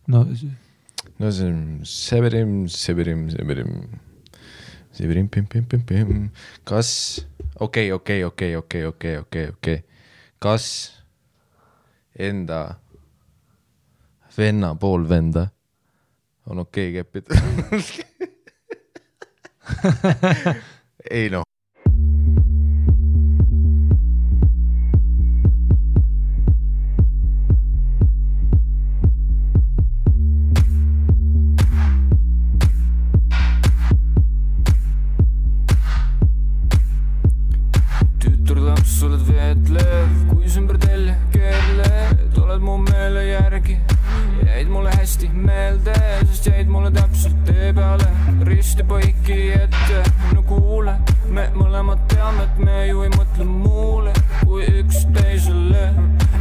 No see on Severim. Kas okei. Kas enda venna pool venda on okei keppida? Ei noh. Oled veetlev, kui sümber telje keerled, oled mu meele järgi, jäid mulle hästi meelde, sest jäid mulle täpselt tee peale, risti põiki ette, no kuule, me mõlemad teame, et me ju ei mõtle muule, kui üks teisele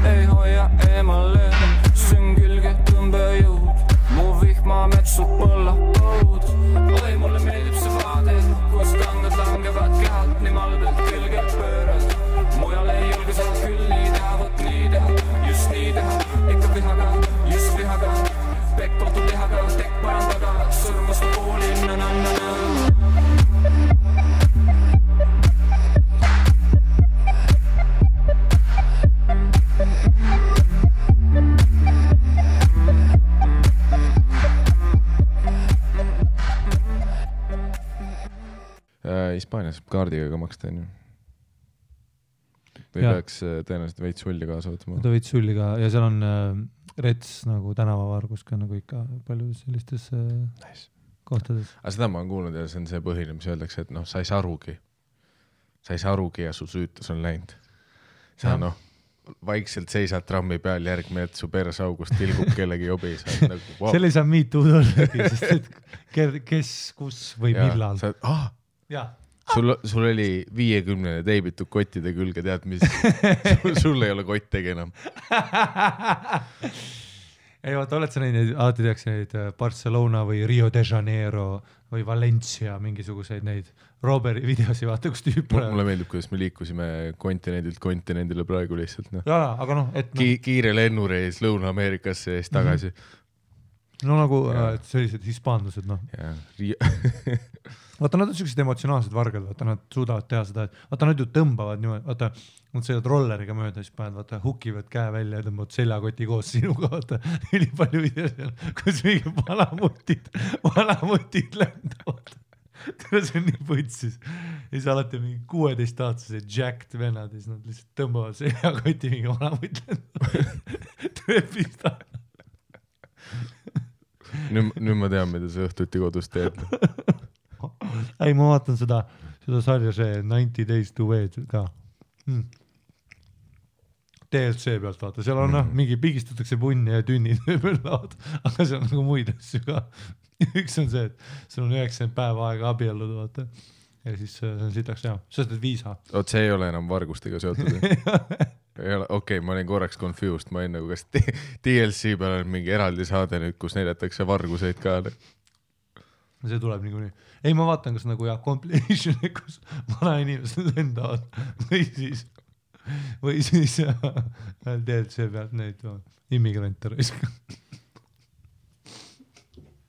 ei hoia eemale, süng külge tõmbejõud, mu vihma metsu põlla põud, oi mulle meeldib see vaade, kus tangad langevad kehalt, nii malbelt külge pöörad. Mujal ei julge saad küll nii teha, võt nii teha, just nii teha, ikka vihaga, just vihaga, pekk kohtu lihaga, tekk parandaga, sõrmust poolin, na-na-na-na. Hispaanias kaardiga ka maksta, on ju? Või peaks tõenäoliselt veits sulli kaasa võtma? Ta veits sulli ka, ja seal on rets nagu tänavavargus ka nagu ikka palju sellistes kohtades. Aga seda ma olen kuulnud ja see on see põhiline, mis öeldakse, et noh, sa ei saa arugi ja su süütus on läinud. Sa noh, vaikselt seisad trammi peal järgmine, et su persaugust tilgub kellegi jobi. Nagu, wow. Selle ei saa miitud ollagi, sest et kes, kus või millal. Sul oli 50 teibitud kottide külge, tead mis? Sul ei ole kottegi enam. Ei vaata, oled sa neid, alati tehakse neid Barcelona või Rio de Janeiro või Valencia mingisuguseid neid Roberi videosi, vaata, kus tüüp on. Mulle meeldib, kuidas me liikusime kontinendilt kontinendile praegu lihtsalt. No. Jaa, aga noh, et kiire lennureis Lõuna-Ameerikasse ja siis tagasi. No nagu sellised hispaanlased, noh. Vaata, nad on sellised emotsionaalsed vargad, vaata, nad suudavad teha seda, et vaata, nad ju tõmbavad niimoodi, vaata, nad sõidavad rolleriga mööda, siis paned, vaata, hukivad käe välja ja tõmbavad seljakoti koos sinuga, vaata, üli palju videos seal, kus mingi valamutid lendavad. See on nii võtsis. Ja siis alati mingi 16-aastased jacked vennad, ja siis nad lihtsalt tõmbavad seljakoti mingi valamut lendavad. Trepist aja. Nüüd ma tean, mida sa õhtuti kodus teed. Ei, ma vaatan seda sarja see 90 Days to Wed ka. DLC pealt vaata, seal on mingi pigistatakse punni ja tünnid laud, aga seal on nagu muid asju ka. Üks on see, et sul on 90 päeva aega abielluda, vaata. Ja siis see on sitaks hea. See on viisa. Oot, see ei ole enam vargustega seotud. Okei, ma olin korraks confused, ma olin nagu, kas DLC peal on mingi eraldi saade nüüd, kus näidatakse varguseid ka. See tuleb niikuinii. Ei, ma vaatan, kas nagu compilation, kus vana inimesed lendavad või siis DLC pealt neid immigrante raiska.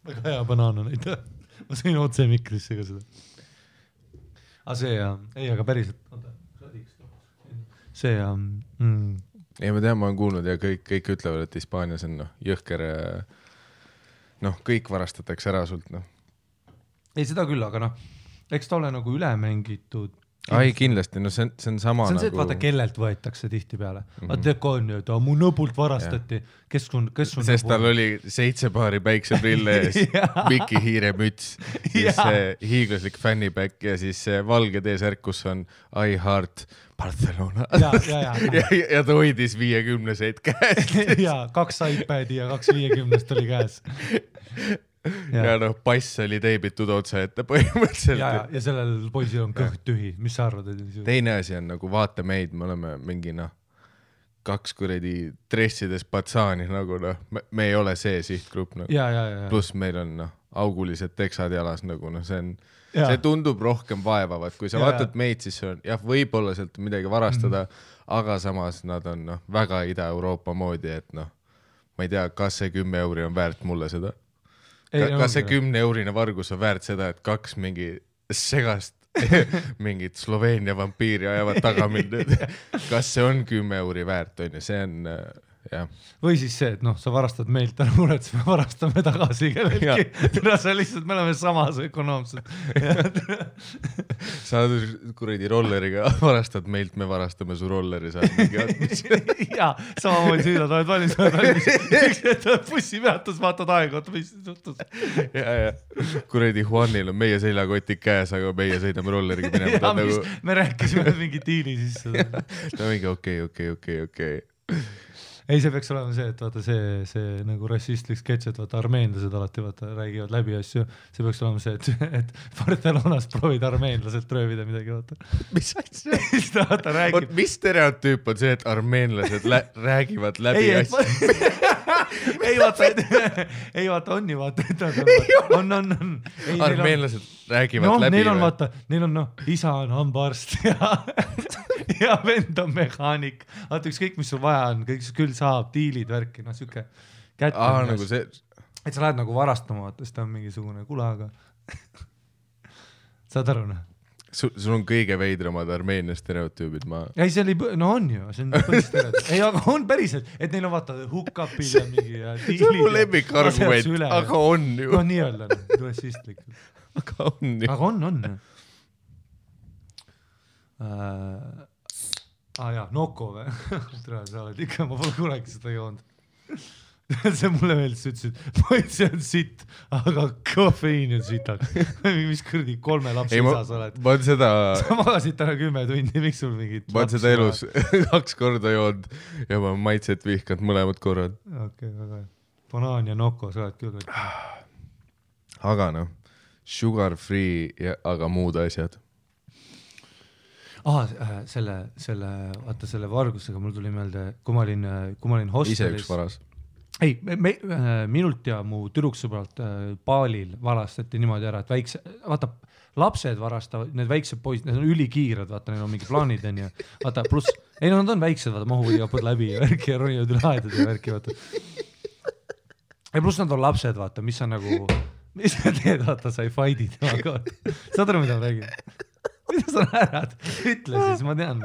Väga hea banaana neid. Ma sõin otse mikrisse ka seda. Aga see ei, aga päriselt see ei, ma tean, ma olen kuulnud ja kõik ütlevad, et Hispaanias on jõhker kõik varastatakse ära sult. Ei, seda küll, aga eks ta ole nagu üle mängitud. Ai, kindlasti, see on sama see on nagu... see, et vaata, kellelt võetakse tihti peale. Vaata, on ju, et mu nõbult varastati. Kes on sest tal oli 7 paari päikseprille ees, Miki Hiire müts, siis hiiglaslik fanniback ja siis valge T-särk, kus on I heart Barcelona. Ja ta hoidis 50-seid käes. Ja 2 iPadi ja 2 50-st oli käes. Ja pass oli teibitud otsa ette põhimõtteliselt. Ja sellel poisil on kõht tühi. Mis sa arvad? Teine asi on nagu vaata meid, me oleme mingi 2 kuradi dressides patsaani nagu me ei ole see sihtgrupp. Plus meil on augulised teksad jalas nagu see on see tundub rohkem vaevavat, kui sa vaatad meid, siis on jah, võib-olla sealt midagi varastada, aga samas nad on väga Ida-Euroopa moodi, et ma ei tea, kas see 10 euri on väärt mulle seda. Kas see 10 eurine vargus on väärt seda, et 2 mingi segast mingit Sloveenia vampiiri ajavad taga mind. Kas see on 10 euri väärt, on ja see on jah. Või siis see, et sa varastad meilt, ära muret, me varastame tagasi kellelgi. See lihtsalt, me oleme samas ökonoomsed. Sa kuradi rolleriga varastad meilt, me varastame su rolleri. Jaa, samamoodi süüdad, oled valmis. Üks hetk bussi peatus, vaatad aega, mis suhtus. Ja. Kuradi Juanil on meie seljakoti käes, aga meie sõidame rolleriga minema. Me rääkisime mingi diili sisse. Ta mingi okei. Ei, see peaks olema see, et vaata see nagu rassistlik sketš, et vaata armeenlased alati räägivad läbi asju. See peaks olema see, et Barcelonas proovid armeenlaselt röövida midagi, vaata. Mis asja? Mis stereotüüp on see, et armeenlased räägivad läbi asju? Ei vaata, on ju vaata. On. Armeenlased räägivad läbi. Neil on isa on hambaarst ja vend on mehaanik. Vaata ükskõik, mis sul vaja on, kõik küll saab, diilid, värki, siuke kätt. Nagu see... Et sa lähed nagu varastama, vaata, siis ta on mingisugune kulaga. Saad aru, Sul on kõige veidramad Armeenia stereotüübid, Ei, see oli, on ju, see on põhistereotüübid. Ei, aga on päriselt, et neil on vaata hook-upid ja mingi diilid. See on mu lemmikargument, aga on ju. Nii öelda, rassistlikult. Aga on ju. Aga on. Jaa, Noko või? Sa oled ikka, ma pole kunagi seda joonud. See mulle meeldis, ütlesid, ma see on sitt, aga kofeiin on sitaks. Mis kõrdi 3 lapse isas oled. Ma on seda... Sa magasid täna 10 tundi, miks sul mingid... Ma on seda elus 2 korda joonud ja ma maitset vihkanud mõlemad korrad. Okei, väga. Banaan ja Noko, sa oled küll. Aga sugar free, aga muud asjad. Selle vargusega mul tuli meelde, kui ma olin hostelis. Ise üks varas. Ei, minult ja mu tüdruksõbralt Baalil varastati niimoodi ära, et lapsed varastavad, need väiksed poisid, need on ülikiired, vaata, neil on mingi plaanid, on ju. Vaata, pluss, nad on väiksed, vaata, mahuvad ja põd läbi ja värki ja ronivad üle aedad ja värki, vaata. Ja pluss nad on lapsed, vaata, mis on nagu, mis sa teed, vaata, sa ei fight'id, vaata. Saad aru, mida ma räägin? Mida sa näärad? Ütle siis, ma tean.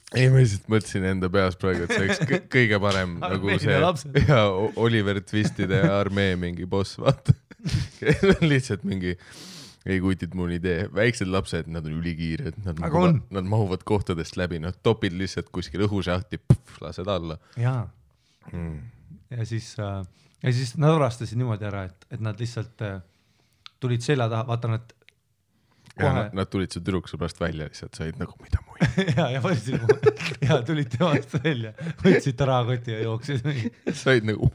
Ei, ma lihtsalt mõtlesin enda peas praegu, et see oleks kõige parem nagu see ja Oliver Twistide armee mingi boss, vaata. Lihtsalt mingi, ei kutid mul idee. Väiksed lapsed, nad on ülikiired, nad mahuvad kohtadest läbi, nad topid lihtsalt kuskil õhušahti, lased alla. Jaa. Ja siis nad varastasid niimoodi ära, et nad lihtsalt tulid selja taha, vaata nad Nad tulid su tüdruksõbrast välja lihtsalt, said nagu mida muid. ja tulid temast välja, võtsid ta rahakoti ja jooksid. Said nagu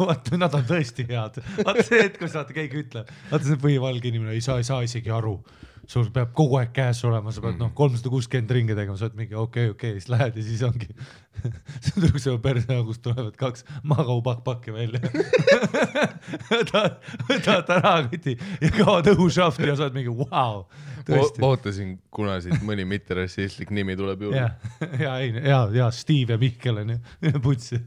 Vaata, nad on tõesti head. Vaata see, et kui saate keegi ütleb, vaata see põhivalge inimene, ei saa isegi aru. Sul peab kogu aeg käes olema, sa pead 360 ringe tegema, sa oled mingi okei, siis lähed ja siis ongi. See on tüdruksõba perseaugust tulevad 2 magau-pakki välja. Võtad rahakoti ja kaovad õhušafti ja sa oled mingi vau. Ootasin, kuna siit mõni mitterassistlik nimi tuleb juurde. Ja, Steve ja Mihkel on ju, putsi.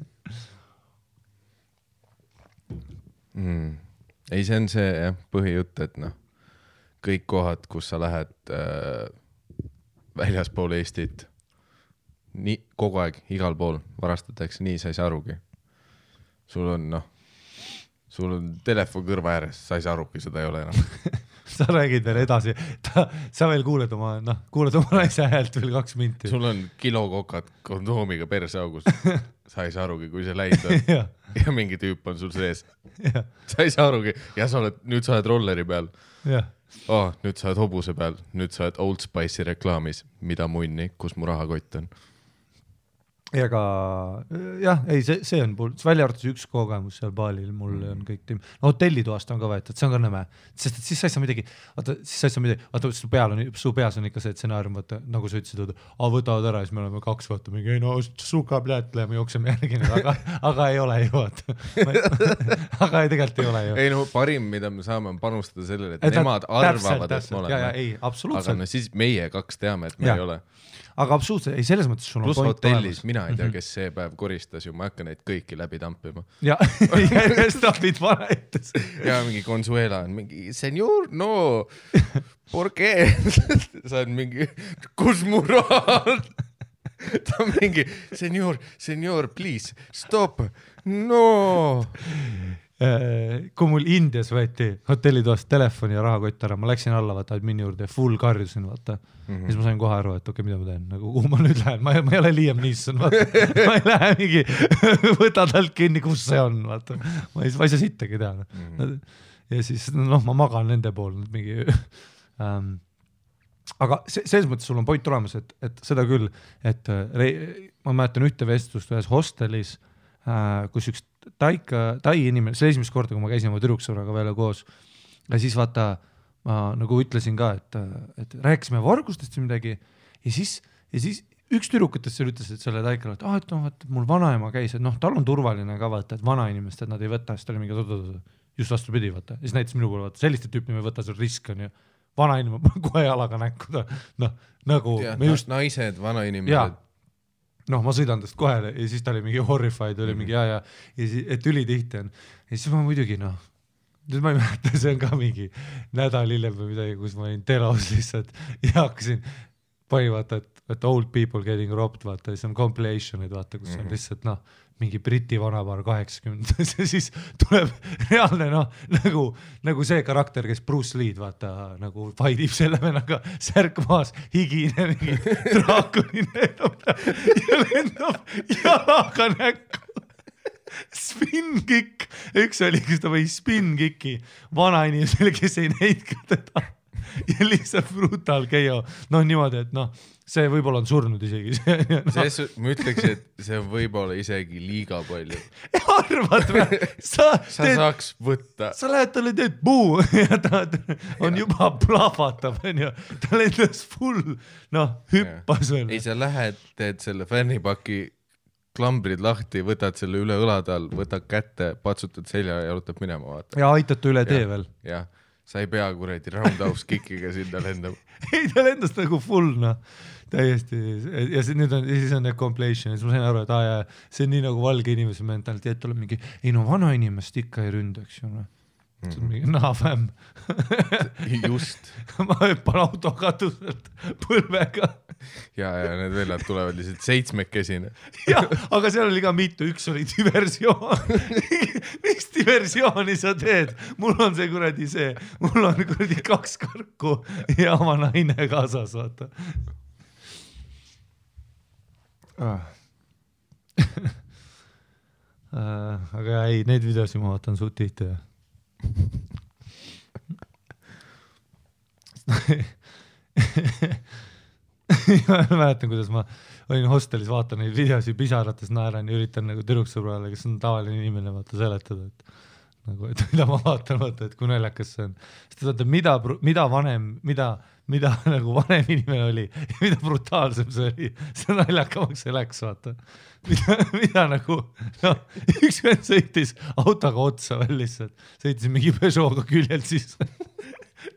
Ei, see on see põhijutt, et kõik kohad, kus sa lähed väljaspool Eestit, nii kogu aeg, igal pool varastatakse, nii sa ei saa arugi. Sul on telefon kõrva ääres, sa ei saa arugi, seda ei ole enam. Sa räägid veel edasi, sa veel kuuled oma naise häält veel 2 minti. Sul on kilokokad kondoomiga perseaugus, sa ei saa arugi, kui see läinud on. Ja mingi tüüp on sul sees. Sa ei saa arugi, ja nüüd sa oled rolleri peal. Nüüd sa oled hobuse peal, nüüd sa oled Old Spice'i reklaamis, mida munni, kus mu rahakott on. Ega jah, ei see on välja arvates üks kogemus seal baalil, mul on kõik tiim. No hotellitoast on ka võetud, see on ka nõme, sest et siis sa ei saa midagi, su peas on ikka see stsenaarium, vaata, nagu sa ütlesid, võtavad ära ja siis me oleme 2 vaata mingi, no suka pljät, me jookseme järgi, aga ei ole ju, vaata. Aga tegelikult ei ole ju. Ei no parim, mida me saame on panustada sellele, et nemad arvavad, et me oleme. Ei, absoluutselt. Aga no siis meie 2 teame, et me ei ole. Aga absoluutselt, ei selles mõttes sul on plus hotellis, mina ei tea, kes see päev koristas ju, ma hakka neid kõiki läbi tampima. Ja järjestapid vanaetes. Ja mingi Consuela on mingi, senor, no, por qué? Sa on mingi, kus mu raha? Ta on mingi, senor, please, stop, no. Kui mul Indias võeti hotellitoast telefoni ja rahakott ära, ma läksin alla, vaata, admini juurde, full karjusin, vaata. Siis ma sain kohe aru, et okei, mida ma teen, nagu kuhu ma nüüd lähen, ma ei ole Liam Neeson, vaata. Ma ei lähe mingi, võta talt kinni, kus see on, vaata. Ma ei saa sittagi teha. Ja siis, ma magan nende pool, mingi... Aga selles mõttes sul on point tulemas, et seda küll, et ma mäletan ühte vestlust ühes hostelis, kus üks tai inimene, see esimest korda, kui ma käisin oma tüdruksõbraga veel koos ja siis vaata, ma nagu ütlesin ka, et rääkisime vargustest või midagi ja siis üks tüdrukutest seal ütles, et selle taikale, et mul vanaema käis, et tal on turvaline ka vaata, et vanainimest, et nad ei võta, siis ta oli mingi just vastupidi, vaata, siis näitas minu poole, vaata, selliste tüüpi me võta, see risk on ju, vanainimene kohe jalaga näkku, nagu ja, naised, vanainimesed ma sõidan tast kohe ja siis ta oli mingi horrified, oli mingi ja et ülitihti on. Ja siis ma muidugi, nüüd ma ei mäleta, see on ka mingi nädal hiljem või midagi, kus ma olin telos lihtsalt ja hakkasin vaata, et old people getting robbed, vaata, siis on compilation'id, vaata, kus on lihtsalt, mingi Briti vanapaar 80 ja siis tuleb reaalne, nagu see karakter, kes Bruce Lee'd, vaata, nagu faidib selle vennaga särk maas, higine, mingi draakuline ja lendab jalaga näkku. Spin-kick, üks oli, kus ta või spin-kicki vanainimesele, kes ei näinud ka teda ja lihtsalt brutal keio, niimoodi, et see võib-olla on surnud isegi. Ma ütleks, et see võib-olla isegi liiga palju. Arvad või? Sa saaks võtta. Sa lähed talle teed puu ja ta on juba plahvatab, ta lendas full, hüppas veel. Ei, sa lähed, teed selle fännipaki klambrid lahti, võtad selle üle õlade all, võtad kätte, patsutad selja ja jalutab minema, vaata. Ja aitad ta üle tee veel. Jah. Sa ei pea kuredi roundhouse kickiga sinna lendama. Ei, ta lendas nagu full, täiesti. Ja siis on need compilation. Ja siis ma sain aru, et see on nii nagu valge inimese mentaliteet, tuleb mingi, vana inimest ikka ei ründaks ju. See on mingi fämm. Just. Ma hüppan auto katuselt põlvega. Ja need vellad tulevad lihtsalt 7-kesine. Jah, aga seal oli ka mitu, üks oli diversioon. Miks diversiooni sa teed? Mul on see kuradi see, mul on kuradi 2 karku ja oma naine kaasas, vaata. Aga ei, neid videosi ma vaatan suht tihti. Ma mäletan, kuidas ma olin hostelis, vaatan neid videosi pisarates naeran ja üritan nagu tüdruksõbrale, kes on tavaline inimene, vaata seletada, et mida ma vaatan, vaata, et kui naljakas see on. Sest vaata, mida nagu vanem inimene oli ja mida brutaalsem see oli, see naljakamaks see läks, vaata. Mida nagu, üks vend sõitis autoga otsa veel lihtsalt, sõitis mingi Peugeot'ga küljelt siis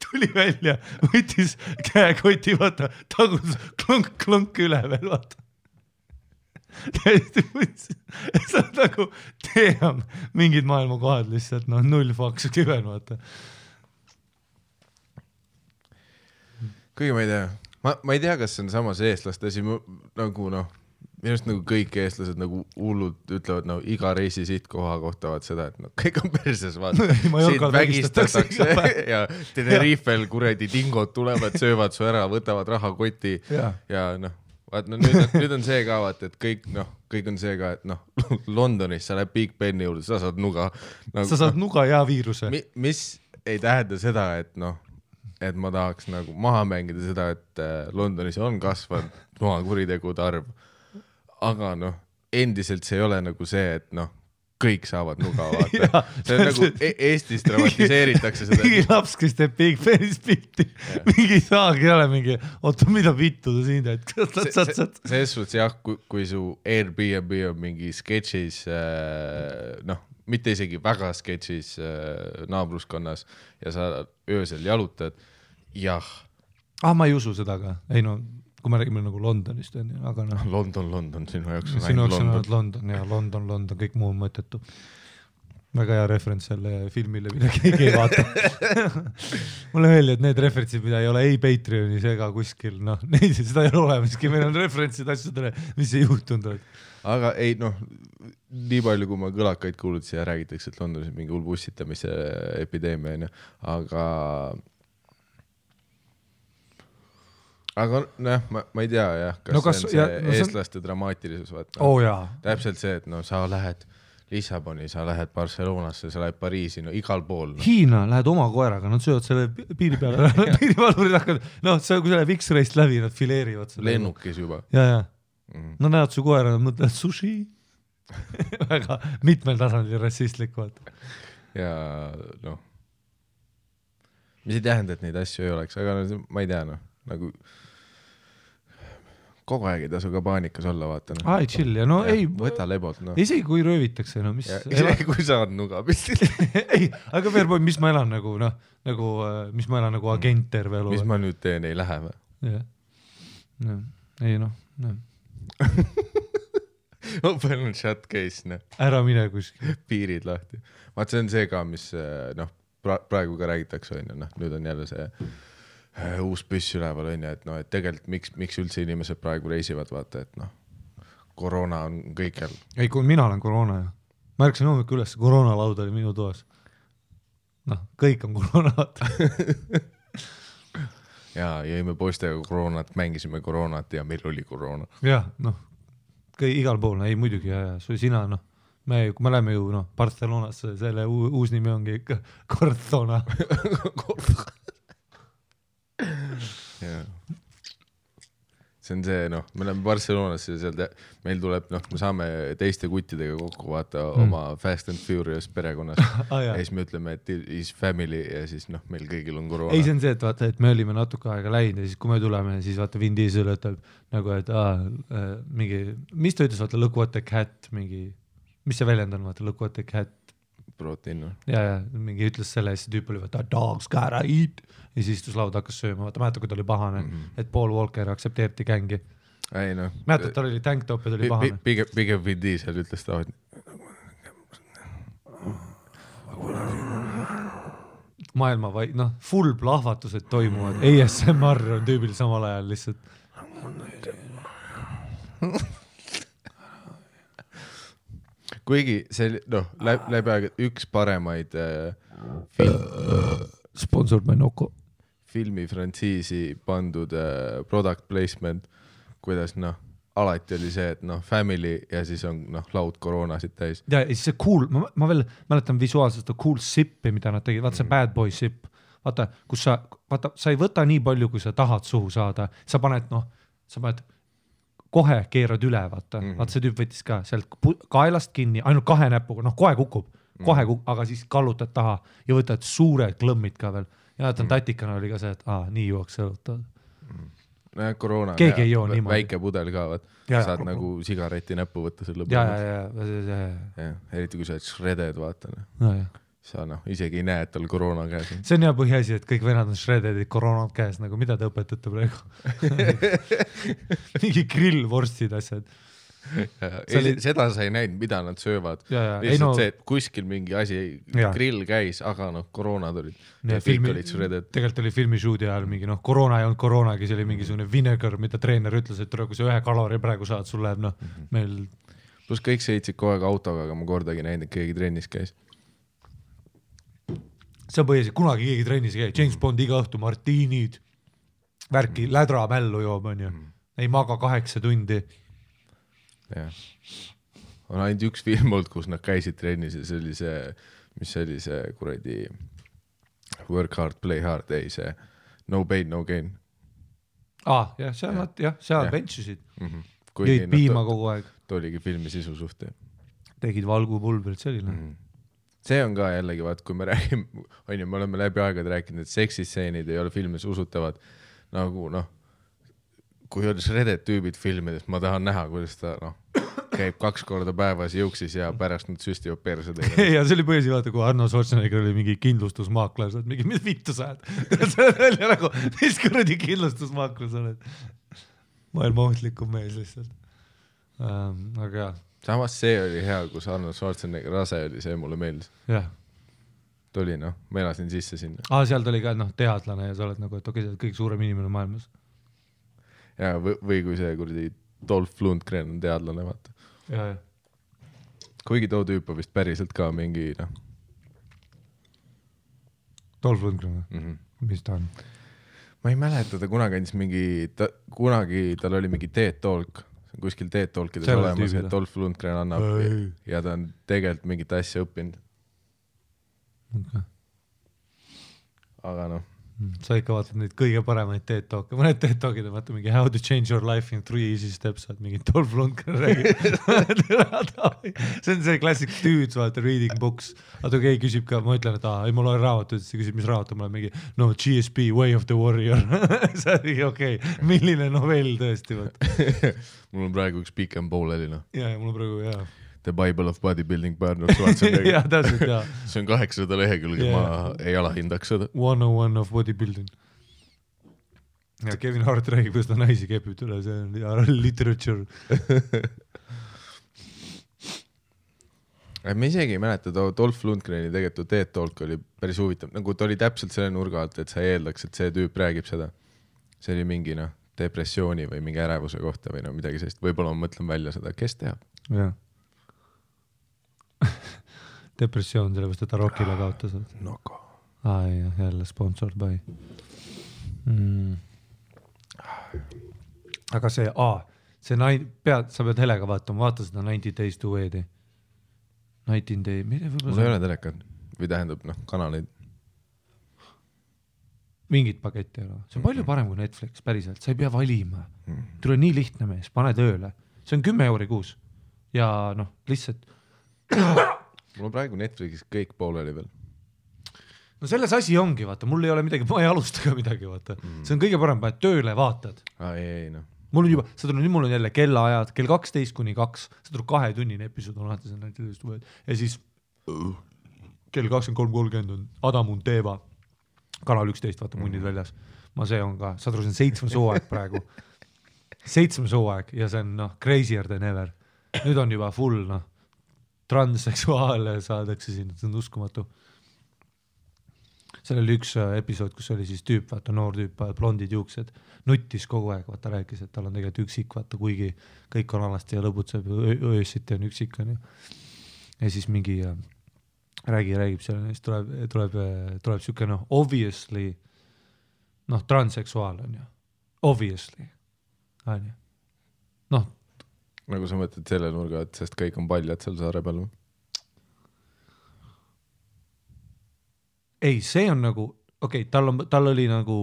tuli välja, võttis käekoti, vaata, tagus klonk üle veel, vaata. Täiesti võttis. See on nagu, team, mingid maailma kohad lihtsalt, null faks kiven, vaata. Kuigi ma ei tea. Ma ei tea, kas see on samas eestlaste asi, nagu minust nagu kõik eestlased nagu hullud ütlevad, iga reisi sihtkoha kohta vaat seda, et kõik on perses, vaata. Siit vägistatakse ja Tenerifel kuredi dingod tulevad, söövad su ära, võtavad rahakoti ja vaat nüüd on see ka, vaat, et kõik on see ka, et Londonis sa lähed Big Beni juurde, sa saad nuga. Sa saad nuga ja viiruse. Mis ei tähenda seda, et ma tahaks nagu maha mängida seda, et Londonis on kasvanud maha kuritegude arv. Aga endiselt see ei ole nagu see, et noh, kõik saavad nuga vaata. See on nagu Eestis dramatiseeritakse seda. Mingi laps, kes teeb Big Fanis pilti. Mingi saagi ei ole mingi, oota, mida vittu ta siin teed? Selles suhtes jah, kui su Airbnb on mingi sketšis, noh, mitte isegi väga sketšis naabruskonnas ja sa öösel jalutad, jah. Ma ei usu seda ka. Ei no, kui me räägime nagu Londonist, aga noh. London, sinu jaoks on ainult London ja London, kõik muu on mõttetu. Väga hea referents selle filmile, mida keegi ei vaata. Mulle öeldi, et need referentsid, mida ei ole ei Patreonis ega kuskil, noh, neid seda ei ole olemaski, meil on referentsid asjadele, mis ei juhtunud. Aga ei, noh, nii palju, kui ma kõlakaid kuulutasin ja räägitakse, et Londonis mingi hull bussitamise epideemia, aga noh, ma ei tea jah, kas see on see eestlaste dramaatilisus vaata. Täpselt see, et no sa lähed Lissaboni, sa lähed Barcelonasse, sa lähed Pariisi, no igal pool. No. Hiina lähed oma koeraga, nad söövad selle piiri peale, piirivalvurid hakkavad, noh, kui sa läheb X-rayst läbi, nad fileerivad selle. Lennukis juba. Ja. No näed su koera, nad mõtlevad sushi. Väga mitmel tasandil rassistlik vaata. Ja noh, mis ei tähenda, et neid asju ei oleks, aga no, ma ei tea, noh, nagu kogu aeg ei tasu ka paanikas olla, vaata. No. Ai, chill, ja no ei. Võta lebot, no. Isegi kui röövitakse, no mis. Isegi kui saad nuga pistil. Ei, aga Fairboy, mis ma elan nagu, noh, mis ma elan nagu agent terve elu. Mis ma nüüd teen, ei lähe või? Jah. No, ei noh. Open shut case, noh. Ära mine kuskil. Piirid lahti. Vaat see on see ka, mis, noh, praegu ka räägitakse, noh, nüüd on jälle see uus püss üleval on ja, et noh, et tegelikult miks üldse inimesed praegu reisivad, vaata, et noh, koroona on kõikjal. Ei, kui mina olen koroona ja ma ärksin hommikul üles, koroonalaud oli minu toas. Noh, kõik on koroonat. Ja jõime poistega koroonat, mängisime koroonat ja meil oli koroona. Jah, noh, igal pool, ei muidugi ja sina, noh, kui me läheme ju, noh, Barcelonasse, selle uus nimi ongi ikka Cortona. Ja. See on see, noh, me oleme Barcelonasse ja seal meil tuleb, noh, me saame teiste kuttidega kokku vaata oma Fast and Furious perekonnas ja siis me ütleme, et is family ja siis, noh, meil kõigil on koroona. Ei, see on see, et vaata, et me olime natuke aega läinud ja siis kui me tuleme, siis vaata Vin Diesel ütleb nagu, et mingi, mis ta ütles, vaata, look what the cat, mingi, mis see väljend on, vaata, look what the cat. Protein, no. Ja, mingi ütles selle ja see tüüp oli, vaata, dogs gotta eat. Ja siis istus laud hakkas sööma, vaata, mäeta, kui ta oli pahane, et Paul Walker aktsepteeriti gängi. Ei, noh. Mäeta, ta oli tanktop ja ta oli pahane. Pigem Vin Diesel ütles ta, maailma vai, noh, full plahvatused toimuvad. ASMR on tüübil samal ajal lihtsalt. Kuigi see, noh, läbi aega üks paremaid Sponsored by Noko. Filmifrantsiisi pandud product placement, kuidas, noh, alati oli see, et noh, family ja siis on, noh, laud koroonasid täis. Ja siis see cool, ma veel mäletan visuaalselt cool sippi, mida nad tegid, vaata see bad boy sip, vaata, kus sa ei võta nii palju, kui sa tahad suhu saada, sa paned kohe keerad üle, vaata see tüüp võttis ka sealt kaelast kinni, ainult 2 näpuga, noh, kohe kukub, aga siis kallutad taha ja võtad suured klõmmid ka veel. Ja tatikana oli ka see, et nii juuaks õlutad. Koroona, väike pudel ka, saad nagu sigareti näppu võtta selle lõbu. Eriti kui sa oled shredded, vaata. Sa isegi ei näe, et tal koroona käes. See on hea põhiasi, et kõik venad on shreddedid koroonad käes, nagu mida te õpetate praegu? Mingi grillvorstid asjad. Seda sa ei näinud, mida nad söövad. Lihtsalt see, et kuskil mingi asi, grill käis, aga noh, koroonad olid. Tegelikult oli filmishoodi ajal mingi, noh, koroona ei olnud koroonagi, see oli mingisugune vinegar, mida treener ütles, et kui sa 1 kalori praegu saad, sul läheb, noh, meil... Plus kõik sõitsid kogu aeg autoga, aga ma kordagi näinud, et keegi trennis käis. See on põhiliselt, kunagi keegi trennis käi. James Bond iga õhtu, martiinid, värki, lädra mällu joob, on ju. Ei maga 8 tundi. Ja. On ainult üks film olnud, kus nad käisid trennis ja see oli see, mis see oli see kuradi work hard, play hard, ei see no pain, no gain. Jah, seal benchisid. Jõid piima kogu aeg. oligi filmi sisu suht. Tegid valgupulbrit, see oli See on ka jällegi, vaat kui me räägime, me oleme läbi aegade rääkinud, et seksistseenid ei ole filmis usutavad nagu kui on shredded tüübid filmides, ma tahan näha, kuidas ta käib 2 korda päevas jõuksis ja pärast nüüd süstivad perse teile. Ja see oli põhjus, vaata, kui Arno Schwarzenegger oli mingi kindlustusmaakler, sa oled mingi, mis vittu sa oled? See oli nagu, mis kuradi kindlustusmaakler sa oled? Maailma ohtlikum mees lihtsalt. Aga jah. Samas see oli hea, kus Arno Schwarzenegger rase oli, see mulle meeldis. Jah. Tuli, ma elasin sisse sinna. Seal tuli ka teadlane ja sa oled nagu, et okei, sa oled kõik suurem inimene maailmas. Ja või kui see kuradi Dolph Lundgren on teadlane, vaata. Ja. Kuigi too tüüp on vist päriselt ka mingi, Dolph Lundgren, mis ta on? Ma ei mäleta, ta kunagi andis kunagi tal oli mingi TED Talk, kuskil TED Talkides olemas, et Dolph Lundgren annab ja ta on tegelikult mingit asja õppinud. Okay. Aga sa ikka vaatad neid kõige paremaid TED Talke, mõned TED Talkid on vaata mingi how to change your life in 3 easy steps, vaat mingi Dolph Lundgren räägib. See on see classic dudes, vaata, reading books. Aga keegi küsib ka, ma ütlen, et ei ma loen raamatut, siis küsib, mis raamat on, ma olen mingi GSP, Way of the Warrior. See on mingi okei, milline novell tõesti, vaata. Mul on praegu üks pikem pooleli, Ja, mul on praegu, jah. The Bible of Bodybuilding Arnold Schwarzenegger. Ja, täpselt, jah. See on 800 lehekülge, ma ei alahindaks seda. 101 of bodybuilding. Ja Kevin Hart räägib, kuidas ta naisi kepib üle, see on literature. Ma isegi ei mäleta, Dolph Lundgreni tegelikult TED Talk oli päris huvitav, nagu ta oli täpselt selle nurga alt, et sa eeldaks, et see tüüp räägib seda. See oli mingi depressiooni või mingi ärevuse kohta või midagi sellist. Võib-olla ma mõtlen välja seda, kes teab. Jah. Depressioon, sellepärast, et ta Rockile kaotas. Noko. Jälle sponsored by. Aga see, sa pead helega vaatama, vaata seda 90 Days to Wed. 19 Day, mul ei ole telekat või tähendab, kanaleid. Mingit paketti ei ole. See on palju parem kui Netflix, päriselt. Sa ei pea valima. Tule nii lihtne mees, pane tööle. See on 10 € kuus. Ja lihtsalt mul on praegu Netflixis kõik pooleli veel. No selles asi ongi, vaata, mul ei ole midagi, ma ei alusta ka midagi, vaata. See on kõige parem, paned tööle, vaatad. Mul on juba, mul on jälle kellaajad, kell 12-2, sa tuleb 2-tunnine episood on alati see ja siis kell 23.30 on Adamun Teeva, kanal 11, vaata munnid väljas. See on ka, sa tuleb, see on 7 sooaeg praegu. 7 sooaeg ja see on crazier than ever. Nüüd on juba full, transseksuaale saadakse siin, see on uskumatu. Seal oli üks episood, kus oli siis tüüp, vaata noor tüüp, blondid juuksed, nuttis kogu aeg, vaata rääkis, et tal on tegelikult üksik, vaata kuigi kõik on alasti ja lõbutseb, öösiti on üksik. On ju. Ja siis mingi räägib seal, siis tuleb siuke obviously transseksuaal on ju, obviously on ju. Nagu sa mõtled selle nurga, et sest kõik on paljad seal saare peal või? Ei, see on nagu, tal oli nagu,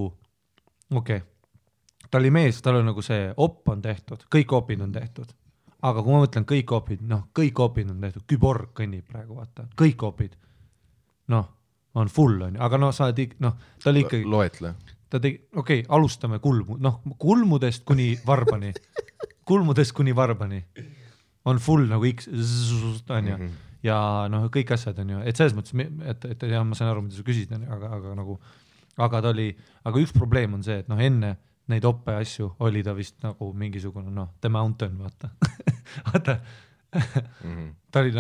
ta oli mees, tal oli nagu see op on tehtud, kõik opid on tehtud. Aga kui ma mõtlen kõik opid, kõik opid on tehtud, Küborg kõnnib praegu, vaata, kõik opid. On full on ju, aga sa oled, ta oli ikkagi... Loetle. Ta tegi, alustame kulmudest kuni varbani. Kulmudest kuni varbani on full nagu X on ju ja kõik asjad on ju, et selles mõttes, et jah, ma saan aru, mida sa küsid, aga ta oli, aga üks probleem on see, et enne neid oppe asju oli ta vist nagu mingisugune, The Mountain, vaata. Ta oli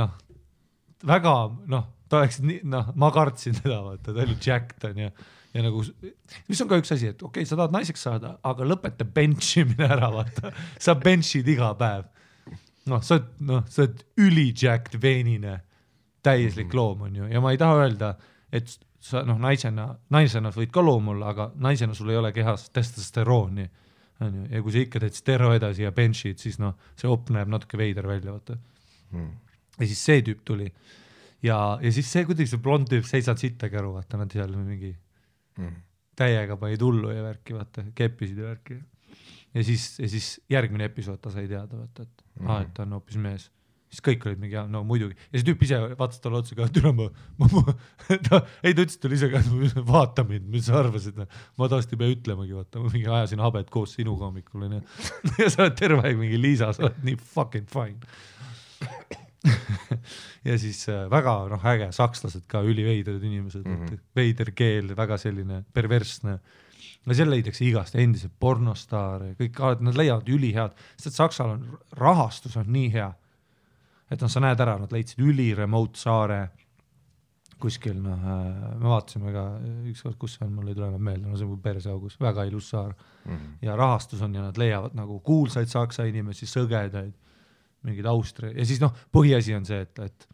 väga, ta oleks nii, ma kartsin teda, vaata, ta oli jacked on ju. Ja nagu, mis on ka üks asi, et sa tahad naiseks saada, aga lõpeta benchimine ära, vaata. Sa benchid iga päev. Sa oled ülijacked veenine, täieslik loom on ju. Ja ma ei taha öelda, et sa naisena võid ka loom olla, aga naisena sul ei ole kehas testosterooni. Ja kui sa ikka teed stero edasi ja benchid, siis see op näeb natuke veider välja, vaata. Ja siis see tüüp tuli. Ja siis see, kuidas see blond tüüp seisad sittagi aru, vaata, nad seal mingi täiega panid hullu ja värki, vaata, keppisid ja värki. ja siis järgmine episood ta sai teada, vaata, et et ta on hoopis mees. Siis kõik olid mingi, no muidugi. Ja see tüüp ise vaatas talle otsa ka, et üle ta ütles talle ise ka, et vaata mind, mis sa arvasid. Ma taasti pea ütlemagi, vaata, ma mingi ajasin habet koos sinuga hommikul. Ja sa oled terve aeg mingi Liisa, sa oled nii fucking fine. Ja siis väga äge, sakslased ka üliveidrad inimesed, veider keel, väga selline perversne. Ja seal leidakse igast endised pornostaare, kõik, nad leiavad ülihead, sest Saksal on rahastus on nii hea. Et sa näed ära, nad leidsid remote saare kuskil, me vaatasime ka ükskord, kus see on, mul ei tule meelde, see on perseaugus, väga ilus saar. Ja rahastus on ja nad leiavad nagu kuulsaid saksa inimesi, sõgedaid, mingid Austria. Ja siis põhiasi on see, et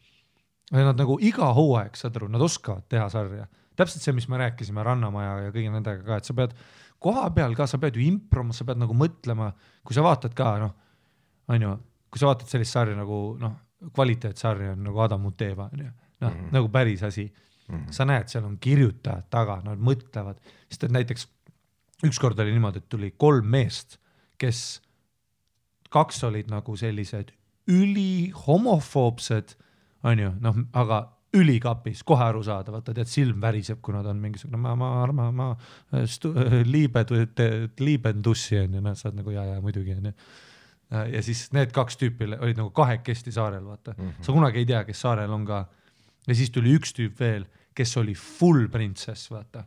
nad nagu iga hooaeg, saad aru, nad oskavad teha sarja. Täpselt see, mis me rääkisime Rannamaja ja kõigi nendega ka, et sa pead koha peal ka, sa pead ju improma, sa pead nagu mõtlema, kui sa vaatad ka, kui sa vaatad sellist sarja nagu, kvaliteetsarja on nagu Adam Muteva, nagu päris asi. Sa näed, seal on kirjutajad taga, nad mõtlevad, sest et näiteks ükskord oli niimoodi, et tuli 3 meest, kes 2 olid nagu sellised ülihomofoobsed, aga ülikapis, kohe aru saada, vaata, tead, silm väriseb, kui nad on mingisugune, ma liibendussi on ja saad nagu ja muidugi on. Ja siis need 2 tüüpi olid nagu kahekesti saarel, vaata. Sa kunagi ei tea, kes saarel on ka. Ja siis tuli 1 tüüp veel, kes oli full princess, vaata.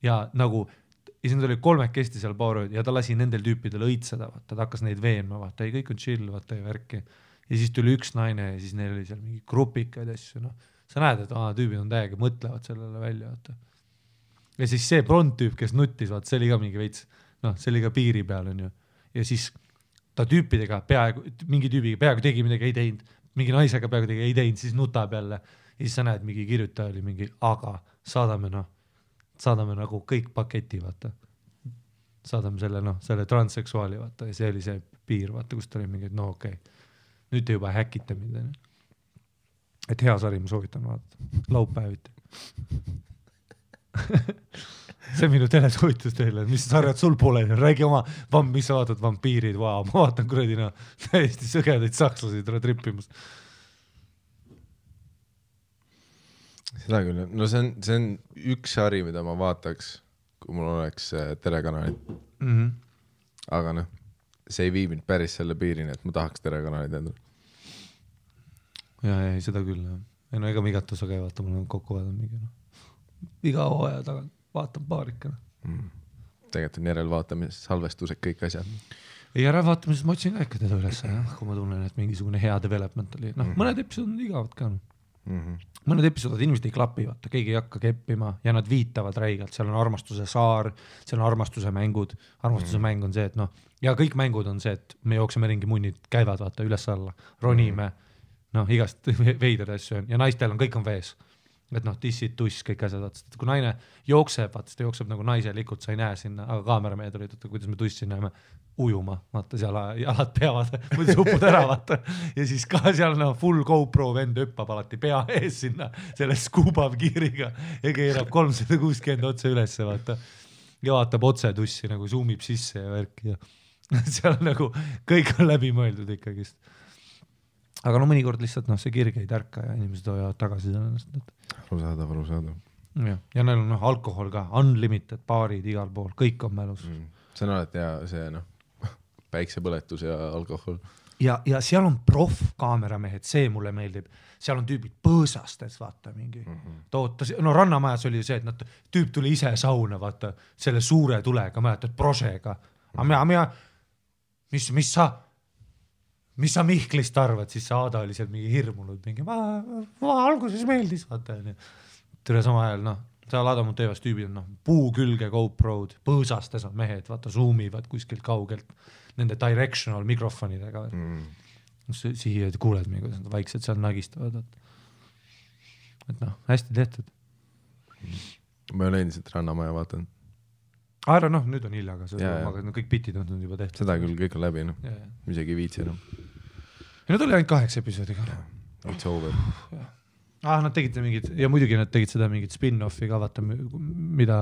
Ja nagu, ja siis nad oli 3 seal paarööd ja ta lasi nendel tüüpidel õitseda, vaata. Ta hakkas neid veenma, vaata, ei kõik on chill, vaata, ja värki. Ja siis tuli 1 naine ja siis neil oli seal mingi grupikaid asju, Sa näed, et tüübid on täiega, mõtlevad sellele välja, vaata. Ja siis see blond tüüp, kes nuttis, vaata, see oli ka mingi veits, see oli ka piiri peal, on ju. Ja siis ta tüüpidega mingi tüübiga peaaegu tegi midagi ei teinud, mingi naisega peaaegu tegi ei teinud, siis nutab jälle. Ja siis sa näed, mingi kirjutaja oli mingi, aga saadame nagu kõik paketi, vaata. Saadame selle transseksuaali, vaata, ja see oli see piir, vaata, kus ta oli mingi, okei. Nüüd te juba häkite mind. Et hea sari, ma soovitan vaadata. Laupäeviti. See on minu telesoovitus teile, mis sarjad sul pole, räägi oma, mis sa vaatad, vampiirid, ma vaatan kuradina täiesti sõgedaid sakslasi trippimas. Seda küll, see on üks sari, mida ma vaataks, kui mul oleks telekanalid. Aga see ei vii mind päris selle piirini, et ma tahaks telekanalid endale. Ja, seda küll. Ega ma igat osa käi vaata, mul on kokku vaadanud mingi. Iga hooaja tagant vaatan paarikana. Tegelikult on järelvaatamises, salvestused, kõik asjad. Järelvaatamises ma otsin ka ikka teda üles, kui ma tunnen, et mingisugune hea development oli. Mõned episood on igavad ka. Mõned episoodid inimesed ei klapi, vaata, keegi ei hakka keppima ja nad viitavad räigelt. Seal on armastuse saar, seal on armastuse mängud. Armastuse mäng on see, et ja kõik mängud on see, et me jookseme ringi munnid, käivad vaata üles alla, ronime, igast veidad asju on ja naistel on, kõik on vees. Et tissid, tuss, kõik asjad, vaata, kui naine jookseb, vaata, ta jookseb nagu naiselikult, sa ei näe sinna, aga kaameramehed olid, kuidas me tussi näeme ujuma, vaata, seal jalad peavad, muidu supud ära, vaata, ja siis ka seal full GoPro vend hüppab alati pea ees sinna, selle skuubab kiiriga ja keerab 360 otse ülesse, vaata, ja vaatab otse tussi, nagu zoomib sisse ja värki ja seal nagu kõik on läbi mõeldud ikkagist. Aga mõnikord lihtsalt see kirg ei tärka ja inimesed hoiavad tagasi sellest. Arusaadav. Ja neil on alkohol ka, unlimited baarid igal pool, kõik on mälus. See on alati hea, see päiksepõletus ja alkohol. Ja seal on kaameramehed, see mulle meeldib. Seal on tüübid põõsastes, vaata mingi. Rannamajas oli see, et tüüp tuli ise sauna, vaata, selle suure tulega, mäletad, prožega. Mis sa Mihklist arvad, siis Aada oli seal mingi hirmunud, mingi ma alguses meeldis, vaata. Tere sama ajal, seal Adam Mutevas tüübid on puu külge GoPro'd, põõsastes on mehed, vaata, zoomivad kuskilt kaugelt nende directional mikrofonidega. Siia kuuled mingi, kuidas nad vaikselt seal nagistavad. Et hästi tehtud. Ma olen endiselt Rannamaja vaatan. Nüüd on hilja, aga kõik bitid on juba tehtud. Seda küll, kõik on läbi, isegi viitsi enam. Ja nad oli ainult 8 episoodiga. It's over. Nad tegid mingid, ja muidugi nad tegid seda mingit spin-offi ka, vaata, mida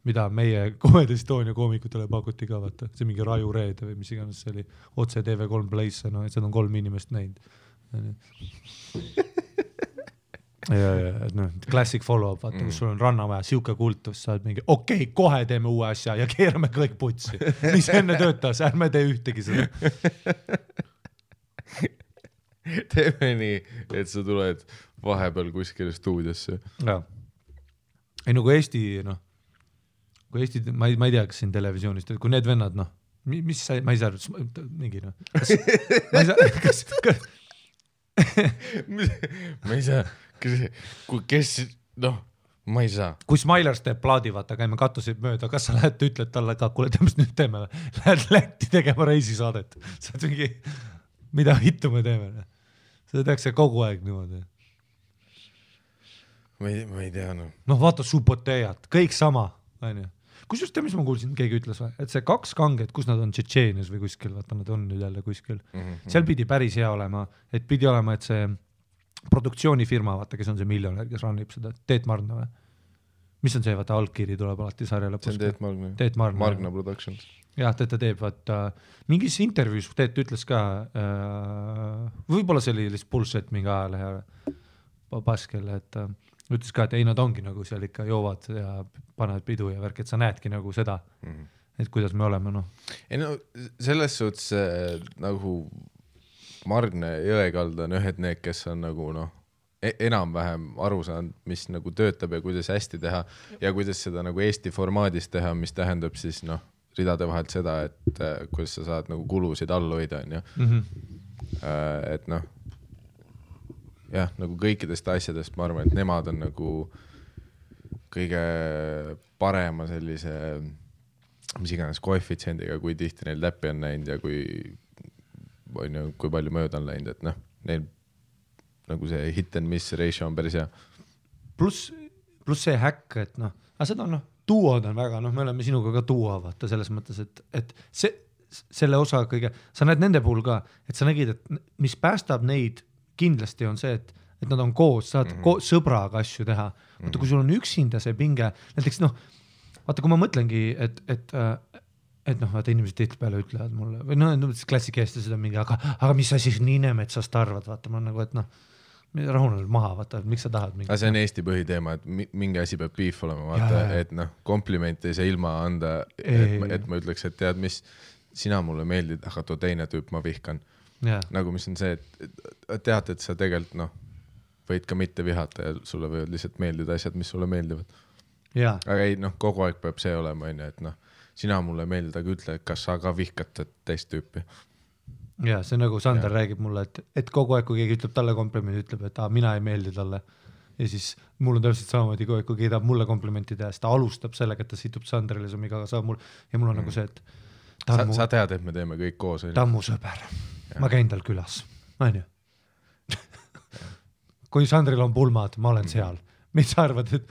mida meie Comedy Estonia koomikutele pakuti ka, vaata, see mingi Raju Reede või mis iganes see oli, otse TV3 Place, no seda on 3 inimest näinud. ja noh, classic follow-up, vaata, kus sul on Rannamäe, siuke kultus, saad mingi, okei, kohe teeme uue asja ja keerame kõik putsi. Mis enne töötas, ärme tee ühtegi seda. Teeme nii, et sa tuled vahepeal kuskile stuudiosse. Ja. Ei, no kui Eesti, kui Eesti, ma ei tea, kas siin televisioonist, kui need vennad, mis sa, ma ei saa, mingi, ma ei saa, kes, ma ei saa. Kui Smilers teeb plaadi, vaata, käime katusid mööda, kas sa lähed, ütled talle ka, kuule, mis nüüd teeme, lähed Lätti tegema reisisaadet, sa oled mingi, mida hittu me teeme, seda tehakse kogu aeg niimoodi. Ma ei tea, vaata Subotejat, kõik sama, on ju. Kus just mis ma kuulsin, keegi ütles või, et see 2 kanget, kus nad on Tšetšeenias või kuskil, vaata nad on nüüd jälle kuskil, seal pidi päris hea olema, et pidi olema, et see produktsioonifirma, vaata, kes on see miljonär, kes rannib seda, Teet Margna või? Mis on see, vaata, algkiri tuleb alati sarja lõpus? See on Teet Margna. Margna Productions. Jah, ta teeb, vaata, mingis intervjuus Teet ütles ka, võib-olla see oli lihtsalt bullshit mingi ajalehe paskele, et ütles ka, et ei, nad ongi nagu seal ikka joovad ja panevad pidu ja värk, et sa näedki nagu seda, et kuidas me oleme, Ei selles suhtes nagu Margne Jõekalda on ühed need, kes on nagu enam-vähem aru saanud, mis nagu töötab ja kuidas hästi teha ja kuidas seda nagu Eesti formaadis teha, mis tähendab siis ridade vahelt seda, et kuidas sa saad nagu kulusid all hoida, on ju. Et jah, nagu kõikidest asjadest ma arvan, et nemad on nagu kõige parema sellise, mis iganes koefitsiendiga, kui tihti neil läppi on näinud ja kui palju mööda on läinud, et neil nagu see hit and miss ratio on päris hea. Plus see häkk, et aga seda duod on väga, me oleme sinuga ka duo, vaata selles mõttes, et selle osa kõige, sa näed nende puhul ka, et sa nägid, et mis päästab neid kindlasti on see, et nad on koos, saad sõbraga asju teha. Vaata, kui sul on üksinda see pinge, näiteks vaata, kui ma mõtlengi, et vaata, inimesed tihtipeale ütlevad mulle, või klassikeesti seda mingi, aga mis sa siis Niinemetsast arvad, vaata, ma nagu, et rahunel maha, vaata, miks sa tahad mingi. Aga see on Eesti põhiteema, et mingi asi peab beef olema, vaata, et komplimenti ei saa ilma anda, et ma ütleks, et tead, mis sina mulle meeldid, aga too teine tüüp ma vihkan. Nagu mis on see, et tead, et sa tegelikult võid ka mitte vihata ja sulle võivad lihtsalt meeldida asjad, mis sulle meeldivad. Aga ei, kogu aeg peab see olema, et sina mulle meeldid, aga ütle, kas sa ka vihkad teist tüüpi. Ja see nagu Sander räägib mulle, et kogu aeg, kui keegi ütleb talle komplimendi, ütleb, et mina ei meeldi talle. Ja siis mul on täpselt samamoodi, kui keegi tahab mulle komplimenti teha, siis ta alustab sellega, et ta situb Sandrile ja mul on nagu see, et sa tead, et me teeme kõik koos. Ta on mu sõber. Ma käin tal külas, on ju. Kui Sandril on pulmad, ma olen seal. Mis sa arvad, et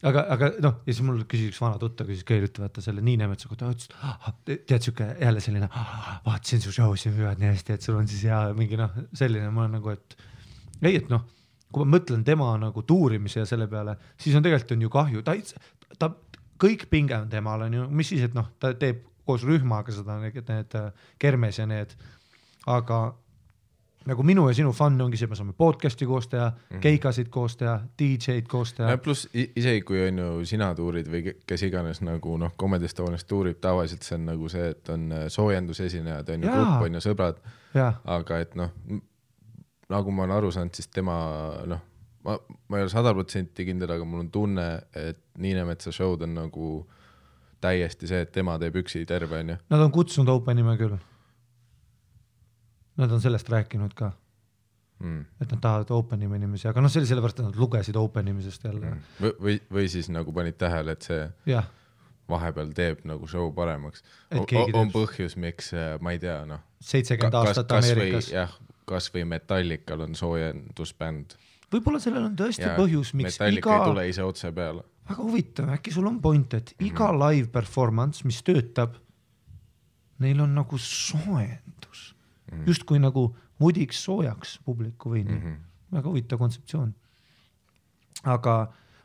aga ja siis mul küsis üks vana tutta, küsis Keilütte, vaata selle Niinemetsa kohta, tead süke jälle selline, vaatasin su show'si hüvad nii hästi, et sul on siis hea mingi selline, ma olen nagu, et ei, et kui ma mõtlen tema nagu tuurimise ja selle peale, siis on tegelikult on ju kahju, ta kõik pinge on temal, on ju, mis siis, et ta teeb koos rühmaga seda, need kermes ja need, aga nagu minu ja sinu fun ongi see, me saame podcasti koos teha, keikasid koos teha, DJ-d koos teha. Plus isegi kui on ju sina tuurid või kes iganes nagu Comedy Estonias tuurib, tavaliselt see on nagu see, et on soojendusesinejad, on ju grupp, on ju sõbrad, aga et nagu ma olen aru saanud, siis tema ma ei ole 100% kindel, aga mul on tunne, et Niinemetsa show'd on nagu täiesti see, et tema teeb üksi terve, on ju. Nad on kutsunud Openime küll. Nad on sellest rääkinud ka. Et nad tahavad Openime inimesi, aga see oli sellepärast, et nad lugesid Openimisest jälle. Või siis nagu panid tähele, et see vahepeal teeb nagu show paremaks. On põhjus, miks, ma ei tea, 70 aastat Ameerikas. Kas või Metallical on soojendusbänd. Võib-olla sellel on tõesti põhjus, miks Metallica ei tule ise otse peale. Väga huvitav, äkki sul on point, et iga live performance, mis töötab, neil on nagu soojendus. Just kui nagu mudiks soojaks publiku või nii. Väga huvitav kontseptsioon. Aga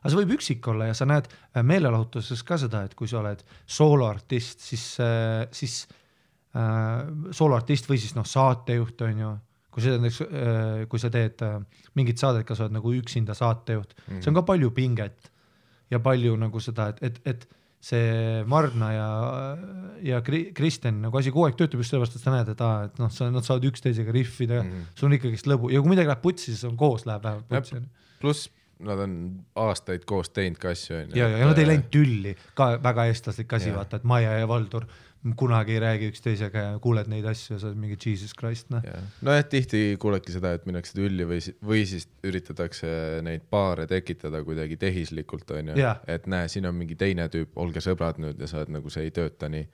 aga see võib üksik olla ja sa näed meelelahutuses ka seda, et kui sa oled sooloartist, siis sooloartist või siis saatejuht on ju, kui sa teed mingit saadet, kas sa oled nagu üksinda saatejuht, see on ka palju pinget ja palju nagu seda, et see Marna ja Kristen nagu asi kogu aeg töötab just sellepärast, et sa näed, et nad saavad üksteisega riffida, sul on ikkagi lõbu ja kui midagi läheb putsi, siis on koos läheb vähemalt putsi. Pluss nad on aastaid koos teinud ka asju. Ja nad ei läinud tülli, ka väga eestlaslik asi, vaata, et Maja ja Valdur kunagi ei räägi üksteisega ja kuuled neid asju ja sa oled mingi Jesus Christ. Tihti kuuledki seda, et minnakse tülli või siis üritatakse neid paare tekitada kuidagi tehislikult, on ju, et näe, siin on mingi teine tüüp, olge sõbrad nüüd ja sa oled nagu see ei tööta nii.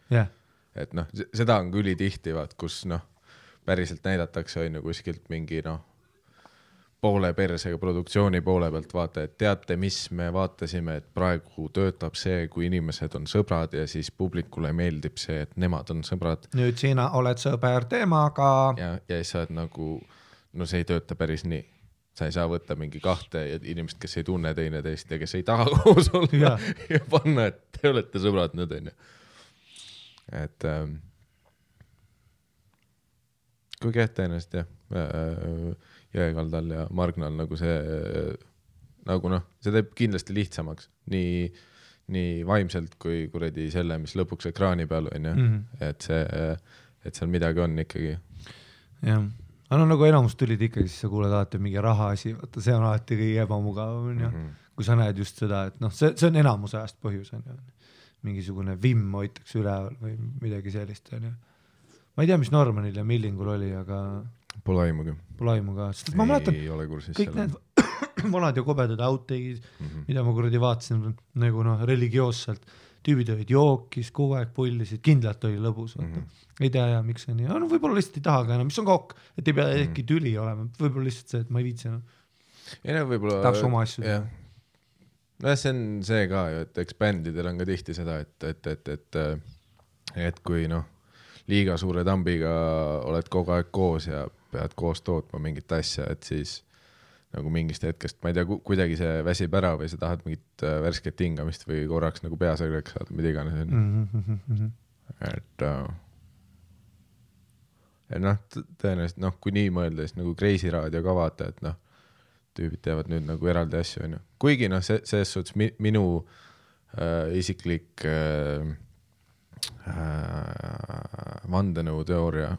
Et seda on küll tihti, vaat, kus päriselt näidatakse on ju kuskilt mingi poole persega produktsiooni poole pealt vaata, et teate, mis me vaatasime, et praegu töötab see, kui inimesed on sõbrad ja siis publikule meeldib see, et nemad on sõbrad. Nüüd sina oled sõber temaga. Ja siis sa oled nagu, see ei tööta päris nii. Sa ei saa võtta mingi kahte inimest, kes ei tunne teine teist ja kes ei taha koos olla ja panna, et te olete sõbrad nüüd, on ju. Et kui kehta ennast, Jõekaldal ja Margnal nagu see see teeb kindlasti lihtsamaks nii vaimselt kui kuradi selle, mis lõpuks ekraani peal on ju, et seal midagi on ikkagi. Jah, aga nagu enamus tulid ikkagi, siis sa kuuled alati mingi raha asi, vaata, see on alati kõige ebamugav, kui sa näed just seda, et see on enamuse ajast põhjus, on ju. Mingisugune vimm hoitakse üleval või midagi sellist, on ju. Ma ei tea, mis Normanil ja Millingul oli, aga Pole aimugi. Sest ma mäletan, kõik need vanad ja kobedad outtakes, mida ma kuradi vaatasin nagu religioosselt, tüübid olid jookis, kogu aeg pullisid, kindlalt oli lõbus. Ei tea, miks see nii. Võib-olla lihtsalt ei taha ka enam, mis on kokk, et ei pea äkki tüli olema. Võib-olla lihtsalt see, et ma ei viitsi enam. Tahaks oma asju. See on see ka ju, et eks bändidel on ka tihti seda, et kui liiga suure tambiga oled kogu aeg koos ja pead koos tootma mingit asja, et siis nagu mingist hetkest, ma ei tea, kuidagi see väsib ära või sa tahad mingit värsket hingamist või korraks nagu peasõgreks saada, mida iganes. Et tõenäoliselt, kui nii mõelda, siis nagu Kreisi raadio ka vaata, et tüübid teevad nüüd nagu eraldi asju, on ju. Kuigi selles suhtes minu isiklik vandenõu teooria,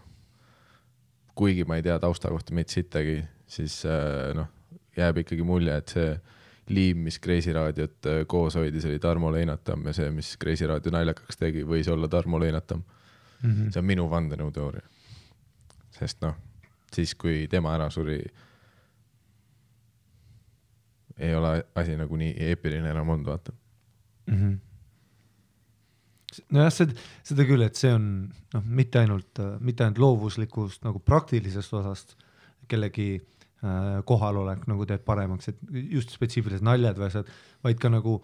kuigi ma ei tea tausta kohta meid sittagi, siis jääb ikkagi mulje, et see liim, mis Kreisi raadiot koos hoidis, oli Tarmo Leinatam ja see, mis Kreisi raadio naljakaks tegi, võis olla Tarmo Leinatam. See on minu vandenõu teooria. Sest siis kui tema ära suri, ei ole asi nagu nii eepiline enam olnud, vaata. Seda küll, et see on mitte ainult loovuslikust nagu praktilisest osast kellegi kohalolek nagu teeb paremaks, et just spetsiifilised naljad või asjad, vaid ka nagu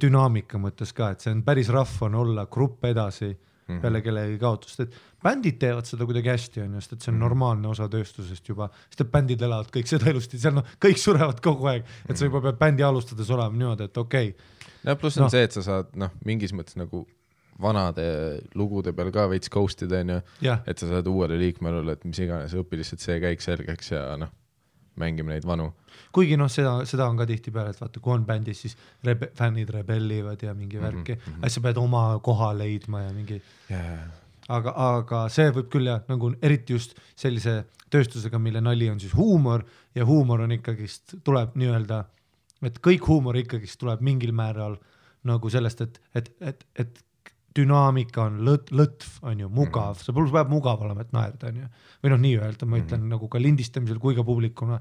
dünaamika mõttes ka, et see on päris rahv on olla grupp edasi peale kellegi kaotust, et bändid teevad seda kuidagi hästi on just, et see on normaalne osa tööstusest juba, sest et bändid elavad kõik seda elusti, seal kõik surevad kogu aeg, et sa juba pead bändi alustades olema niimoodi, et okei. Ja pluss on see, et sa saad mingis mõttes nagu vanade lugude peal ka veits ghostida, et sa saad uuele liikmele, et mis iganes õpi lihtsalt see käik selgeks ja mängime neid vanu. Kuigi seda on ka tihti peale, et vaata, kui on bändis, siis fännid rebellivad ja mingi värki, sa pead oma koha leidma ja mingi aga see võib küll nagu eriti just sellise tööstusega, mille nali on siis huumor ja huumor on ikkagist, tuleb nii-öelda, et kõik huumor ikkagist tuleb mingil määral nagu sellest, et dünaamika on lõtv, on ju, mugav, see peab mugav olema, et naerda, on ju. Või nii öelda, ma ütlen nagu ka lindistamisel kui ka publikuna,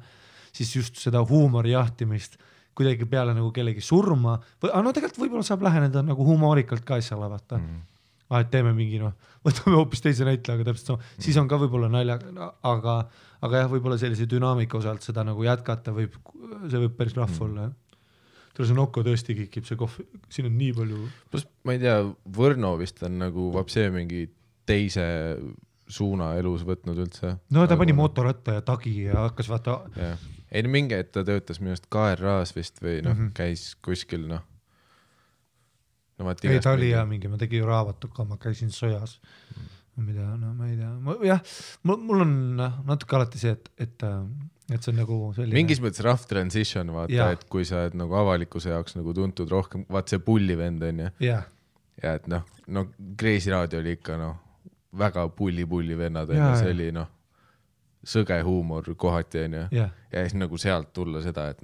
siis just seda huumori jahtimist kuidagi peale nagu kellegi surma, või tegelikult võib-olla saab läheneda nagu humoorikalt ka asjale, vaata. Et teeme mingi, võtame hoopis teise näitla, aga täpselt siis on ka võib-olla nalja, aga jah, võib-olla sellise dünaamika osalt seda nagu jätkata see võib päris rahv olla, see Nokko tõesti kikib, see kohv, siin on nii palju. Plus, ma ei tea, Võrno vist on nagu vapsee mingi teise suuna elus võtnud üldse. No ta pani motoratta ja tagi ja hakkas vaata ei no mingi, et ta töötas minust KRA-s vist või noh, käis kuskil noh. No, ei, ta oli ja mingi, ma tegin ju raavatuka, ma käisin sojas. Mida, no ma ei tea. Jah, mul on natuke alati see, et see on nagu selline... Mingis mõttes rough transition, vaata, et kui sa oled nagu avalikkuse jaoks nagu tuntud rohkem, vaat see pullivend on ju. Ja et no Kreisi raadio oli ikka väga pulli vennad on ju, see oli sõge huumor kohati on ju. Ja siis nagu sealt tulla seda, et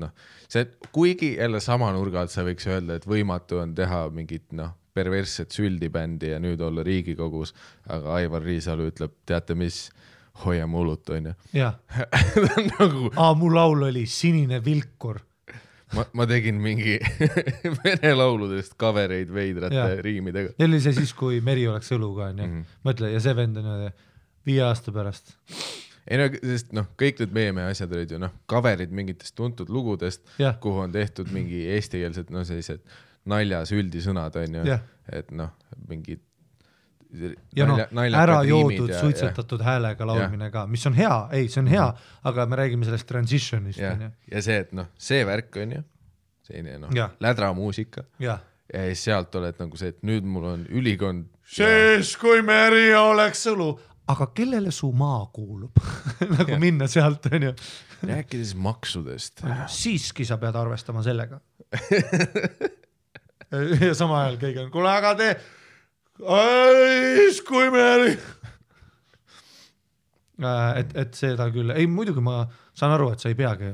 see, kuigi jälle sama nurga alt sa võiks öelda, et võimatu on teha mingit perversset süldibändi ja nüüd olla Riigikogus, aga Aivar Riisalu ütleb, teate mis, hoiame hulut on ju. Jah. Mu laul oli Sinine vilkur. Ma tegin mingi vene lauludest covereid veidrate riimidega. Ja oli see siis, kui Meri oleks õluga on ju. Mõtle, ja see vend on 5 aasta pärast. Ei sest kõik need meeme asjad olid ju coverid mingitest tuntud lugudest, kuhu on tehtud mingi eestikeelsed sellised naljas üldisõnad on ju, et mingid ära joodud, suitsetatud häälega laulmine ka, mis on hea, see on hea, aga me räägime sellest transitionist. Ja see, et see värk on ju, selline lädra muusika ja siis sealt oled nagu see, et nüüd mul on ülikond. Siis kui Meri oleks õlu, aga kellele su maa kuulub? Nagu minna sealt on ju. Rääkides maksudest. Siiski sa pead arvestama sellega. Ja sama ajal kõik on, kuule, aga kui Meri et seda küll, ei muidugi ma saan aru, et sa ei peagi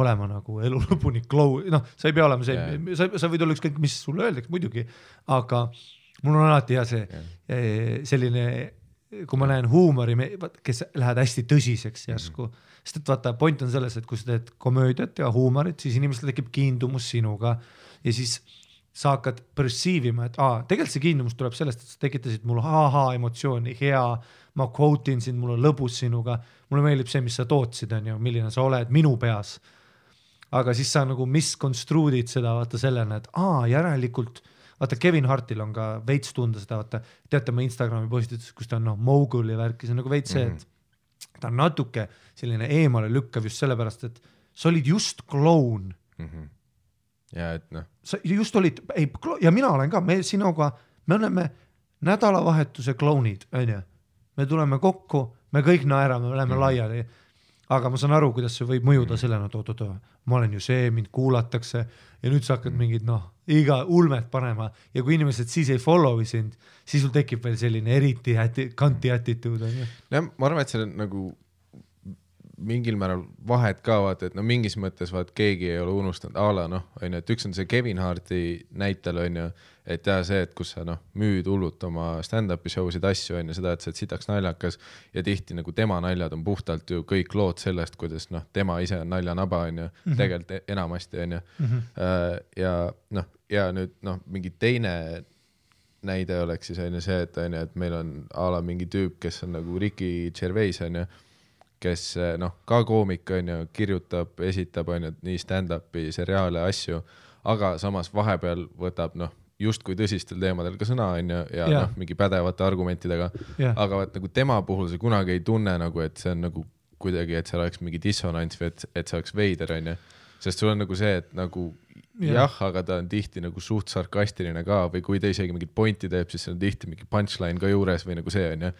olema nagu elu lõpuni sa ei pea olema see, sa võid olla ükskõik, mis sulle öeldaks muidugi, aga mul on alati hea see selline, kui ma näen huumori, kes lähevad hästi tõsiseks järsku, sest et vaata, point on selles, et kui sa teed komöödiat ja huumorit, siis inimestel tekib kiindumus sinuga ja siis sa hakkad perceivima, et tegelikult see kiindumus tuleb sellest, et sa tekitasid mul emotsiooni, hea, ma quote'in sind, mul on lõbus sinuga, mulle meeldib see, mis sa tootsid, on ju, milline sa oled minu peas. Aga siis sa nagu misconstruudid seda, vaata sellena, et järelikult, vaata Kevin Hartil on ka veits tunda seda, vaata, teate ma Instagrami postitus, kus ta on mogul ja värki, see on nagu veits see, et ta on natuke selline eemale lükkav just sellepärast, et sa olid just kloun. Ja et sa just olid, ja mina olen ka, me sinuga, me oleme nädalavahetuse klounid, on ju. Me tuleme kokku, me kõik naerame, me oleme laiali, aga ma saan aru, kuidas see võib mõjuda sellena, ma olen ju see, mind kuulatakse ja nüüd sa hakkad mingid, iga ulmet panema ja kui inimesed siis ei follow'i sind, siis sul tekib veel selline eriti kanti attitude. Ma arvan, et see on nagu mingil määral vahet ka vaata, et mingis mõttes keegi ei ole unustanud on ju, et üks on see Kevin Harti näitel on ju, et see, et kus sa müüd hullult oma stand-up'i show'sid asju on ju, seda, et sa sitaks naljakas ja tihti nagu tema naljad on puhtalt ju kõik lood sellest, kuidas tema ise on naljanaba on ju, tegelikult enamasti on ju. Ja nüüd mingi teine näide oleks siis on ju see, et meil on ala mingi tüüp, kes on nagu Ricky Gervais on ju, kes ka koomik on ju, kirjutab, esitab on ju, nii stand-up'i, seriaale, asju, aga samas vahepeal võtab just kui tõsistel teemadel ka sõna on ju, ja mingi pädevate argumentidega, aga nagu tema puhul see kunagi ei tunne nagu, et see on nagu kuidagi, et seal oleks mingi dissonants või et see oleks veider on ju, sest sul on nagu see, et nagu aga ta on tihti nagu suht sarkastiline ka või kui ta isegi mingit pointi teeb, siis on tihti mingi punchline ka juures või nagu see on ju,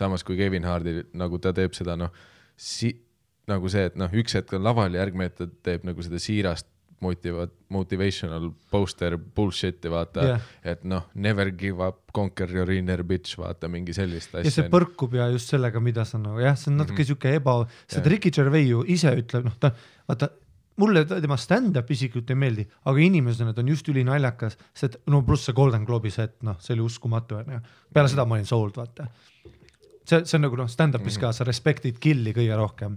samas kui Kevin Hardi nagu ta teeb seda nagu see, et üks hetk on laval ja järgmine hetk teeb nagu seda siirast motivational poster bullshit'i vaata, et never give up, conquer your inner bitch, vaata mingi sellist asja. Ja see põrkub ja just sellega, mida sa see on natuke siuke seda Ricky Gervais ju ise ütleb, vaata, mulle tema stand-up isiklikult ei meeldi, aga inimesena ta on just üli naljakas, sest pluss see Golden Globe'i set, see oli uskumatu, peale seda ma olin sold, vaata. See on nagu stand-up'is ka, sa respektid killi kõige rohkem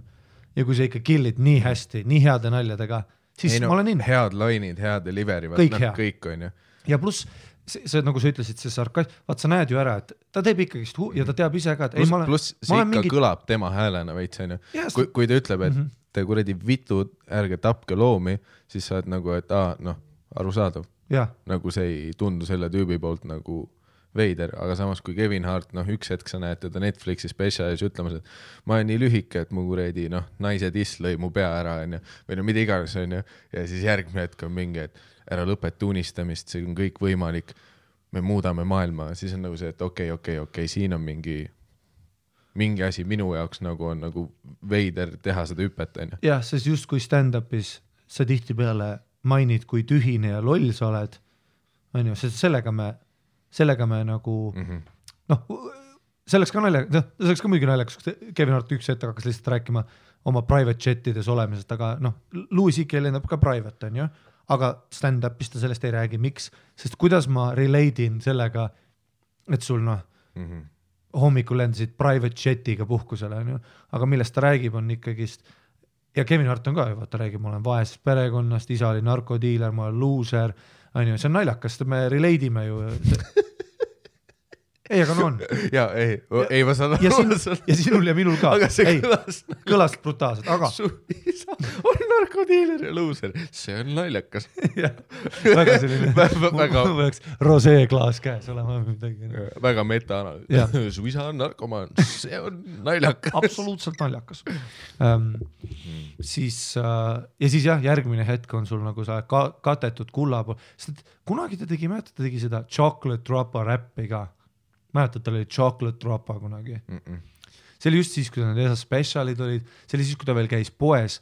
ja kui sa ikka killid nii hästi, nii heade naljadega, siis ma olen head lainid, head delivery, kõik on ju. Ja pluss, see nagu sa ütlesid, see sarkasm, vaat sa näed ju ära, et ta teeb ikkagist ja ta teab ise ka, et pluss see ikka kõlab tema häälena veits on ju, kui ta ütleb, et te kuradi vitud, ärge tapke loomi, siis sa oled nagu, et arusaadav, nagu see ei tundu selle tüübi poolt nagu veider, aga samas kui Kevin Hart, üks hetk sa näed teda Netflixi spetsialis ütlemas, et ma olen nii lühike, et mu kuredi, naise tiss lõi mu pea ära, või mida iganes, ja siis järgmine hetk on mingi, et ära lõpeta unistamist, see on kõik võimalik, me muudame maailma, siis on nagu see, et okei, siin on mingi asi minu jaoks nagu on nagu veider teha seda hüpet, Jah, sest just kui stand-upis sa tihti peale mainid, kui tühine ja loll sa oled, on ju, sest sellega me nagu selleks ka muidugi naljakas, Kevin Hart üks hetk hakkas lihtsalt rääkima oma private jetides olemisest, aga Louis C.K. lendab ka private, on ju, aga stand-upis ta sellest ei räägi, miks, sest kuidas ma relate'in sellega, et sul hommikul lendasid private jetiga puhkusele, on ju, aga millest ta räägib on ikkagist, ja Kevin Hart on ka, vaata räägib, ma olen vaesest perekonnast, isa oli narkodiiler, ma olen loser, on ju, see on naljakas, me relate'ime ju. Ei, aga on. Ja, ei ma saan ja sinul ja minul ka. Aga see kõlas brutaalselt, aga su isa on narkodiiler ja loser. See on naljakas. Väga selline võiks roseeklaas käes olema midagi. Väga meta-analüüs. Su isa on narkomaan. See on naljakas. Absoluutselt naljakas. Siis jah, järgmine hetk on sul nagu sa katetud kulla pool. Kunagi ta tegi seda Chocolate Droppa räppi ka. Mäletad, tal oli Chocolate Droppa kunagi. See oli just siis, kui need esas specialid olid, see oli siis, kui ta veel käis poes,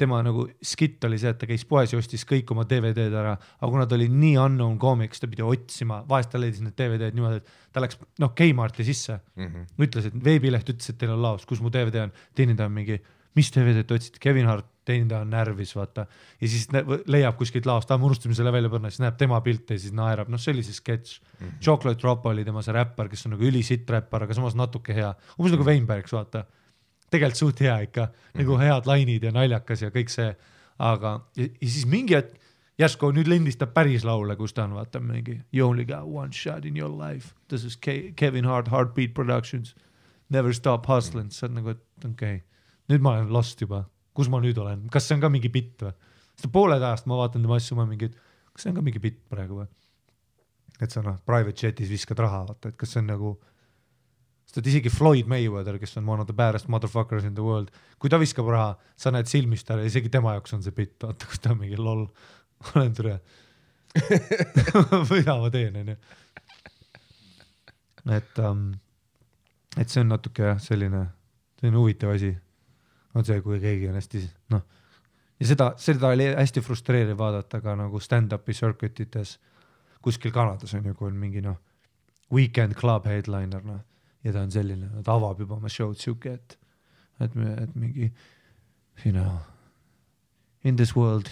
tema nagu skit oli see, et ta käis poes ja ostis kõik oma DVD-d ära, aga kuna ta oli nii unknown comics, ta pidi otsima, vahest ta leidis need DVD-d niimoodi, et ta läks Kmarti sisse, ütles, et veebileht ütles, et teil on laos, kus mu DVD on, teenindaja on mingi, mis DVD-d otsid, Kevin Hart, teenindaja on närvis, vaata, ja siis leiab kuskilt laost, me unustame selle välja põrna, siis näeb tema pilte ja siis naerab, see oli see sketš. Chocolate Drop oli tema see räppar, kes on nagu ülisitt räppar, aga samas natuke hea, umbes nagu Weinbergs, vaata, tegelikult suht hea ikka, nagu head lainid ja naljakas ja kõik see, aga ja siis mingi hetk, järsku nüüd lindistab päris laule, kus ta on, vaata mingi You only got one shot in your life, this is Kevin Hart, Heartbeat Productions, never stop hustling, see on nagu, et okei, nüüd ma olen lost juba. Kus ma nüüd olen? Kas see on ka mingi bitt või? Sest pooled ajast ma vaatan tema asju, kas see on ka mingi bitt praegu või? Et sa private jetis viskad raha, vaata, et kas see on nagu, sest isegi Floyd Mayweather, kes on one of the baddest motherfuckers in the world, kui ta viskab raha, sa näed silmist ära, isegi tema jaoks on see bitt, vaata, kus ta on mingi lol, olen türe. Võida ma teen, on ju. Et see on natuke selline huvitav asi. On see, kui keegi on hästi, ja seda oli hästi frustreeriv vaadata ka nagu stand-upi circuitites kuskil Kanadas on ju, kui on mingi weekend club headliner, ja ta on selline, ta avab juba oma show'd siuke, et mingi, in this world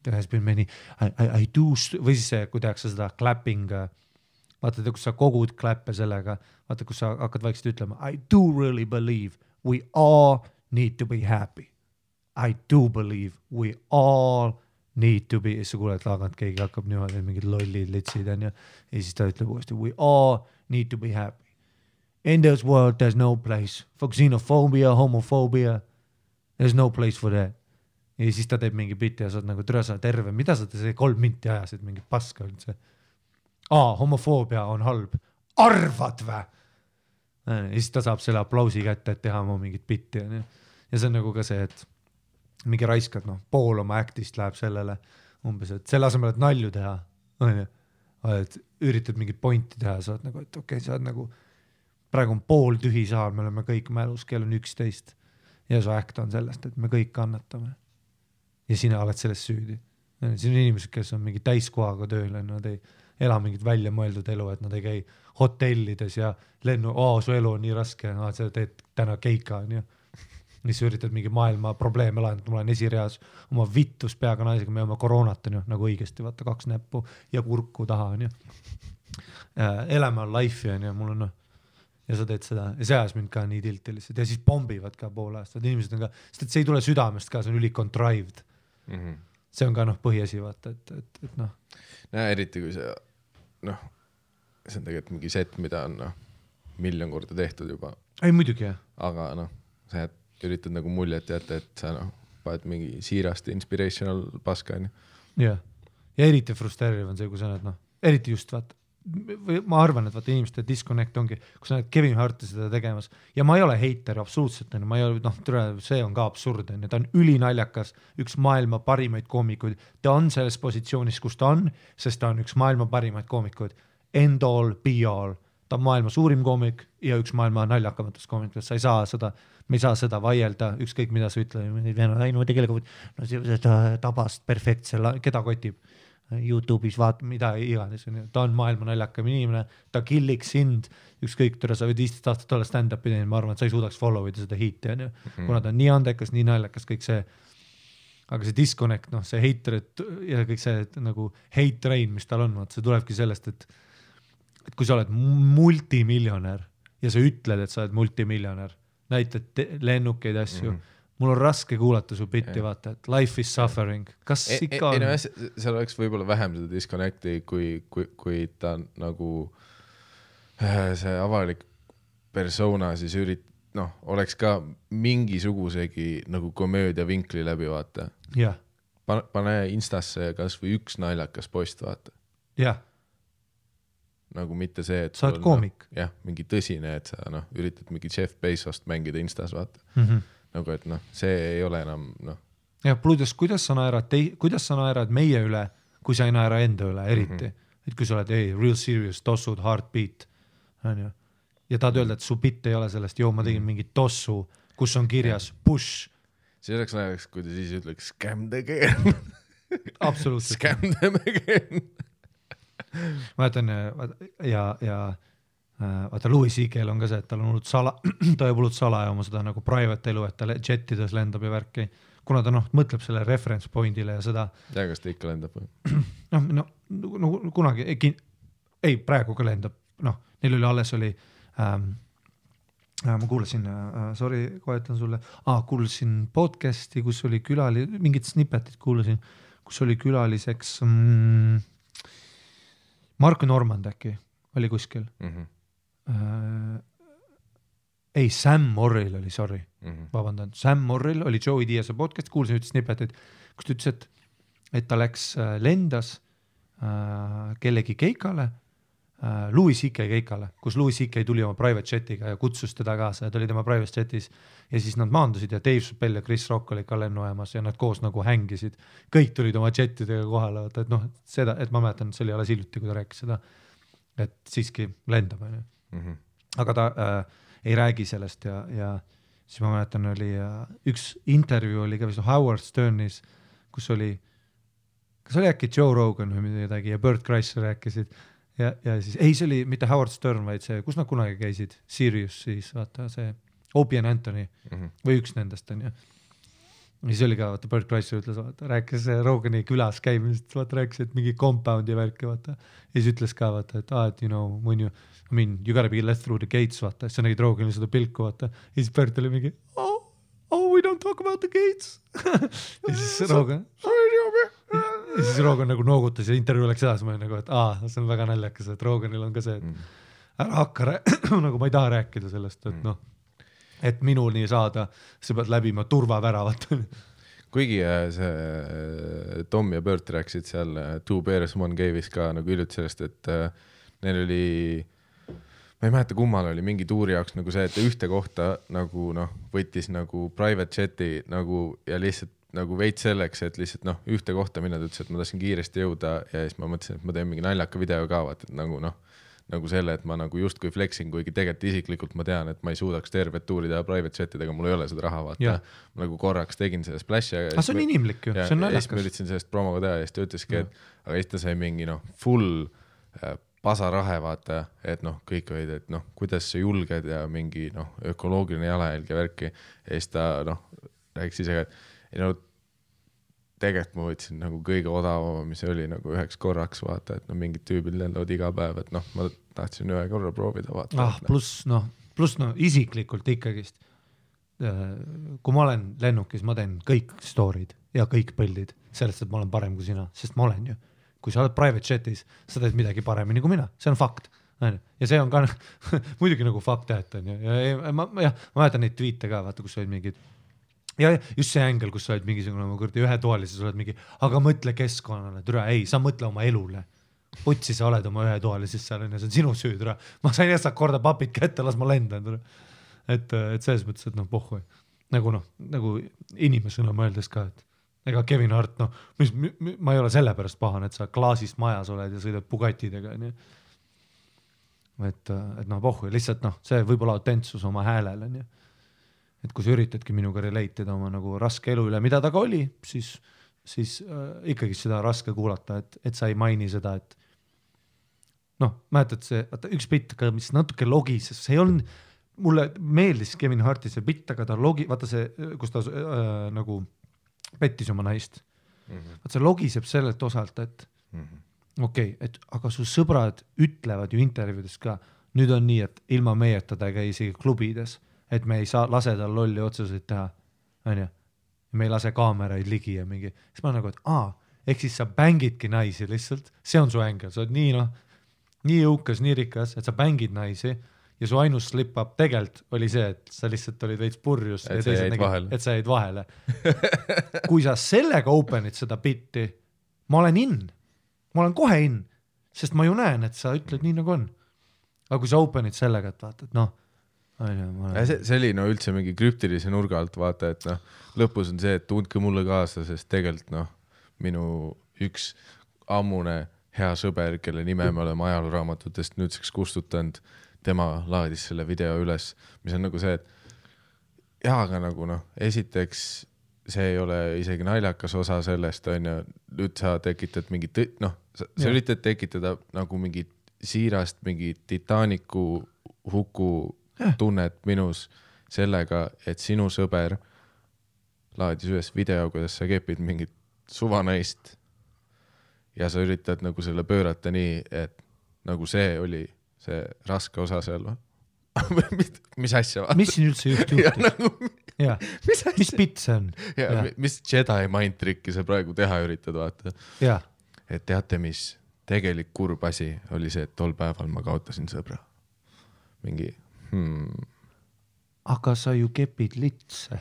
there has been many, I do, või siis see, kui tehakse seda clapping, vaata, kus sa kogud klappe sellega, vaata, kus sa hakkad vaikselt ütlema, I do really believe we all need to be happy. I do believe we all need to be, ja sa kuuled laagant, keegi hakkab niimoodi, mingid lollid litsid on ja siis ta ütleb uuesti, we all need to be happy. In this world there's no place for xenophobia, homophobia, there's no place for that. Ja siis ta teeb mingi bitti ja sa oled nagu türa sa terve, mida sa see 3 minti ajasid, mingi paska üldse. Homofoobia on halb. Arvad vä? Ja siis ta saab selle aplausi kätte, et teha mu mingit bitti ja see on nagu ka see, et mingi raiskad, pool oma actist läheb sellele umbes, et selle asemel, et nalju teha, et üritad mingit pointi teha, sa oled nagu, et okei, sa oled nagu, praegu on pool tühi saal, me oleme kõik mälus, kell on 11 ja su act on sellest, et me kõik kannatame ja sina oled sellest süüdi. Siin on inimesed, kes on mingi täiskohaga tööl, nad ei ela mingit välja mõeldud elu, et nad ei käi hotellides ja lennu, su elu on nii raske, sa teed täna keika, on ju. Mis üritad mingi maailma probleeme lahendada, ma olen esireas oma vittus peaga naisega, me oma koroonat on ju, nagu õigesti, vaata 2 näppu ja kurku taha on ju. Elame on life'i on ju, mul on ja sa teed seda ja see ajas mind ka nii tilti lihtsalt ja siis pombivad ka pool aastat, inimesed on ka, sest et see ei tule südamest ka, see on üli contrived. See on ka põhiasi, vaata, et eriti kui see, see on tegelikult mingi set, mida on 1 miljon korda tehtud juba. Ei, muidugi jah. Aga see, et üritad nagu muljet jätta, et sa paned mingi siirast inspirational paska. Ja eriti frustreeriv on see, kui sa näed, eriti just vaata, ma arvan, et vaata inimeste disconnect ongi, kus sa näed Kevin Harti seda tegemas ja ma ei ole heiter absoluutselt, ma ei ole, see on ka absurd, ta on ülinaljakas, üks maailma parimaid koomikuid, ta on selles positsioonis, kus ta on, sest ta on üks maailma parimaid koomikuid, end all, be all, ta on maailma suurim koomik ja üks maailma naljakamatest koomikutest, sa ei saa seda, me ei saa seda vaielda, ükskõik mida sa ütled, no tegelikult seda tabast perfektse, keda kotib YouTube'is vaata, mida iganes, ta on maailma naljakam inimene, ta killiks sind, ükskõik, sa võid 15 aastat olla stand-up'i teinud, ma arvan, et sa ei suudaks follow ida seda hiiti, kuna ta on nii andekas, nii naljakas, kõik see, aga see disconnect, see hater ja kõik see nagu hate train, mis tal on, see tulebki sellest, et kui sa oled multimiljonär ja sa ütled, et sa oled multimiljonär, näitad lennukeid asju, mul on raske kuulata su bitti, vaata, et life is suffering. Kas ikka on? Seal oleks võib-olla vähem seda disconnecti, kui ta nagu see avalik persona siis oleks ka mingisugusegi nagu komöödia vinkli läbi, vaata. Yeah. Pane Instasse kas või üks naljakas post, vaata. Jah. Nagu mitte see, et sa oled koomik. Jah, mingi tõsine, et sa üritad mingi Jeff Bezost mängida Instas, vaata. Nagu, et see ei ole enam, Ja pluudes, kuidas sa naerad meie üle, kui sa ei naera enda üle, eriti. Et kui sa oled, real serious, tossud, heartbeat. Ja tahad öelda, et su bitt ei ole sellest, ma tegin mingi tossu, kus on kirjas push. See oleks näiteks, kui ta siis ütleks scam the game. Absoluutselt. Scam them again. Ma jätan, vaata Louis C.K.'l on ka see, et tal on ta jääb hullult salaja oma seda nagu private elu, et ta jetides lendab ja värki, kuna ta mõtleb selle reference pointile ja seda. Ja kas ta ikka lendab? Kunagi, ei, praegu ka lendab, neil oli alles oli, ma kuulasin, sorry, kohetan sulle, kuulasin podcasti, kus oli mingid snippetit kuulasin, kus oli külaliseks Mark Normand äkki oli kuskil. Ei, Sam Morrill oli, sorry, vabandan. Sam Morrill oli Joey Diaz'e podcast, kuulsin üht snippetit, kus ta ütles, et ta läks lendas kellegi keikale, Louis C.K. keikale, kus Louis C.K. tuli oma private chatiga ja kutsus teda kaasa ja ta oli tema private chatis ja siis nad maandusid ja Dave Chappelle ja Chris Rock oli ka lennuajamas ja nad koos nagu hängisid. Kõik tulid oma chatidega kohale, et seda, et ma mäletan, see oli alles hiljuti, kui ta rääkis seda, et siiski lendab. Aga ta ei räägi sellest ja siis ma mäletan, oli üks intervjuu oli ka vist Howard Sternis, kus oli, kas oli äkki Joe Rogan või midagi ja Bert Kreischer rääkisid ja siis, ei see oli mitte Howard Stern, vaid see, kus nad kunagi käisid, Sirius siis, vaata see Opie and Anthony või üks nendest on ja siis oli ka, vaata Bert Kreischer ütles, vaata, rääkis Rogani külas käimisest, vaata rääkis, et mingi compound ja värki, vaata ja siis ütles ka, vaata, et when you gotta be let through the gates, vaata, siis sa nägid Rogani seda pilku, vaata ja siis Bert oli mingi we don't talk about the gates ja siis Rogan nagu noogutas ja intervjuu läks edasi, ma nagu, et see on väga naljakas, et Roganil on ka see, et ära hakka nagu ma ei taha rääkida sellest, et et minuni saada, sa pead läbima turvaväravat. Kuigi see Tom ja Bert rääksid seal Two Bears One Cave'is ka nagu hiljuti sellest, et neil oli, ma ei mäleta kummal oli mingi tuuri jaoks nagu see, et ühte kohta nagu võttis nagu private chati nagu ja lihtsalt nagu veits selleks, et lihtsalt ühte kohta minna, ta ütles, et ma tahtsin kiiresti jõuda ja siis ma mõtlesin, et ma teen mingi naljaka video ka, vaat, et nagu selle, et ma nagu justkui flexing, kuigi tegelikult isiklikult ma tean, et ma ei suudaks tervet tuuri teha private chatidega, mul ei ole seda raha, vaata. Ma nagu korraks tegin selle splash'i. See on inimlik ju, see on naljakas. Ja siis ma üritasin sellest promoga teha ja siis ta ütleski, et aga siis ta sai mingi full pasarahe, vaata, et kõik olid, et kuidas sa julged ja mingi ökoloogiline jalajälg ja värki ja siis ta rääkis ise, et tegelikult ma võtsin nagu kõige odavama, mis oli nagu üheks korraks, vaata, et mingid tüübid lendavad iga päev, et ma tahtsin ühe korra proovida, vaata. Pluss isiklikult ikkagist, kui ma olen lennukis, ma teen kõik story'd ja kõik põllid sellest, et ma olen parem kui sina, sest ma olen ju. Kui sa oled private chatis, sa teed midagi paremini kui mina, see on fakt. Ja see on ka muidugi nagu fakt, et on ju. Ja ma mäletan neid tweete ka, vaata, kus olid mingid ja just see ängel, kus sa oled mingisugune ühe toalises, oled mingi, aga mõtle keskkonnale, türa, ei, sa mõtle oma elule. putsi sa oled oma ühetoalises seal, see on sinu süü, ma sain jästa korda papid kätte, las ma lendan. Et selles mõttes, et pohhu. Nagu inimesena mõeldes ka, et ega Kevin Hart, ma ei ole selle pärast pahan, et sa klaasist majas oled ja sõidad Bugatidega, nii. Et pohhu, lihtsalt see võib-olla autentsus oma häälel, nii. Et kui sa üritadki minuga relate'ida oma nagu raske elu üle, mida ta ka oli, siis ikkagi seda raske kuulata, et sa ei maini seda, et mäletad see, üks bitt, mis natuke logises, see on, mulle meeldis Kevin Harti see bitt, aga ta vaata see, kus ta nagu pettis oma naist. Vaata see logiseb sellelt osalt, et okei, et aga su sõbrad ütlevad ju intervjuudes ka, nüüd on nii, et ilma meieta ta ei käi isegi klubides, et me ei saa lase tal lolli otsuseid teha, on ju, me ei lase kaameraid ligi ja mingi, siis ma nagu, et ehk siis sa bängidki naisi lihtsalt, see on su ängel, sa oled nii jõukas, nii rikas, et sa bängid naisi ja su ainus slip-up tegelt oli see, et sa lihtsalt olid veits purjus et sa jäid vahele. Kui sa sellega openid seda bitti, ma olen kohe in, sest ma ju näen, et sa ütled nii nagu on. Aga kui sa openid sellega, et vaata, et see oli üldse mingi krüptilise nurga alt vaata, et lõpus on see, et tundke mulle kaasa, sest tegelikult minu üks ammune hea sõber, kelle nime me oleme ajalooraamatutest nüüdseks kustutanud, tema laadis selle video üles, mis on nagu see, et aga nagu esiteks see ei ole isegi naljakas osa sellest, on ju, nüüd sa tekitad mingi sa üritad tekitada nagu mingi siirast, mingi Titanicu huku tunnet minus sellega, et sinu sõber laadis ühes video, kuidas sa kepid mingit suvanaist ja sa üritad nagu selle pöörata nii, et nagu see oli see raske osa seal. Mis asja? Mis siin üldse juhtus? Mis bitt see on? Mis Jedi mind tricki sa praegu teha üritad vaata? Et teate, mis tegelik kurb asi oli see, et tol päeval ma kaotasin sõbra. Mingi Aga sa ju kepid litse.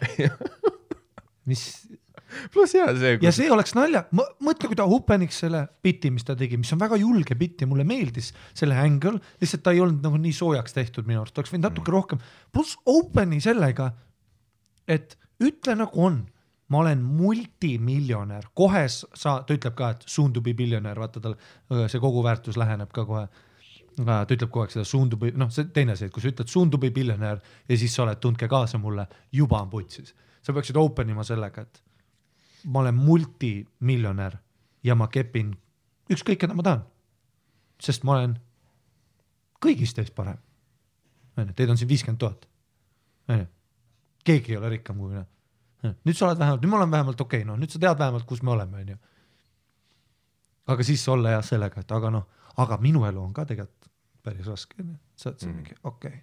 Mis? Plus see. Ja see oleks nalja. Mõtle, kui ta hupeniks selle bitti, mis ta tegi, mis on väga julge bitti, mulle meeldis selle angle, lihtsalt ta ei olnud nagu nii soojaks tehtud minu arust, oleks võinud natuke rohkem. Plus openi sellega, et ütle nagu on, ma olen multimiljonär, kohe ta ütleb ka, et soon to be billionär, vaata tal see kogu väärtus läheneb ka kohe. Ta ütleb kogu aeg seda soon to be, see teine see, kui sa ütled soon to be billionär ja siis sa oled, tundke kaasa mulle, juba on putsis. Sa peaksid openima sellega, et ma olen multimiljonär ja ma kepin ükskõik, keda ma tahan. Sest ma olen kõigist teist parem. Teid on siin 50 000. Keegi ei ole rikkam kui mina. Nüüd sa oled vähemalt, nüüd ma olen vähemalt okei, nüüd sa tead vähemalt, kus me oleme. Aga siis olla jah sellega, et aga minu elu on ka tegelikult päris raske. Sa oled see mingi, okei.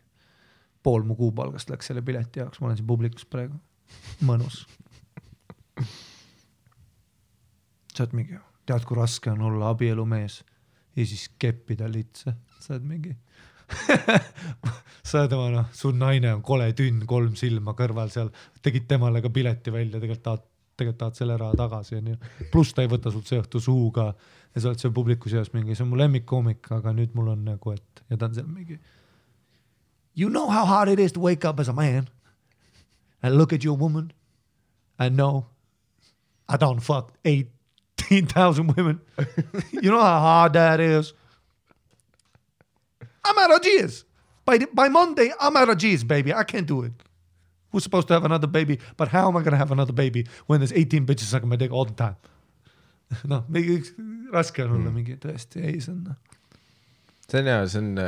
Pool mu kuupalgast läks selle pileti jaoks, ma olen siin publikus praegu. Mõnus. Sa oled mingi, tead kui raske on olla abielumees ja siis keppida litse. Sa oled mingi sa oled oma, su naine on kole tünn, 3 silma kõrval seal, tegid temale ka pileti välja, tegelikult tahad selle raha tagasi. Plus ta ei võta sult see õhtu suuga ja sa oled seal publikus jaos mingi, see on mu lemmikkoomik, aga nüüd mul on nagu, et ja ta on seal mingi you know how hard it is to wake up as a man and look at your woman and know I don't fuck 18,000 women. You know how hard that is? I'm out of G's. By Monday, I'm out of G's, baby. I can't do it. Who's supposed to have another baby? But how am I going to have another baby when there's 18 bitches sucking my dick all the time? Mingi raske on olla mingi tõesti, ei, see on. See on hea, see on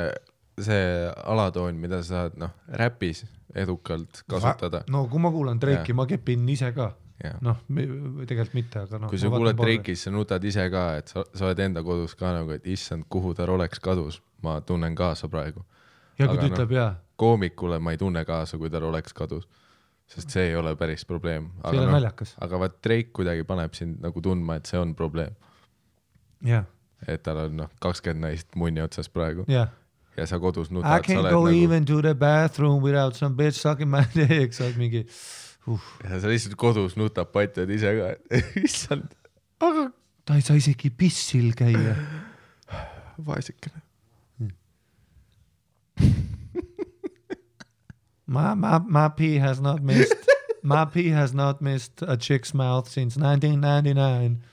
see alatoon, mida sa saad räpis edukalt kasutada. Kui ma kuulan Drake'i, ma kepin ise ka. Tegelikult mitte, aga kui sa kuuled Drake'is, sa nutad ise ka, et sa oled enda kodus ka nagu, et issand, kuhu ta oleks kadus, ma tunnen kaasa praegu. Ja kui ta ütleb, jah. Koomikule ma ei tunne kaasa, kui ta oleks kadus, sest see ei ole päris probleem. See ei ole naljakas. Aga vaat Drake kuidagi paneb sind nagu tundma, et see on probleem. Jah. Et tal on 20 naist munni otsas praegu. Jah. Ja sa kodus nutad. I can't go even to the bathroom without some bitch sucking my dick, sa oled mingi... Ja sa lihtsalt kodus nutab patjad ise ka, issand, aga... Ta ei saa isegi pissil käia. Vaesikene. My pee has not missed a chick's mouth since 1999.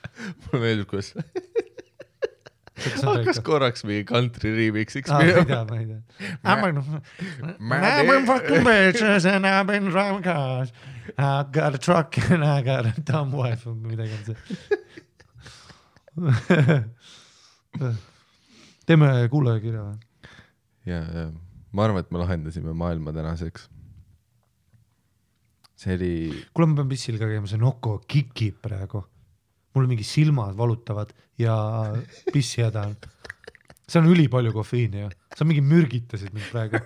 Mulle meeldib, kus hakkas korraks mingi country remix'iks. Ma ei tea. I've been fucking bitches and I've been driving cars. I got a truck and I got a dumb wife. Midagi on see. Teeme kuulajakirja või? Ja ma arvan, et me lahendasime maailma tänaseks. See oli... Kuule, ma pean pissil ka käima, see Noko kikib praegu. Mul mingi silmad valutavad ja pissi häda on. See on üli palju kofeiini ja sa mingi mürgitasid mind praegu.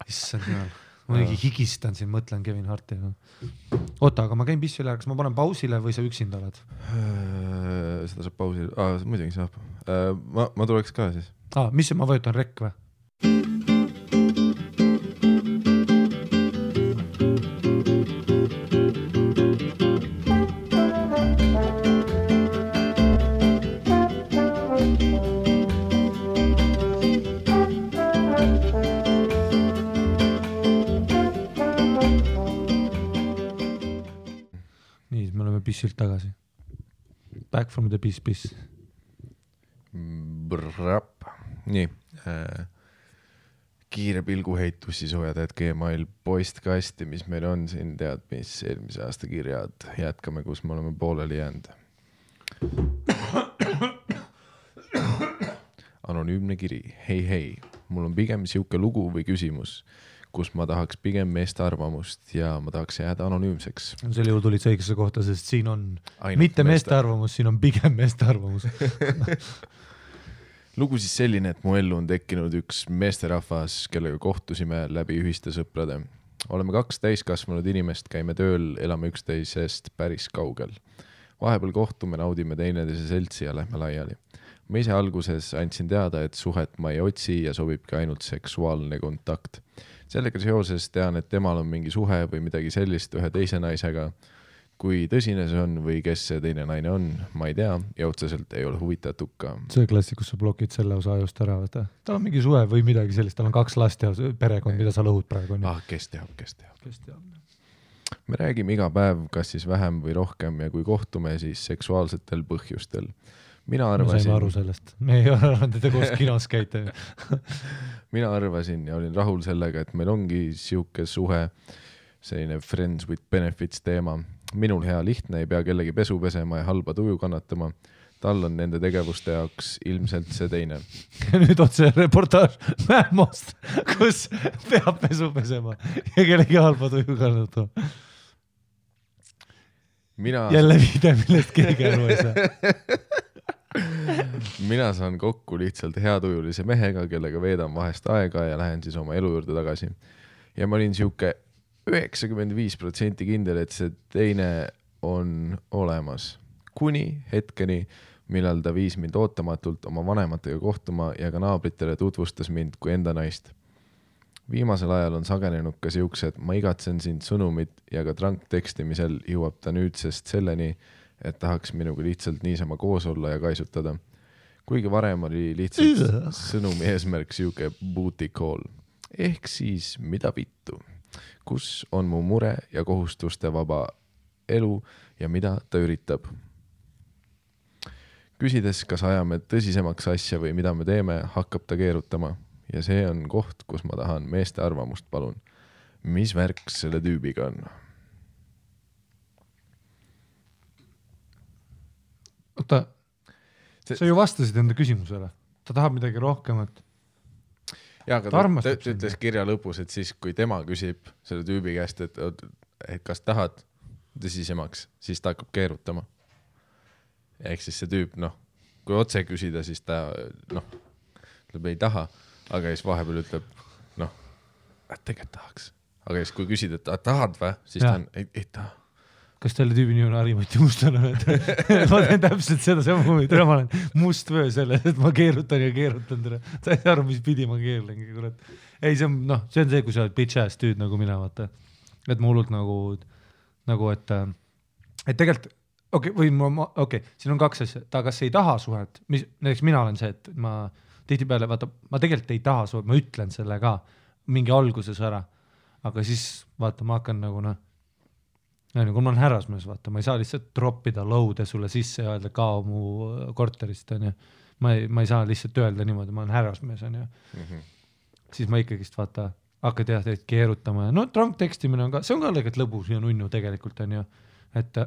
Issand jumal. Ma mingi higistan siin, mõtlen Kevin Harti. Oota, aga ma käin pissi üle, kas ma panen pausile või sa üksinda oled? Seda saab pausile. Muidugi saab. Ma tuleks ka siis. Mis ma vajutan rekk või? Pissilt tagasi. Back from the piss. Nii. Kiire pilguheitus siis hoiatajad Gmail postkasti, mis meil on siin, tead, mis eelmise aasta kirjad. Jätkame, kus me oleme pooleli jäänud. Anonüümne kiri. Hei. Mul on pigem siuke lugu või küsimus, kus ma tahaks pigem meeste arvamust ja ma tahaks jääda anonüümseks. Selle juurde tulid õigesse kohta, sest siin on ainult mitte meeste arvamus, siin on pigem meeste arvamus. Lugu siis selline, et mu ellu on tekkinud üks meesterahvas, kellega kohtusime läbi ühiste sõprade. Oleme 2 täiskasvanud inimest, käime tööl, elame üksteisest päris kaugel. Vahepeal kohtume, naudime teineteise seltsi ja lähme laiali. Ma ise alguses andsin teada, et suhet ma ei otsi ja sobibki ainult seksuaalne kontakt. Sellega seoses tean, et temal on mingi suhe või midagi sellist ühe teise naisega. Kui tõsine see on või kes see teine naine on, ma ei tea ja otseselt ei ole huvitatud ka. See klassikus sa blokid selle osa ajust ära. Tal on mingi suhe või midagi sellist, tal on 2 last ja perekond, mida sa lõhud praegu. Kes teab. Me räägime iga päev, kas siis vähem või rohkem ja kui kohtume, siis seksuaalsetel põhjustel. Mina saime aru sellest. Me ei ole arvanud, et te koos kinos käite. Mina arvasin ja olin rahul sellega, et meil ongi siuke suhe, selline friends with benefits teema. Minul hea lihtne, ei pea kellegi pesu pesema ja halba tuju kannatama. Tal on nende tegevuste jaoks ilmselt see teine. Nüüd otse reportaaž Mähmost, kus peab pesu pesema ja kellegi halba tuju kannatama. Jälle viide, millest keegi aru ei saa. Mina saan kokku lihtsalt heatujulise mehega, kellega veedan vahest aega ja lähen siis oma elu juurde tagasi. Ja ma olin siuke 95% kindel, et see teine on olemas. Kuni hetkeni, millal ta viis mind ootamatult oma vanematega kohtuma ja ka naabritele tutvustas mind kui enda naist. Viimasel ajal on sagenenud ka siuksed, ma igatsen sind sõnumit ja ka tranktekstimisel jõuab ta nüüdsest selleni, et tahaks minuga lihtsalt niisama koos olla ja kaisutada. Kuigi varem oli lihtsalt sõnumi eesmärk siuke booty call. Ehk siis mida vittu? Kus on mu mure ja kohustuste vaba elu ja mida ta üritab? Küsides, kas ajame tõsisemaks asja või mida me teeme, hakkab ta keerutama. Ja see on koht, kus ma tahan meeste arvamust, palun. Mis värk selle tüübiga on? Oota, sa ju vastasid enda küsimusele. Ta tahab midagi rohkemat. Ja, aga ta ütles kirja lõpus, et siis kui tema küsib selle tüübi käest, et kas tahad tõsisemaks, siis ta hakkab keerutama. Ehk siis see tüüp, kui otse küsida, siis ta ütleb ei taha, aga siis vahepeal ütleb, et tegelikult tahaks. Aga siis kui küsid, et tahad või, siis ta on, ei taha. Kas teile tüübi nii on Harimati Mustana? Ma teen täpselt seda sama, ma olen must vöö selle, et ma keerutan ja keerutan tere. Ta ei aru, mis pidi ma keerlengi. Ei, see on see, kui sa oled bitch ass tüüd nagu mina, vaata. Et ma hullult et tegelikult siin on 2 asja, ta kas ei taha suhet, näiteks mina olen see, et ma tihtipeale, vaata, ma tegelikult ei taha suhet, ma ütlen selle ka mingi alguses ära, aga siis vaata, ma hakkan nagu kui ma olen härrasmees, vaata, ma ei saa lihtsalt droppida lõude sulle sisse ja öelda kao mu korterist, on ju. Ma ei saa lihtsalt öelda niimoodi, ma olen härrasmees, on ju. Siis ma ikkagist, vaata, hakkad teed keerutama ja drunk tekstimine on ka, see on ka lõigat lõbus ja nunnu tegelikult, on ju. Et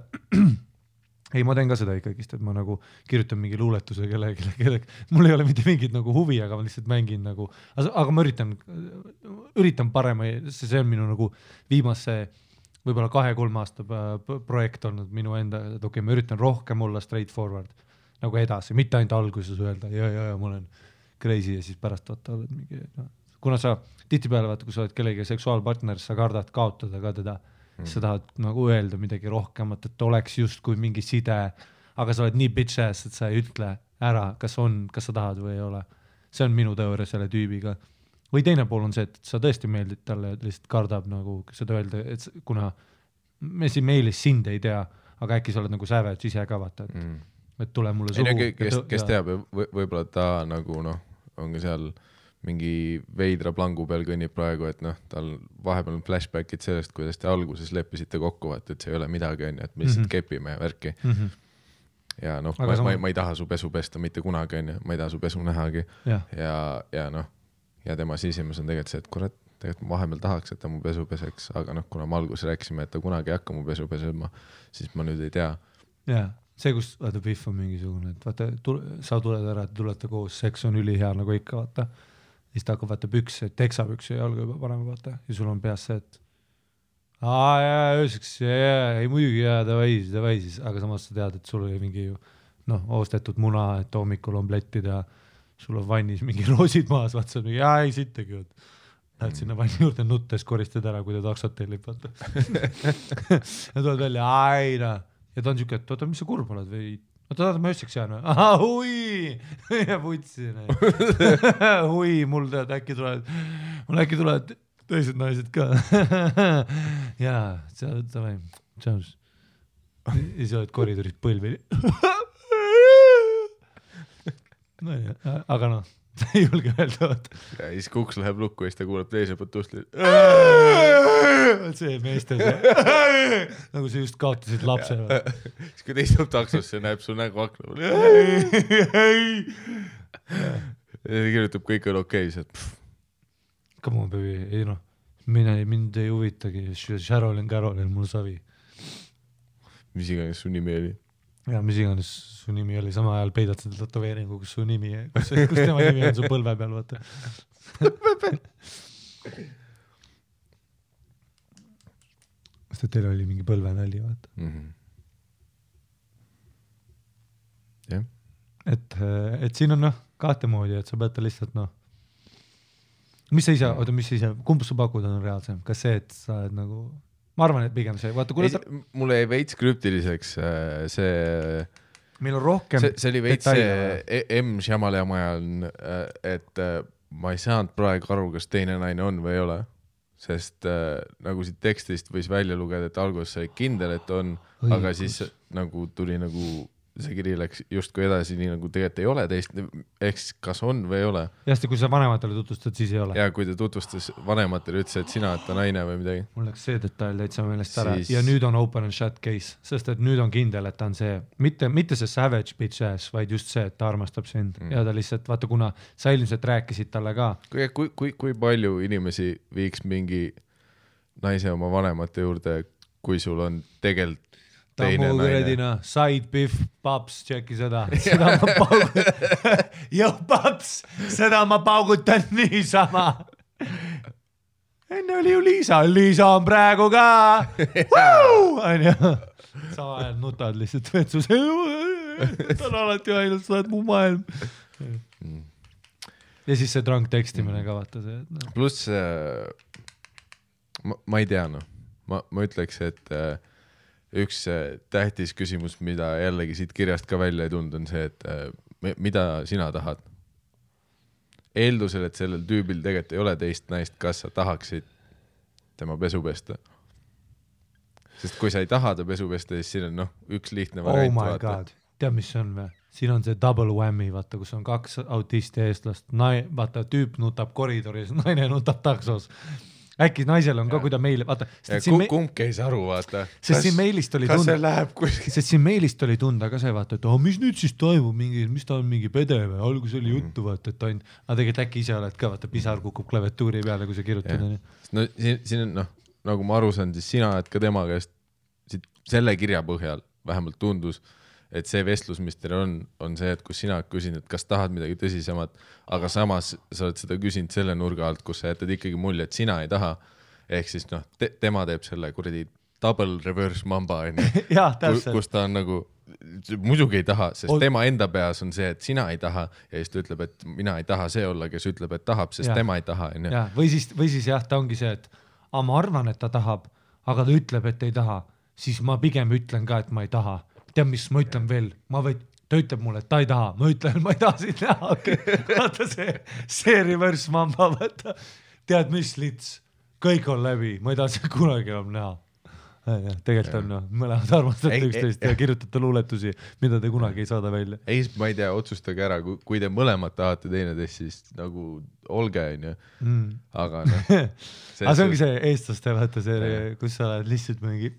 ei, ma teen ka seda ikkagist, et ma nagu kirjutan mingi luuletuse kellegi. Mul ei ole mitte mingit nagu huvi, aga ma lihtsalt mängin nagu, aga ma üritan parema, see on minu nagu viimase võib-olla 2-3 aasta projekt olnud minu enda, et okei, ma üritan rohkem olla straightforward nagu edasi, mitte ainult alguses öelda, ja ma olen crazy ja siis pärast vaata oled mingi, kuna sa tihtipeale vaata, kui sa oled kellegi seksuaalpartner, sa kardad kaotada ka teda, sa tahad nagu öelda midagi rohkemat, et oleks justkui mingi side, aga sa oled nii bitch ass, et sa ei ütle ära, kas sa tahad või ei ole. See on minu teooria selle tüübiga. Või teine pool on see, et sa tõesti meeldid talle, lihtsalt kardab nagu seda öelda, et kuna me siin meilis sind ei tea, aga äkki sa oled nagu savage ise ka vaata, et tule mulle suhu. Kes teab, võib-olla ta nagu ongi seal mingi veidra plangu peal kõnnib praegu, et tal vahepeal on flashbackid sellest, kuidas te alguses leppisite kokku, et see ei ole midagi, et me lihtsalt kepime värki. Ja ma ei taha su pesu pesta mitte kunagi, ma ei taha su pesu nähagi. Ja tema sisimas on tegelikult see, et kurat, tegelikult ma vahepeal tahaks, et ta mu pesu peseks, aga kuna ma alguses rääkisime, et ta kunagi ei hakka mu pesu pesema, siis ma nüüd ei tea. Jaa, see, kus vaata pihv on mingisugune, et vaata, sa tuled ära, et tulete koos, seks on ülihea nagu ikka, vaata. Siis ta hakkab vaata pükse, teksapükse ja jalga juba parem vaata. Ja sul on peas see, et ööseks, ei muidugi davai siis, aga samas sa tead, et sul oli mingi oostetud muna, et hommikul on pletid ja sul on vannis mingi roosid maas, vaata sa ei sittagi. Lähed sinna vanni juurde nuttes, koristad ära, kui ta taksot tellib, vaata. Ja tuled välja, ja ta on siuke, et oota, mis sa kurb oled või? Oota, ma ööseks jään või? Hui! Ja putsin. Hui, mul tead, äkki tulevad teised naised ka. Jaa, davai, tšaus. Ja sa oled koridoris põlvi. No ja, aga sa ei julge öelda. Ja siis kuks läheb lukku ja siis ta kuuleb teise poolt ustli. See meeste see. Nagu sa just kaotasid lapse. Siis kui teistub taksosse, näeb su nägu akna. Ja kirjutab kõik on okei. Come on, baby. Ei mind ei huvitagi. Carolyn, mul savi. Mis iganes su nimi oli? Ja mis iganes su nimi oli, sama ajal peidad seda tatoveeringu, kus su nimi, kus tema nimi on su põlve peal, vaata. Sest teil oli mingi põlvenalli, vaata. Jah. Et siin on kahte moodi, et sa pead ta lihtsalt mis sa ise, kumb sa pakud on reaalsem? Kas see, et sa oled nagu... Ma arvan, et pigem see, vaata, mulle ei veits krüptiliseks see... Meil on rohkem see oli veits see M. Shyamalan ajal, et ma ei saanud praegu aru, kas teine naine on või ei ole, sest nagu siit tekstist võis välja lugeda, et alguses sai kindel, et on, aga siis nagu tuli nagu see kiri läks justkui edasi, nii nagu tegelikult ei ole teist, eks kas on või ei ole. Jasti, kui sa vanematele tutvustad, siis ei ole. Ja kui ta tutvustas vanematele, ütles, et sina oled ta naine või midagi. Mul läks see detail täitsa meelest ära ja nüüd on open and shut case, sest et nüüd on kindel, et ta on see, mitte see savage bitch ass, vaid just see, et ta armastab sind ja ta lihtsalt, vaata, kuna sa ilmselt rääkisid talle ka. Kui palju inimesi viiks mingi naise oma vanemate juurde, kui sul on tegelikult teine naine. Side beef, paps, tšeki seda ma paugutan. Jõu, paps, seda ma paugutan niisama. Enne oli ju Liisa on praegu ka. Sama ajal nutad lihtsalt vetsus. Ta on alati ainult, sa oled mu maailm. Ja siis see drunk tekstimine ka vaata see. Pluss, ma ei tea, ma ütleks, et üks tähtis küsimus, mida jällegi siit kirjast ka välja ei tulnud, on see, et mida sina tahad? Eeldusel, et sellel tüübil tegelikult ei ole teist naist, kas sa tahaksid tema pesu pesta? Sest kui sa ei taha ta pesu pesta, siis siin on üks lihtne variant. Oh my god, tead mis see on või? Siin on see double whammy, vaata, kus on 2 autisti eestlast, vaata tüüp nutab koridoris, naine nutab taksos. Äkki naisel on ka, kui ta meile, vaata. Kumb käis aru, vaata. Sest siin meilist oli tunda. Kas see läheb kuskil? Sest siin meilist oli tunda ka see, vaata, et mis nüüd siis toimub, mis ta on mingi pede või, algus oli juttu, vaata, et ta on, aga tegelikult äkki ise oled ka, vaata, pisar kukub klaviatuuri peale, kui sa kirjutad. No siin on, nagu ma aru saan, siis sina oled ka tema käest selle kirja põhjal vähemalt tundus, et see vestlus, mis teil on see, et kus sina küsin, et kas tahad midagi tõsisemat, aga samas sa oled seda küsinud selle nurga alt, kus sa jätad ikkagi mulje, et sina ei taha. Ehk siis tema teeb selle kuradi double reverse mamba, kus ta on nagu, muidugi ei taha, sest tema enda peas on see, et sina ei taha ja siis ta ütleb, et mina ei taha see olla, kes ütleb, et tahab, sest tema ei taha. Või siis jah, ta ongi see, et ma arvan, et ta tahab, aga ta ütleb, et ei taha, siis ma pigem ütlen ka, et ma ei taha. Tead, mis ma ütlen veel, ta ütleb mulle, et ta ei taha, ma ütlen, ma ei taha siin näha, vaata see reverse mamba, vaata, tead mis lits, kõik on läbi, ma ei taha siin kunagi enam näha. Tegelikult on mõlemad armastate üksteist ja kirjutate luuletusi, mida te kunagi ei saada välja. Ei, ma ei tea, otsustage ära, kui te mõlemad tahate teineteist, siis nagu olge, aga see ongi see eestlaste, vaata see, kus sa oled lihtsalt mingi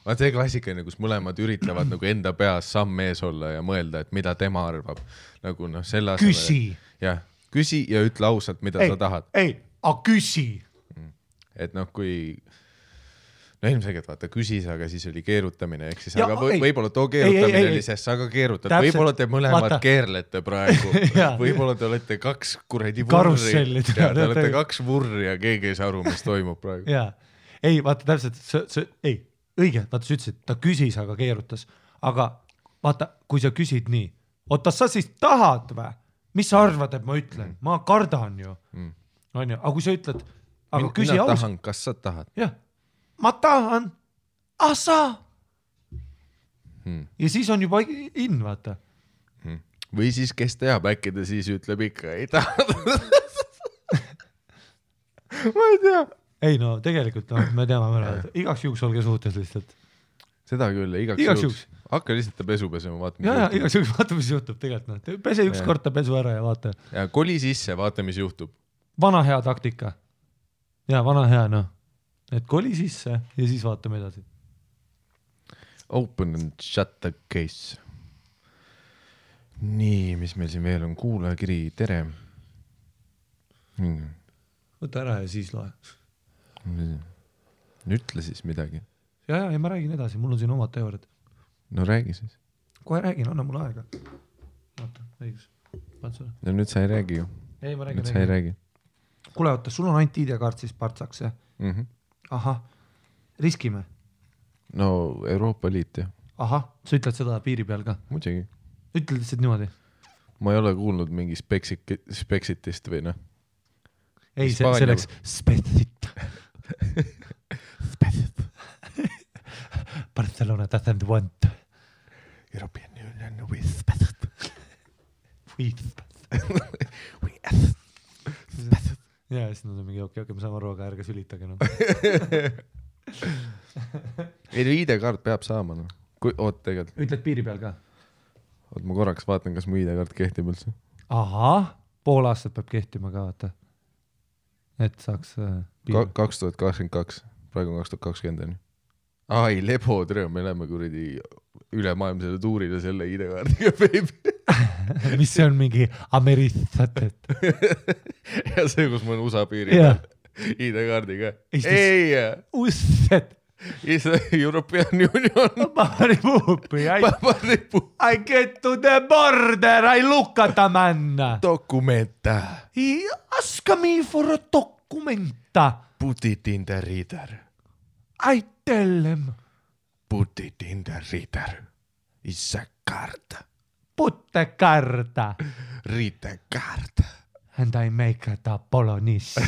see klassikaline, kus mõlemad üritavad nagu enda peas samm ees olla ja mõelda, et mida tema arvab. Nagu selle asemel. Küsi. Jah, küsi ja ütle ausalt, mida sa tahad. Küsi. Et kui ilmselgelt vaata küsis, aga siis oli keerutamine, ehk siis, aga võib-olla too keerutamine oli sest, aga keerutad. Võib-olla te mõlemad keerlete praegu. Võib-olla te olete 2 kuradi vurri. Te olete 2 vurri ja keegi ei saa aru, mis toimub praegu. Ei, vaata täpselt, õige, vaata sa ütlesid, ta küsis, aga keerutas. Aga vaata, kui sa küsid nii, oota, sa siis tahad või? Mis sa arvad, et ma ütlen? Ma kardan ju. Aga kui sa ütled, aga küsi mina tahan, kas sa tahad? Jah, ma tahan, sa. Ja siis on juba in, vaata. Või siis, kes teab, äkki ta siis ütleb ikka, ei taha. Ma ei tea. Ei tegelikult me teame mõne, igaks juhuks olge suhtes lihtsalt. Seda küll, igaks juhuks. Hakka lihtsalt ta pesu pesema, vaata. Ja, igaks juhuks vaata, mis juhtub tegelikult. Pese üks kord ta pesu ära ja vaata. Ja koli sisse, vaata, mis juhtub. Vana hea taktika. Ja, vana hea, Et koli sisse ja siis vaatame edasi. Open and shut the case. Nii, mis meil siin veel on? Kuulajakiri, tere. Võta ära ja siis loe. Ütle siis midagi. Ja ma räägin edasi, mul on siin omad teooriad. No räägi siis. Kohe räägin, anna mulle aega. Vaata, õigus. No nüüd sa ei räägi ju. Ei, ma räägin. Nüüd sa ei räägi. Kuule, oota, sul on ainult ID-kaart siis partsaks, jah? Ahah, riskime? No Euroopa Liit, jah. Ahah, sa ütled seda piiri peal ka? Muidugi. Ütled lihtsalt niimoodi? Ma ei ole kuulnud mingi Spexitist või Ei, see läks Spexit. Barcelona doesn't want European Union with Spexit. Ja, siis nad on mingi okei, me saame aru, aga ärge sülitage. Ei, ID-kaart peab saama. Oot, tegelikult. Ütled piiri peal ka? Oot, ma korraks vaatan, kas mu ID-kaart kehtib üldse. Ahah, pool aastat peab kehtima ka, vaata. Et saaks 2022, praegu on 2020. Ai, lebo, tere, me läheme kuradi ülemaailmsele tuurile selle ID-kaardiga, baby. Mis see on mingi Ameritsatet? Ja see, kus ma olen USA piiri peal ID-kaardiga. Ei! Usset! Is European Union. I get to the border, I look at a man. Dokumenta. He ask me for a documenta. Put it in the reader. I tell him. Put it in the reader. It's a card. Put the card. Read the card. And I make it a Bolognese.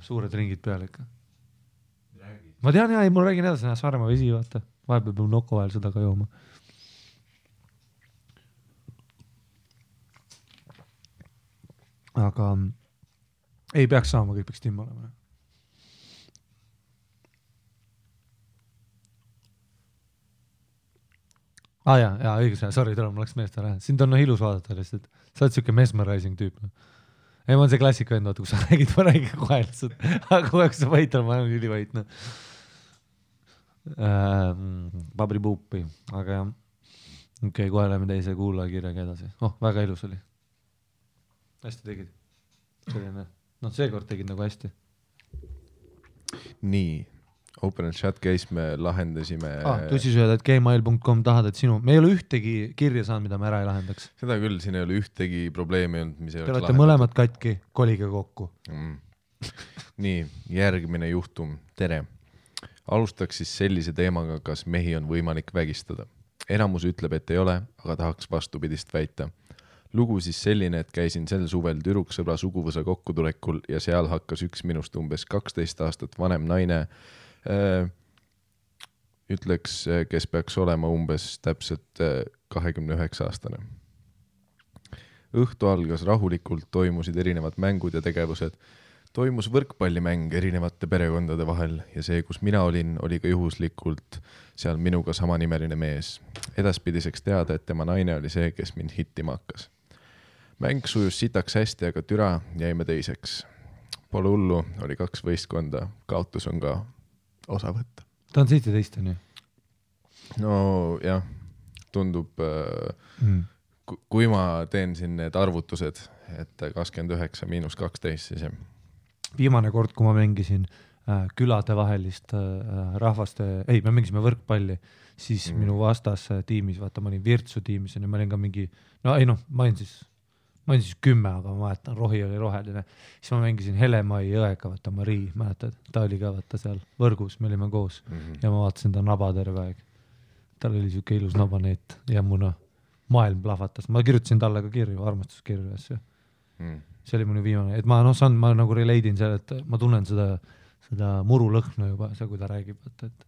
Suured ringid peal ikka. Ma tean, ja mul räägin edasi, Saaremaa vesi, vaata. Vahepeal peab noko vahel seda ka jooma. Aga Ei peaks saama, kõik peaks timm olema. Jaa, õigus, sorry, tule, mul läks meest ära. Sind on ilus vaadata lihtsalt. Sa oled siuke mesmerizing tüüp. Ei, ma on see klassika vend, vaata, kui sa räägid, ma räägin kohe lihtsalt. Aga kohe, kui sa vait on, ma olen ülivait. Babri puupi, aga jah. Okei, kohe läheme teise kuulajakirjaga edasi. Väga ilus oli. Hästi tegid. Selline, seekord tegid nagu hästi. Nii. Open Chat Case me lahendasime tussisööd@gmail.com tahad, et sinu me ei ole ühtegi kirja saanud, mida me ära ei lahendaks. Seda küll, siin ei ole ühtegi probleemi olnud, mis ei oleks lahendatud. Te olete mõlemad katki, kolige kokku. Nii, järgmine juhtum. Tere. Alustaks siis sellise teemaga, kas mehi on võimalik vägistada. Enamus ütleb, et ei ole, aga tahaks vastupidist väita. Lugu siis selline, et käisin sel suvel tüdruksõbra suguvõsa kokkutulekul ja seal hakkas üks minust umbes 12 aastat vanem naine ütleks, kes peaks olema umbes täpselt 29-aastane. Õhtu algas rahulikult, toimusid erinevad mängud ja tegevused. Toimus võrkpallimäng erinevate perekondade vahel ja see, kus mina olin, oli ka juhuslikult seal minuga samanimeline mees. Edaspidiseks teada, et tema naine oli see, kes mind hittima hakkas. Mäng sujus sitaks hästi, aga türa jäime teiseks. Pole hullu, oli 2 võistkonda, kaotus on ka osa võtta. Ta on 17, on ju? No jah, tundub, kui ma teen siin need arvutused, et 29 miinus 12, siis jah. Viimane kord, kui ma mängisin külade vahelist rahvaste, me mängisime võrkpalli, siis minu vastas tiimis, vaata, ma olin Virtsu tiimis ja ma olin ka mingi, ma olin siis 10, aga ma mäletan, rohi oli roheline. Siis ma mängisin Helemai jõega, vaata Marii, mäletad, ta oli ka vaata seal võrgus, me olime koos ja ma vaatasin ta naba terve aeg. Tal oli siuke ilus nabaneet ja muna maailm plahvatas. Ma kirjutasin talle ka kirju, armastuskirju asju. See oli minu viimane, et ma nagu relate'in seal, et ma tunnen seda murulõhna juba, see, kui ta räägib, et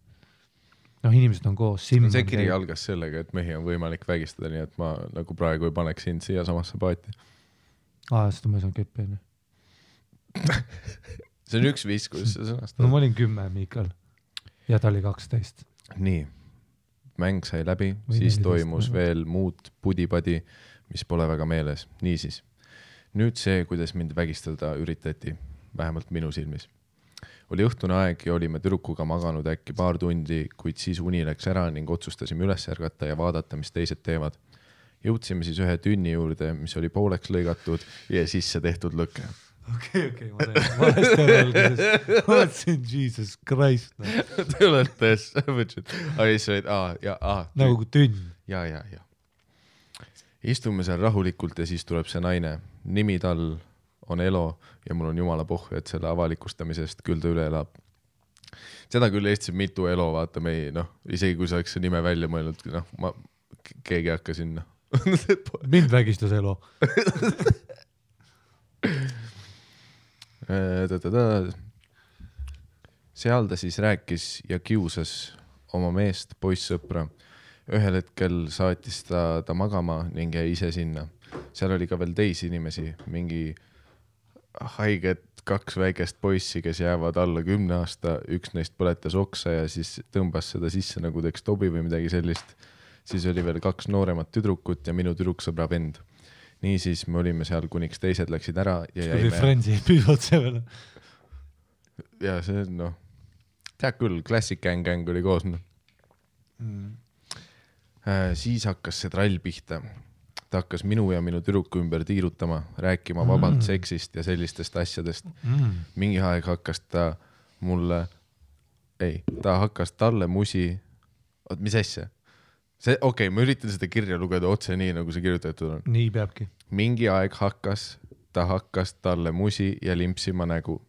inimesed on koos. See kiri algas sellega, et mehi on võimalik vägistada, nii et ma nagu praegu ei paneks sind siia samasse paati. Seda ma ei saanud keppi, enne. See on üks viis, kuidas see sõnastab. No ma olin 10, Miikal. Ja ta oli 12. Nii. Mäng sai läbi, siis toimus veel muud pudipadi, mis pole väga meeles. Niisiis. Nüüd see, kuidas mind vägistada üritati, vähemalt minu silmis. Oli õhtune aeg ja olime tüdrukuga maganud äkki paar tundi, kuid siis uni läks ära ning otsustasime üles ärgata ja vaadata, mis teised teevad. Jõudsime siis ühe tünni juurde, mis oli pooleks lõigatud ja sisse tehtud lõke. Okei, ma valesti ära alguses. Ma mõtlesin, Jesus Christ. Te olete, nagu kui tünn. Ja. Istume seal rahulikult ja siis tuleb see naine. Nimi tal on Elo ja mul on jumala pohhu, et selle avalikustamisest küll ta üle elab. Seda küll Eestis mitu Elo, vaata me ei, isegi kui sa oleks see nime välja mõelnud, keegi hakka sinna. Mind vägistas Elo. Seal ta siis rääkis ja kiusas oma meest, poissõpra. Ühel hetkel saatis ta magama ning jäi ise sinna. Seal oli ka veel teisi inimesi, mingi haiget 2 väikest poissi, kes jäävad alla 10 aasta, üks neist põletas oksa ja siis tõmbas seda sisse nagu teeks tobi või midagi sellist. Siis oli veel 2 nooremat tüdrukut ja minu tüdruksõbra vend. Niisiis me olime seal, kuniks teised läksid ära ja jäime... Kui Friendsi püüdvad see veel. Ja see, tead küll, Classic Gang oli koos. Siis hakkas see trall pihta. Ta hakkas minu ja minu tüdruku ümber tiirutama, rääkima vabalt seksist ja sellistest asjadest. Mingi aeg hakkas ta mulle... ta hakkas talle musi... mis asja? Ma üritan seda kirja lugeda otse nii, nagu see kirjutatud on. Nii peabki. Mingi aeg ta hakkas talle musi ja limpsima nägu.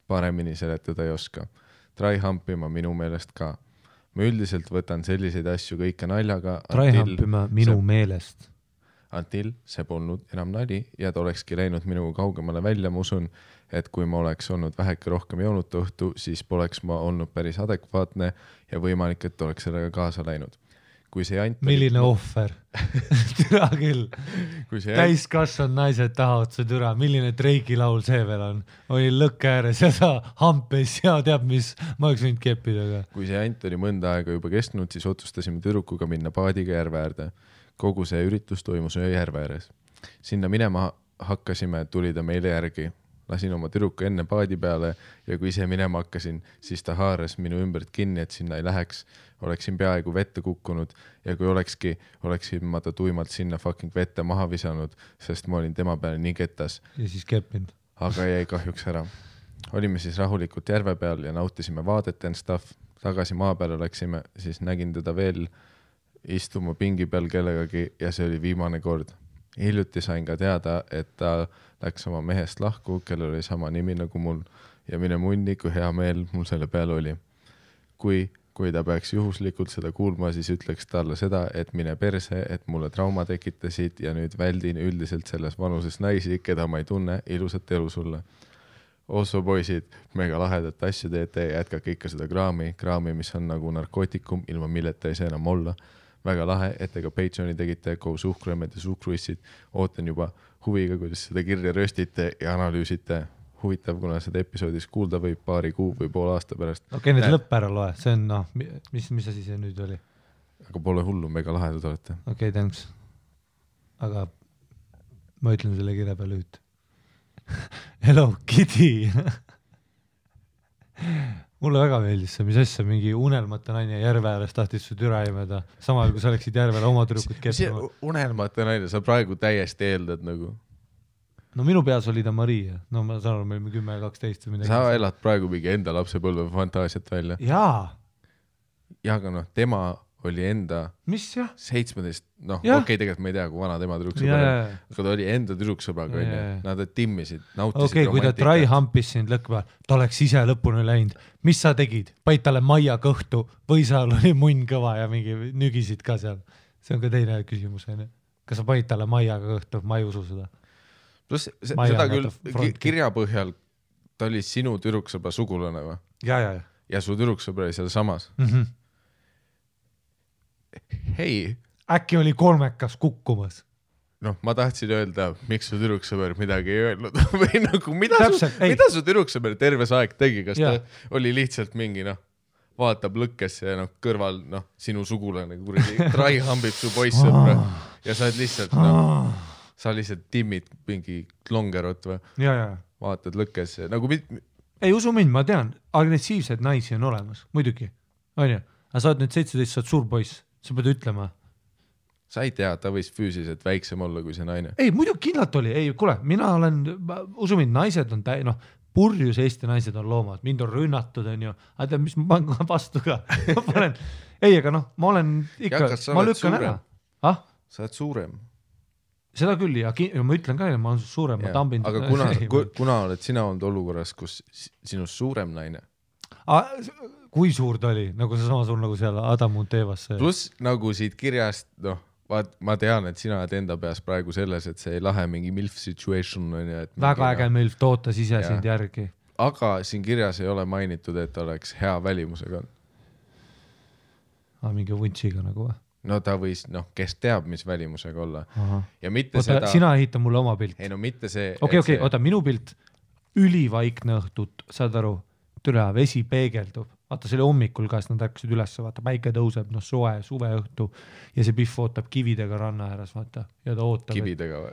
Paremini seletada ei oska. Tryhumpima minu meelest ka. Ma üldiselt võtan selliseid asju kõike naljaga. Tryhumpima minu meelest. Until see polnud enam nali ja ta olekski läinud minuga kaugemale välja. Ma usun, et kui ma oleks olnud väheke rohkem joonud õhtu, siis poleks ma olnud päris adekvaatne ja võimalik, et oleks sellega kaasa läinud. kui see jant milline ohver türa küll täiskasvanud naised tahavad see türa milline Drake'i laul see veel on oli lõkke ääres ja sa hampes ja teab mis ma oleks võinud keppida ka kui see jant oli mõnda aega juba kestnud siis otsustasime tüdrukuga minna paadiga järve äärde kogu see üritus toimus ühe järve ääres sinna minema hakkasime tuli ta meile järgi lasin oma tüdruku enne paadi peale ja kui ise minema hakkasin, siis ta haaras minu ümbert kinni, et sinna ei läheks. Oleksin peaaegu vette kukkunud ja kui oleksin ma ta tuimalt sinna fucking vette maha visanud, sest ma olin tema peale nii ketas. Ja siis keppinud. Aga jäi kahjuks ära. Olime siis rahulikult järve peal ja nautisime vaadet and stuff. Tagasi maa peale läksime, siis nägin teda veel istuma pingi peal kellegagi ja see oli viimane kord. Hiljuti sain ka teada, et ta läks oma mehest lahku, kellel oli sama nimi nagu mul ja mine munni, kui hea meel mul selle peale oli. Kui ta peaks juhuslikult seda kuulma, siis ütleks talle seda, et mine perse, et mulle trauma tekitasid ja nüüd väldin üldiselt selles vanuses naisi, keda ma ei tunne, ilusat elu sulle. Osso poisid, mega lahedat asju teete ja jätkake ikka seda kraami, mis on nagu narkootikum, ilma milleta ei saa enam olla. Väga lahe, et ega Patreoni tegite koos suhkruemmed ja suhkruissid. Ootan juba huviga, kuidas seda kirja röstite ja analüüsite. Huvitav, kuna seda episoodis kuulda võib paari kuu või pool aasta pärast. Okei, nüüd lõpp ära loe. See on, mis asi see nüüd oli? Aga pole hullu, mega lahedad olete. Okei, thanks. Aga ma ütlen selle kirja peale üht. Hello, Kitty! Mulle väga meeldis see, mis asja mingi unelmate naine järve ääres tahtis su türa imeda, samal kui sa oleksid järvele oma tüdrukut keppima. Unelmate naine, sa praegu täiesti eeldad nagu. No minu peas oli ta Maria, no ma saan aru, meil 10-12 või midagi. Sa elad praegu mingi enda lapsepõlve fantaasiat välja. Jaa. Ja aga noh, tema oli enda mis jah? 17, okei, tegelikult ma ei tea, kui vana tema tüdruksõber, aga ta oli enda tüdruksõbraga, nad timmisid, nautisid romantikat. Kui ta try hampis sind lõkva, ta oleks ise lõpuni läinud. Mis sa tegid? Paid talle maia kõhtu või sa oli munn kõva ja mingi nügisid ka seal? See on ka teine küsimus. Kas sa paid talle maiaga kõhtu? Ma ei usu seda. Plus seda küll kirja põhjal ta oli sinu tüdruksõbra sugulane või? Ja su tüdruksõbra oli seal samas? Hei. Äkki oli kolmekas kukkumas? Noh, ma tahtsin öelda, miks su tüdruksõber midagi ei öelnud. Või nagu, mida su tüdruksõber terves aeg tegi? Kas ta oli lihtsalt mingi, vaatab lõkkesse ja kõrval, sinu sugulane kuradi trai hambib su poissõbra ja sa lihtsalt, sa lihtsalt timmid mingi longerot või? Vaatad lõkkesse. Ei usu mind, ma tean, agressiivsed naisi on olemas, muidugi. On ju? Aga sa oled nüüd 17, sa oled suur poiss. Sa pead ütlema. Sa ei tea, ta võis füüsiliselt väiksem olla kui see naine. Ei, muidu kindlalt oli. Ei, kuule, mina olen, usu mind, naised on purjus Eesti naised on loomad. Mind on rünnatud, on ju. Aga tead, mis ma panen vastu ka? Ei, aga ma olen ikka, ma lükkan ära. Sa oled suurem. Seda küll, ja ma ütlen ka, ma olen suurem, ma tambin. Aga kuna oled sina olnud olukorras, kus sinust suurem naine? Kui suur ta oli, nagu see sama suur nagu seal Adam Muntevas. Plus nagu siit kirjast, ma tean, et sina oled enda peas praegu selles, et see ei lahe mingi MILF situation. Väga äge MILF tootas ise sind järgi. Aga siin kirjas ei ole mainitud, et oleks hea välimusega. Mingi vuntsiga nagu või? No ta võis, kes teab, mis välimusega olla. Ja mitte seda... Sina ehita mulle oma pilt. Ei, mitte see... Okei, oota, minu pilt ülivaikne õhtut, saad aru, türa, vesi peegeldub. Vaata, see oli hommikul ka, nad ärkasid üles, vaata, päike tõuseb, suve õhtu ja see pihv ootab kividega ranna ääres, vaata, ja ta ootab. Kividega või?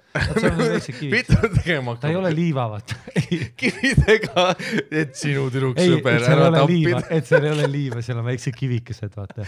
Ta ei ole liiva, vaata. Kividega, et sinu tüdruksõber ära tappida. Et seal ei ole liiva, seal on väikse kivikesed, vaata.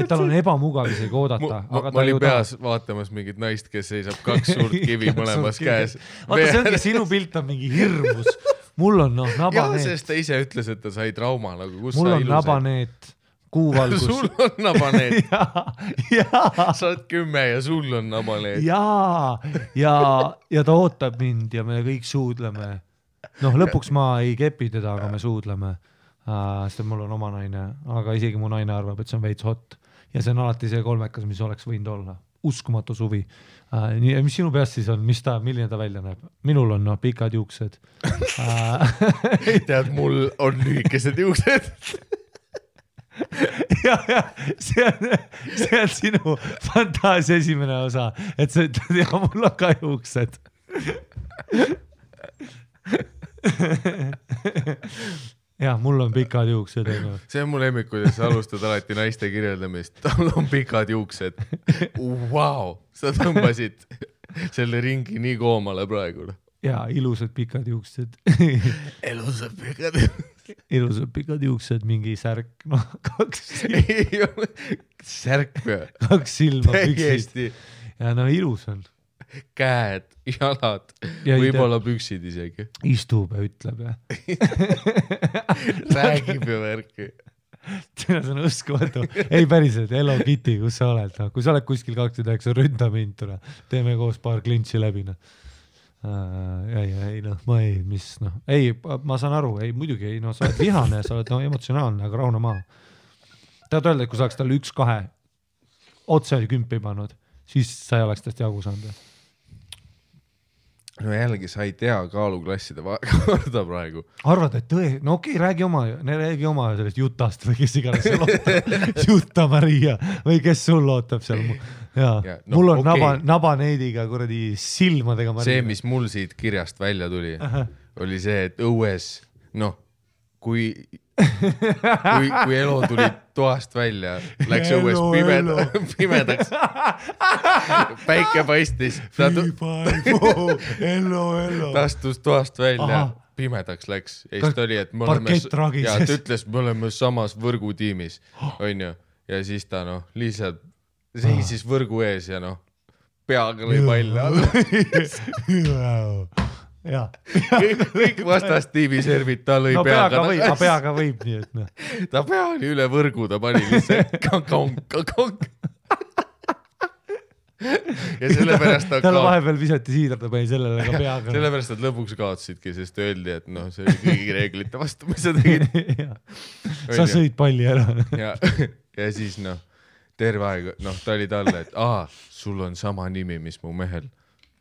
Et tal on ebamugav isegi oodata. Ma olin peas vaatamas mingit naist, kes seisab 2 suurt kivi mõlemas käes. Vaata, see ongi sinu pilt on mingi hirmus. Mul on nabaneet. Sest ta ise ütles, et ta sai trauma. Mul on nabaneet, kuuvalgus. Sul on nabaneet. Sa oled 10 ja sul on nabaneet. Ja ta ootab mind ja me kõik suudleme. Lõpuks ma ei kepi teda, aga me suudleme. Sest mul on oma naine, aga isegi mu naine arvab, et see on veits hot. Ja see on alati see kolmekas, mis oleks võinud olla. Uskumatu suvi. Mis sinu peast siis on? Milline ta välja näeb? Minul on pikad juuksed. Tead, mul on lühikesed juuksed. ja see on sinu fantaasia esimene osa, et sa ütled, ja mul on ka juuksed. Ja, mul on pikad juuksed. See on mu lemmik, kuidas sa alustad alati naiste kirjeldamist. Tal on pikad juuksed. Wow, sa tõmbasid selle ringi nii koomale praegu. Ja, ilusad pikad juuksed. Ilusad pikad juuksed, mingi särk, noh, 2 särk või? 2 silma püksid. Ja no ilus on. Käed, jalad, võib-olla püksid isegi. Istub ja ütleb ja. Räägib ja värki. See on uskumatu. Ei päriselt, Hello Kitty, kus sa oled? No, kui sa oled kuskil 29, ründa mind tule. Teeme koos paar klintsi läbi. No. Ei, noh, ma ei, mis, noh. Ei, ma saan aru, ei, muidugi ei, no sa oled vihane, sa oled no, emotsionaalne, aga rahuna maa. Tahad öelda, et kui sa oleks talle 1-2 otse 10 pannud, siis sa ei oleks tast jagu saanud. No jällegi, sa ei tea kaaluklasside korda praegu. Arvad, et no okei, räägi oma sellest Jutast või kes iganes seal ootab. Jutta Maria või kes sul ootab seal. Ja, no, mul on nabaneidiga kuradi silmadega Maria. See, mis mul siit kirjast välja tuli, oli see, et õues, noh, kui Elo tuli toast välja, läks õues pimedaks, päike paistis, ta astus toast välja, pimedaks läks, ja siis ta oli, et ta ütles, me oleme samas võrgutiimis, on ju, ja siis ta noh, lihtsalt seisis võrgu ees ja noh, peaga lõi palle alla. Ja. kõik vastastiivi servid, ta lõi peaga. Peaga võib nii, et noh. Ta pea oli üle võrgu, ta pani lihtsalt kong. Ja sellepärast tal vahepeal visati siidra, ta pani sellele ka peaga. Sellepärast nad lõpuks kaotsidki, sest öeldi, et noh, see oli kõigi reeglite vastu, mis sa tegid. Sa sõid palli ära. Ja siis noh, terve aeg, noh, ta oli talle, et sul on sama nimi, mis mu mehel.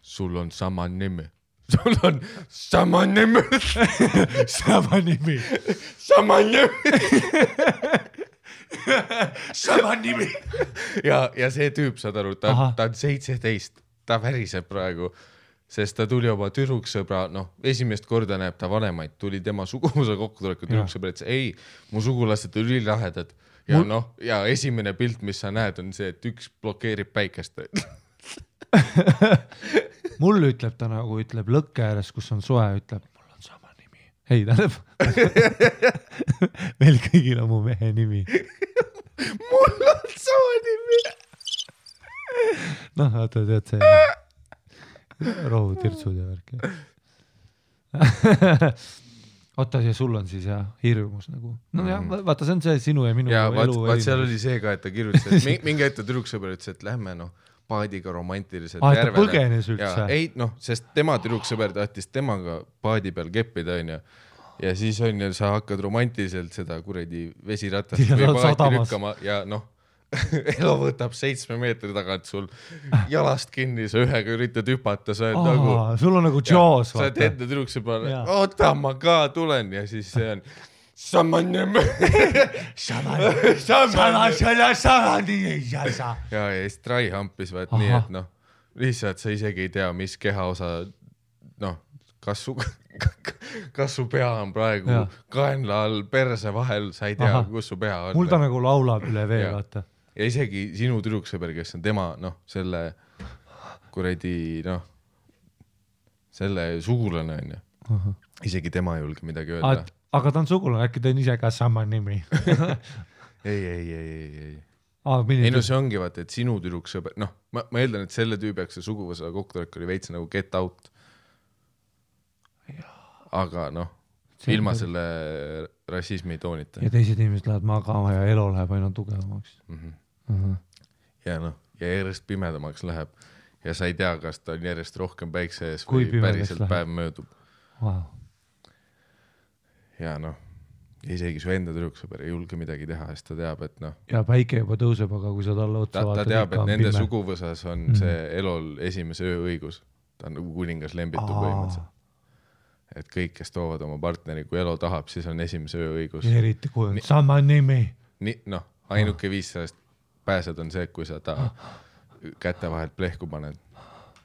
Sul on sama nimi. Sul on sama nimi. Sama nimi. Sama nimi. Sama nimi. Ja see tüüp, saad aru, ta on 17, ta väriseb praegu, sest ta tuli oma tüdruksõbra, noh, esimest korda näeb ta vanemaid, tuli tema suguvõsa kokkutuleku tüdruksõbra, et ei, mu sugulased on ülilahedad. Ja noh, ja esimene pilt, mis sa näed, on see, et üks blokeerib päikest. Mul ütleb ta nagu, ütleb lõkke ääres, kus on soe, ütleb, mul on sama nimi. Ei, tähendab. Meil kõigil on mu mehe nimi. Mul on sama nimi. Noh, vaata, tead see rohutirtsud ja värk. Oota, ja sul on siis jah, hirmus nagu. No jah, vaata, see on see sinu ja minu elu. Vaat seal oli see ka, et ta kirjutas, et mingi ette tüdruksõber ütles, et lähme noh, paadiga romantiliselt järvele. Ta põgenes üldse. Ei, noh, sest tema tüdruksõber tahtis temaga paadi peal keppida, on ju. Ja siis on ju, sa hakkad romantiliselt seda kuredi vesiratast või paati lükkama ja noh, Elo võtab 7 meetri tagant sul jalast kinni, sa ühega üritad hüpata, sa oled nagu... Sul on nagu Jaws, vaata. Sa oled enda tüdruksõber, oota, ma ka tulen ja siis see on... Sama nimi. Ja siis Trai hampis vaat nii, et noh, lihtsalt sa isegi ei tea, mis kehaosa, noh, kas su pea on praegu kaenla all, perse vahel, sa ei tea, kus su pea on. Mul ta nagu laulab üle vee, vaata. Ja isegi sinu tüdruksõber, kes on tema, noh, selle kuredi, noh, selle sugulane on ju. Isegi tema ei julge midagi öelda. Aga ta on sugulane, äkki ta on ise ka sama nimi. Ei. Ei no see ongi vaata, et sinu tüdruksõber, noh, ma eeldan, et selle tüübiaks see suguvõsa kokkutulek oli veits nagu get out. Aga noh, ilma selle rassismi toonita. Ja teised inimesed lähevad magama ja Elo läheb aina tugevamaks. Ja noh, ja järjest pimedamaks läheb ja sa ei tea, kas ta on järjest rohkem päikse ees või päriselt päev möödub. Ja noh, isegi su enda tüdruksõber ei julge midagi teha, sest ta teab, et noh... Ja päike juba tõuseb, aga kui sa talle otsa vaatad... Ta teab, et nende suguvõsas on see Elol esimese ööõigus. Ta on nagu kuningas lembitu põhimõtteliselt. Et kõik, kes toovad oma partneri, kui Elo tahab, siis on esimese ööõigus. Eriti kui on sama nimi. ainuke viis sellest pääsed on see, kui sa ta käte vahelt plehku paned.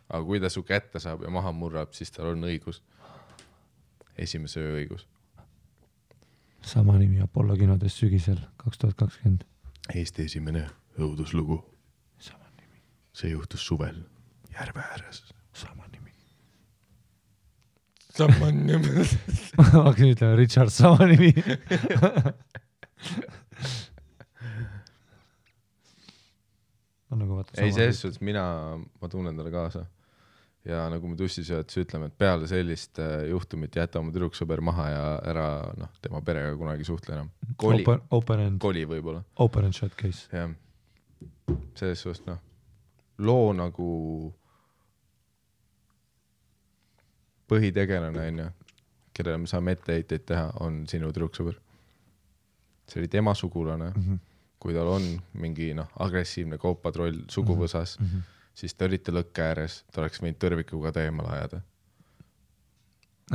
Aga kui ta su kätte saab ja maha murrab, siis tal on õigus. Esimese öö õigus. Sama nimi Apollo kinodes sügisel 2020. Eesti esimene õuduslugu. Sama nimi. See juhtus suvel järve ääres. Sama nimi. Sama nimi. Ma hakkasin ütlema Richard, sama nimi. Nagu ei, selles suhtes ma tunnen talle kaasa. Ja nagu me tussisöödes ütleme, et peale sellist juhtumit jäta oma tüdruksõber maha ja ära tema perega kunagi suhtle enam. Koli võib-olla. Open and shut case. Ja. Selles suhtes, loo nagu põhitegelane, kellele me saame etteheiteid teha, on sinu tüdruksõber. See oli tema sugulane. Kui tal on mingi agressiivne kaupatroll suguvõsas, siis te olite lõkke ääres, ta oleks võinud tõrvikuga teemale ajada.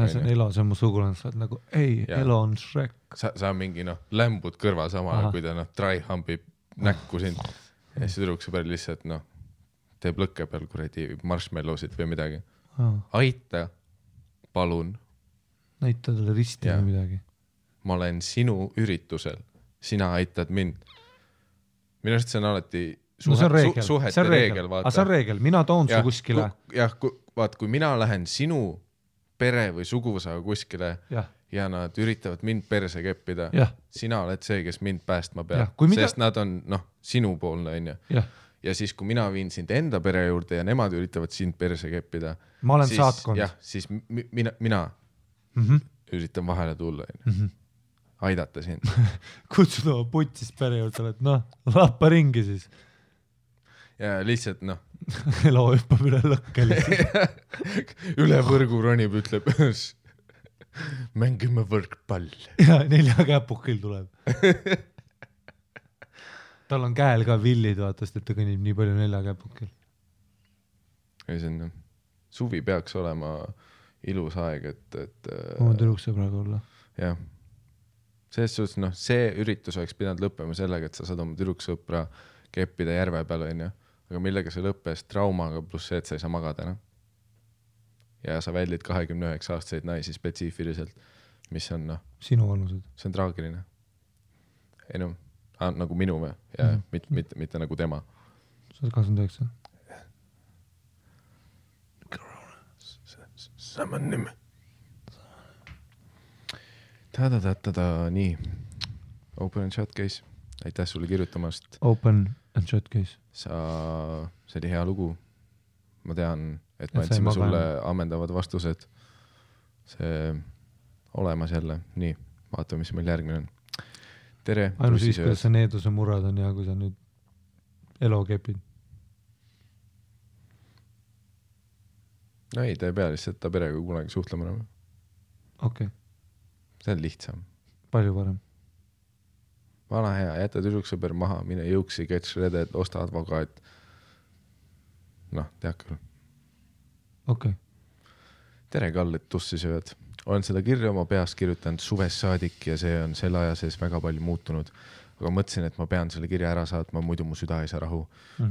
See on Elo, see on mu sugulane, sa oled nagu, ei, ja. Elo on Shrek. Sa mingi lämbud kõrva samale, kui ta dry-humpib näkku sind. Ja siis tüdruksõber lihtsalt teeb lõkke peal kuradi marshmallowsid või midagi. Aita, palun. Näita talle risti või midagi. Ma olen sinu üritusel, sina aitad mind. Minu arust see on alati suhete reegel. Aga see on reegel, mina toon su kuskile. Kui mina lähen sinu pere või suguvõsaga kuskile ja nad üritavad mind perse keppida, sina oled see, kes mind päästma peab, sest nad on sinupoolne. Ja siis, kui mina viin sind enda pere juurde ja nemad üritavad sind perse keppida, ma olen saatkond. Siis mina üritan vahele tulla. Aidata sind. Kutsud oma putsis pere juurde, et lappa ringi siis. Ja lihtsalt Elo hüppab üle lõkke lihtsalt. Üle võrgu ronib, ütleb mängime võrkpall. Ja 4 käpukil tuleb. Tal on käel ka villid, vaatast, et ta kõnnib nii palju 4 käpukil. Suvi peaks olema ilus aeg, et oma tüdruksõbraga olla. Jah. Selles suhtes, see üritus oleks pidanud lõppema sellega, et sa saad oma tüdruksõpra keppida järve peal, aga millega see lõppes traumaga pluss see, et sa ei saa magada. Ja sa väldid 29-aastaseid naisi spetsiifiliselt, mis on sinu vanused. See on traagiline. Ei nagu minu või? Ja mitte nagu tema. Sa oled 29? Sama nimi. Nii. Open and shut case. Aitäh sulle kirjutamast. Open and shut case. See oli hea lugu. Ma tean, et ma andsime sulle ammendavad vastused. See olemas jälle. Nii, vaatame, mis meil järgmine on. Tere. Ainus siis, kuidas see needuse murrad on ja kui sa nüüd Elo kepid. Ei, ta ei pea lihtsalt ta perega kunagi suhtlema. Okei. See on lihtsam. Palju parem. Vana hea, jäta tüdruksõber maha, mine jõuksi, get shredded, osta advokaat. Tead küll. Okei. Tere, Kall, et tussi sööd. Olen seda kirja oma peast kirjutanud suvest saadik ja see on selle aja sees väga palju muutunud. Aga mõtlesin, et ma pean selle kirja ära saatma, muidu mu süda ei saa rahu.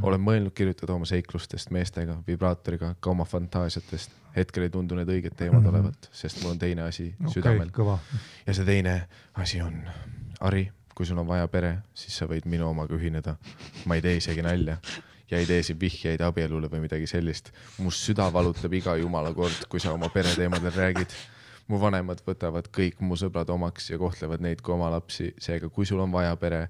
Olen mõelnud kirjutada oma seiklustest meestega, vibraatoriga, ka oma fantaasiatest. Hetkel ei tundu need õiged teemad olevat, sest mul on teine asi südamel. Kõva. Ja see teine asi on, Ari, kui sul on vaja pere, siis sa võid minu omaga ühineda. Ma ei tee isegi nalja ja ei tee siin vihjeid abielule või midagi sellist. Mu süda valutab iga jumala kord, kui sa oma pere teemadel räägid. Mu vanemad võtavad kõik mu sõbrad omaks ja kohtlevad neid kui oma lapsi. Seega, kui sul on vaja pere,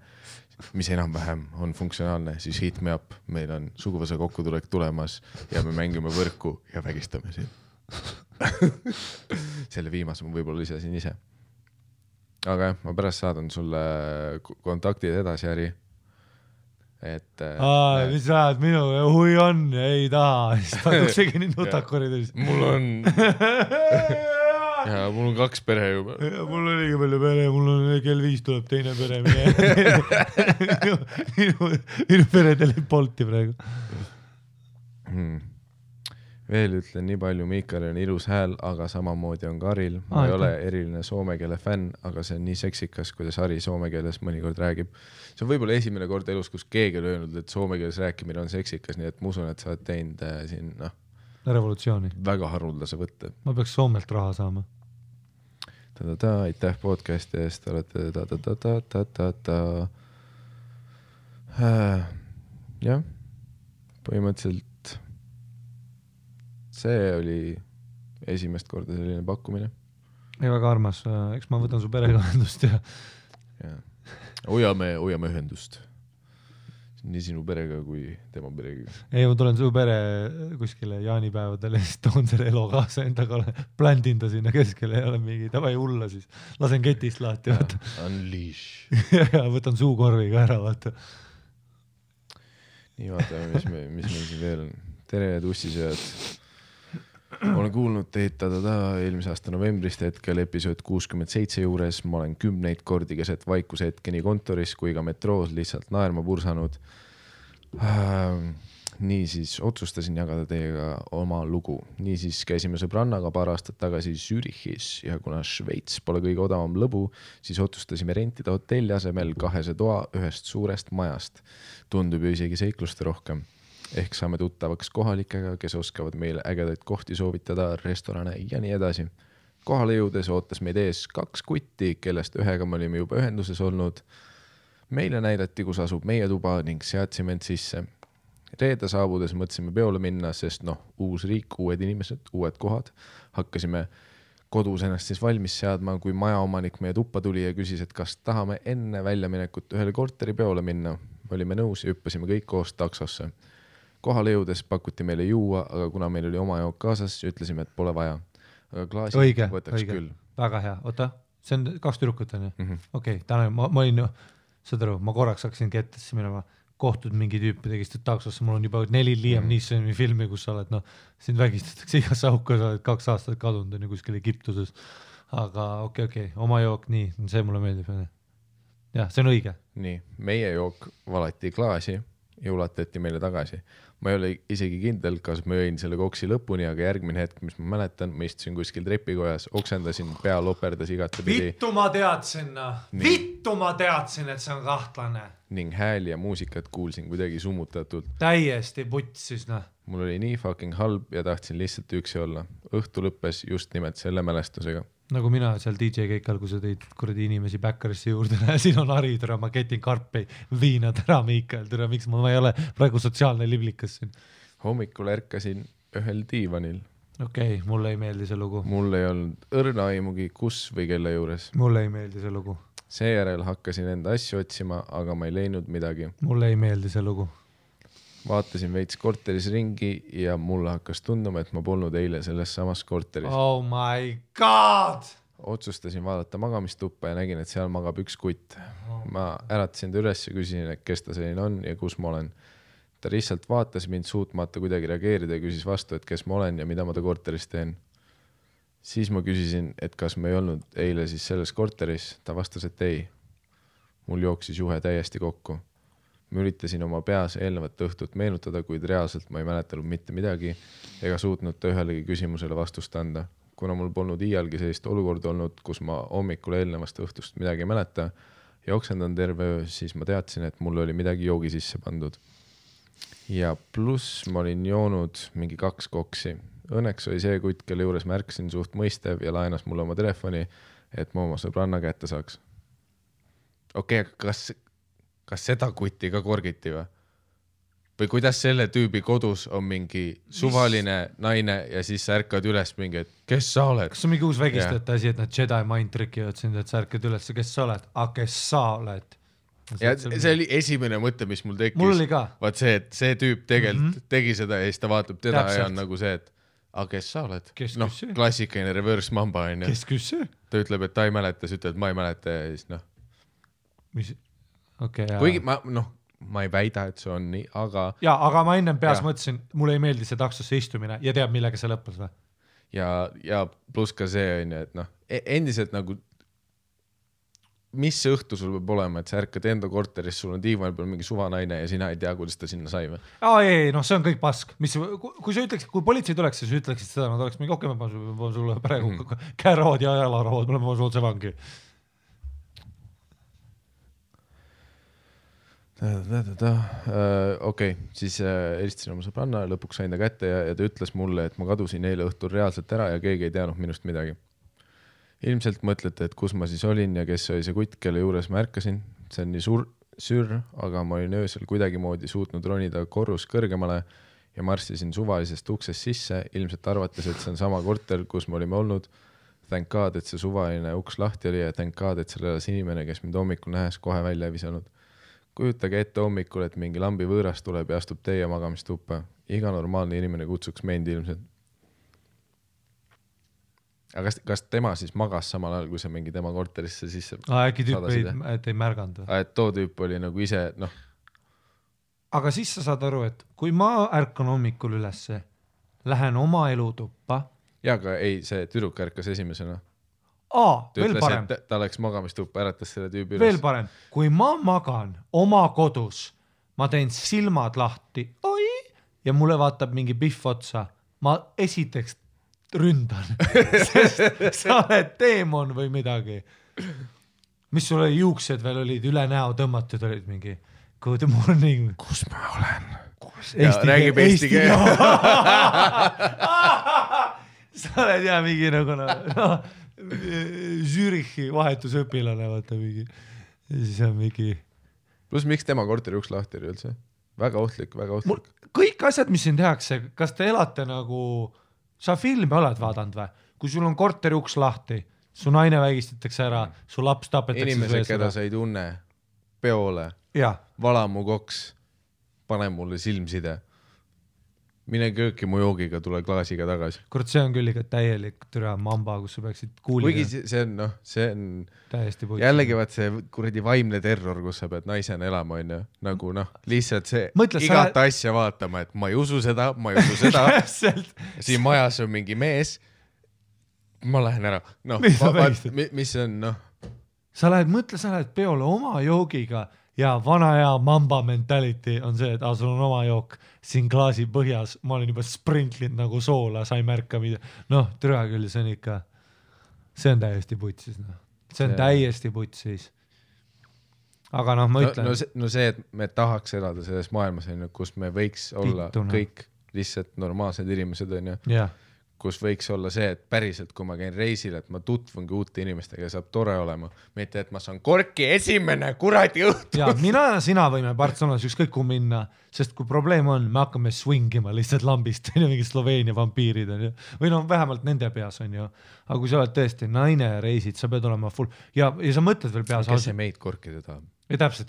mis enam-vähem on funktsionaalne, siis hit me up. Meil on suguvõsa kokkutulek tulemas ja me mängime võrku ja vägistame siin. Selle viimase ma võib-olla lisasin ise. Aga ma pärast saadan sulle kontaktid edasi, Äri. Mis ajad minu hui on, ei taha. Siis taduksegi nii nutakorides. Mul on... Ja mul on 2 pere juba. Ja mul on liiga palju pere, mul on kell 5 tuleb teine pere. Minu pere telib Bolti praegu. Veel ütlen nii palju, Miikal on ilus hääl, aga samamoodi on Karil. Ma ei ole eriline soome keele fänn, aga see on nii seksikas, kuidas Harri soome keeles mõnikord räägib. See on võib-olla esimene kord elus, kus keegi on öelnud, et soome keeles rääkimine on seksikas, nii et ma usun, et sa oled teinud siin revolutsiooni. Väga haruldase võtte. Ma peaks Soomelt raha saama. Aitäh podcasti eest, olete jah, põhimõtteliselt see oli esimest korda selline pakkumine. Ei, väga armas. Eks ma võtan su perega ühendust ja... Hoiame ühendust. Nii sinu perega kui tema perega. Ei, ma tulen su pere kuskile jaanipäevadele, siis toon selle elo kaasa endaga, pländin ta sinna keskele ja olen mingi, tavai hulla siis. Lasen ketist lahti. Unleash. Ja võtan suukorviga ära, vaata. Nii vaatame, mis meil siin veel on. Tere, tussisööd. Olen kuulnud teid eelmise aasta novembrist hetkel episood 67 juures. Ma olen 10 kordi keset vaikuse hetke nii kontoris kui ka metroos lihtsalt naerma pursanud. Niisiis otsustasin jagada teiega oma lugu. Niisiis käisime sõbrannaga paar aastat tagasi Zürichis ja kuna Šveits pole kõige odavam lõbu, siis otsustasime rentida hotelli asemel 2 toa ühest suurest majast. Tundub ju isegi seikluste rohkem. Ehk saame tuttavaks kohalikega, kes oskavad meile ägedaid kohti soovitada, restorane ja nii edasi. Kohale jõudes ootas meid ees 2 kutti, kellest ühega me olime juba ühenduses olnud. Meile näidati, kus asub meie tuba ning seadsime end sisse. Reede saabudes mõtlesime peole minna, sest uus riik, uued inimesed, uued kohad. Hakkasime kodus ennast siis valmis seadma, kui majaomanik meie tuppa tuli ja küsis, et kas tahame enne väljaminekut ühele korteri peole minna. Me olime nõus ja hüppasime kõik koos taksosse. Kohale jõudes pakuti meile juua, aga kuna meil oli oma jook kaasas, ütlesime, et pole vaja. Aga klaasi võtaks küll. Väga hea. Oota, see on 2 tüdrukut on ju? Okei, täna ma olin, saad aru, ma korraks hakkasin kettesse minema, kohtud mingi tüüpi tegist taksosse, mul on juba 4 Liam Neesoni filmi, kus sa oled, sind vägistatakse igas auku, sa oled 2 aastat kadunud on ju kuskil Egiptuses. Aga okei, oma jook, nii, see mulle meeldib. Jah, see on õige. Nii, meie jook valati klaasi ja ulatati meile tagasi. Ma ei ole isegi kindel, kas ma jõin selle koksi lõpuni, aga järgmine hetk, mis ma mäletan, ma istusin kuskil trepikojas, oksendasin, pea loperdas igatepidi. Vittu ma teadsin, et see on kahtlane. Ning hääli ja muusikat kuulsin kuidagi summutatult. Täiesti vutsis, Mul oli nii fucking halb ja tahtsin lihtsalt üksi olla. Õhtu lõppes just nimelt selle mälestusega. Nagu mina seal DJ keikal, kui sa tõid kuradi inimesi Backerisse juurde, siin on Harri, tere, ma ketin karpi, viina, tere, Miikal, tere, miks ma ei ole praegu sotsiaalne liblikas siin. Hommikul ärkasin ühel diivanil. Okei, mulle ei meeldi see lugu. Mul ei olnud õrna aimugi kus või kelle juures. Mulle ei meeldi see lugu. Seejärel hakkasin enda asju otsima, aga ma ei leidnud midagi. Mulle ei meeldi see lugu. Vaatasin veits korteris ringi ja mulle hakkas tunduma, et ma polnud eile selles samas korteris. Oh my god! Otsustasin vaadata magamistuppa ja nägin, et seal magab 1 kutt. Ma äratasin ta üles ja küsisin, et kes ta selline on ja kus ma olen. Ta lihtsalt vaatas mind suutmata kuidagi reageerida ja küsis vastu, et kes ma olen ja mida ma ta korteris teen. Siis ma küsisin, et kas ma ei olnud eile siis selles korteris. Ta vastas, et ei. Mul jooksis juhe täiesti kokku. Ma üritasin oma peas eelnevat õhtut meenutada, kuid reaalselt ma ei mäletanud mitte midagi ega suutnud ta ühelegi küsimusele vastust anda. Kuna mul polnud iialgi sellist olukord olnud, kus ma hommikul eelnevast õhtust midagi ei mäleta ja oksendan terve öö, siis ma teadsin, et mul oli midagi joogi sisse pandud. Ja pluss ma olin joonud mingi 2 koksi. Õnneks oli see kutt, kelle juures märkasin suht mõistev ja laenas mulle oma telefoni, et ma oma sõbranna kätte saaks. Okei, kas seda kutti ka korgiti või? Või kuidas selle tüübi kodus on mingi suvaline naine ja siis sa ärkad üles mingi, et kes sa oled? Kas on mingi uus vägistajate asi, et nad Jedi mind trickivad sind, et sa ärkad üles, kes sa oled? Kes sa oled? Ja see oli esimene mõte, mis mul tekkis. Mul oli ka. Vaat see, et see tüüp tegelikult tegi seda ja siis ta vaatab teda ja on nagu see, et kes sa oled? Klassikaline reverse mamba on. Kes küsse? Ta ütleb, et ta ei mäleta, siis ütleb, et ma ei mäleta ja siis Mis? Okay, kuigi ma ei väida, et see on nii, aga... aga ma ennem peas mõtlesin, mulle ei meeldi see taksosse istumine ja teab, millega see lõppes või? Ja pluss ka see on, et endiselt nagu mis õhtu sul peab olema, et sa ärkad enda korteris, sul on diivan peal mingi suvanaine ja sina ei tea, kuidas ta sinna sai või? Ei, noh, see on kõik pask. Kui sa ütleks, kui politsei tuleks, siis ütleksid seda, nad oleks mingi okei, ma panen sulle praegu käerood ja jalarood, ma panen sulle vangi. Okei, siis helistasin oma sõbranna ja lõpuks sain ta kätte ja ta ütles mulle, et ma kadusin eile õhtul reaalselt ära ja keegi ei teadnud minust midagi. Ilmselt mõtlete, et kus ma siis olin ja kes oli see kutt, kelle juures ma ärkasin. See on nii sür, aga ma olin öösel kuidagimoodi suutnud ronida korrus kõrgemale ja marssisin suvalisest uksest sisse, ilmselt arvates, et see on sama korter, kus me olime olnud. Thank God, et see suvaline uks lahti oli ja thank God, et seal elas inimene, kes mind hommikul nähes kohe välja ei visanud. Kujutage ette hommikul, et mingi lambi võõras tuleb ja astub teie magamistuppa. Iga normaalne inimene kutsuks meid ilmselt. Aga kas tema siis magas samal ajal, kui sa mingi tema korterisse sisse äkki tüüp ei märganud? Et too tüüp oli nagu ise, noh. Aga siis sa saad aru, et kui ma ärkan hommikul ülesse, lähen oma elutuppa. Ja, aga ei, see tüdruk ärkas esimesena. Veel parem. Ta läks magamistuppa, äratas selle tüübi üles. Veel parem. Kui ma magan oma kodus, ma teen silmad lahti ja mulle vaatab mingi pihv otsa. Ma esiteks ründan, sest sa oled teemon või midagi. Mis sul oli juuksed veel olid üle näo tõmmatud, olid mingi good morning. Kus ma olen? Räägib eesti keel. Sa oled mingi nagu Zürichi vahetusõpilane, vaata mingi. Ja siis on mingi... Plus miks tema korteri uks lahti oli üldse? Väga ohtlik, väga ohtlik. Kõik asjad, mis siin tehakse, kas te elate nagu... Sa filmi oled vaadanud või? Kui sul on korteri uks lahti, su naine vägistatakse ära, su laps tapetakse... Inimesed, keda sa ei tunne, peole, vala mu koks, pane mulle silmside. Mine kööki mu joogiga, tule klaasiga tagasi. Kord see on küll ikka täielik türa mamba, kus sa peaksid kuulida. Kuigi see on, noh, see on täiesti puitud. Jällegi vaat see kuradi vaimne terror, kus sa pead naisena elama, on ju. Nagu noh, lihtsalt see igat asja vaatama, et ma ei usu seda, siin majas on mingi mees, ma lähen ära. No, mis on, noh. Sa lähed peole oma joogiga ja vana hea mamba mentality on see, et sul on oma jook siin klaasi põhjas, ma olen juba sprintlinud nagu soola, sa ei märka mida. Noh, türa küll, see on ikka, see on täiesti putsis. No. See on täiesti putsis. Aga noh, ma ütlen. No see, et me tahaks elada selles maailmas, kus me võiks olla kõik lihtsalt normaalsed inimesed, on ju. Yeah. Kus võiks olla see, et päriselt, kui ma käin reisil, et ma tutvungi uute inimestega ja saab tore olema. Mitte, et ma saan korki esimene kuradi õhtu. Ja mina ja sina võime Barcelonas ükskõik kui minna, sest kui probleem on, me hakkame swingima lihtsalt lambist, mingi Sloveenia vampiirid on ju. Või no vähemalt nende peas on ju. Aga kui sa oled tõesti naine ja reisid, sa pead olema full. Ja sa mõtled veel peas. Kes see meid korkida tahab? Ja täpselt,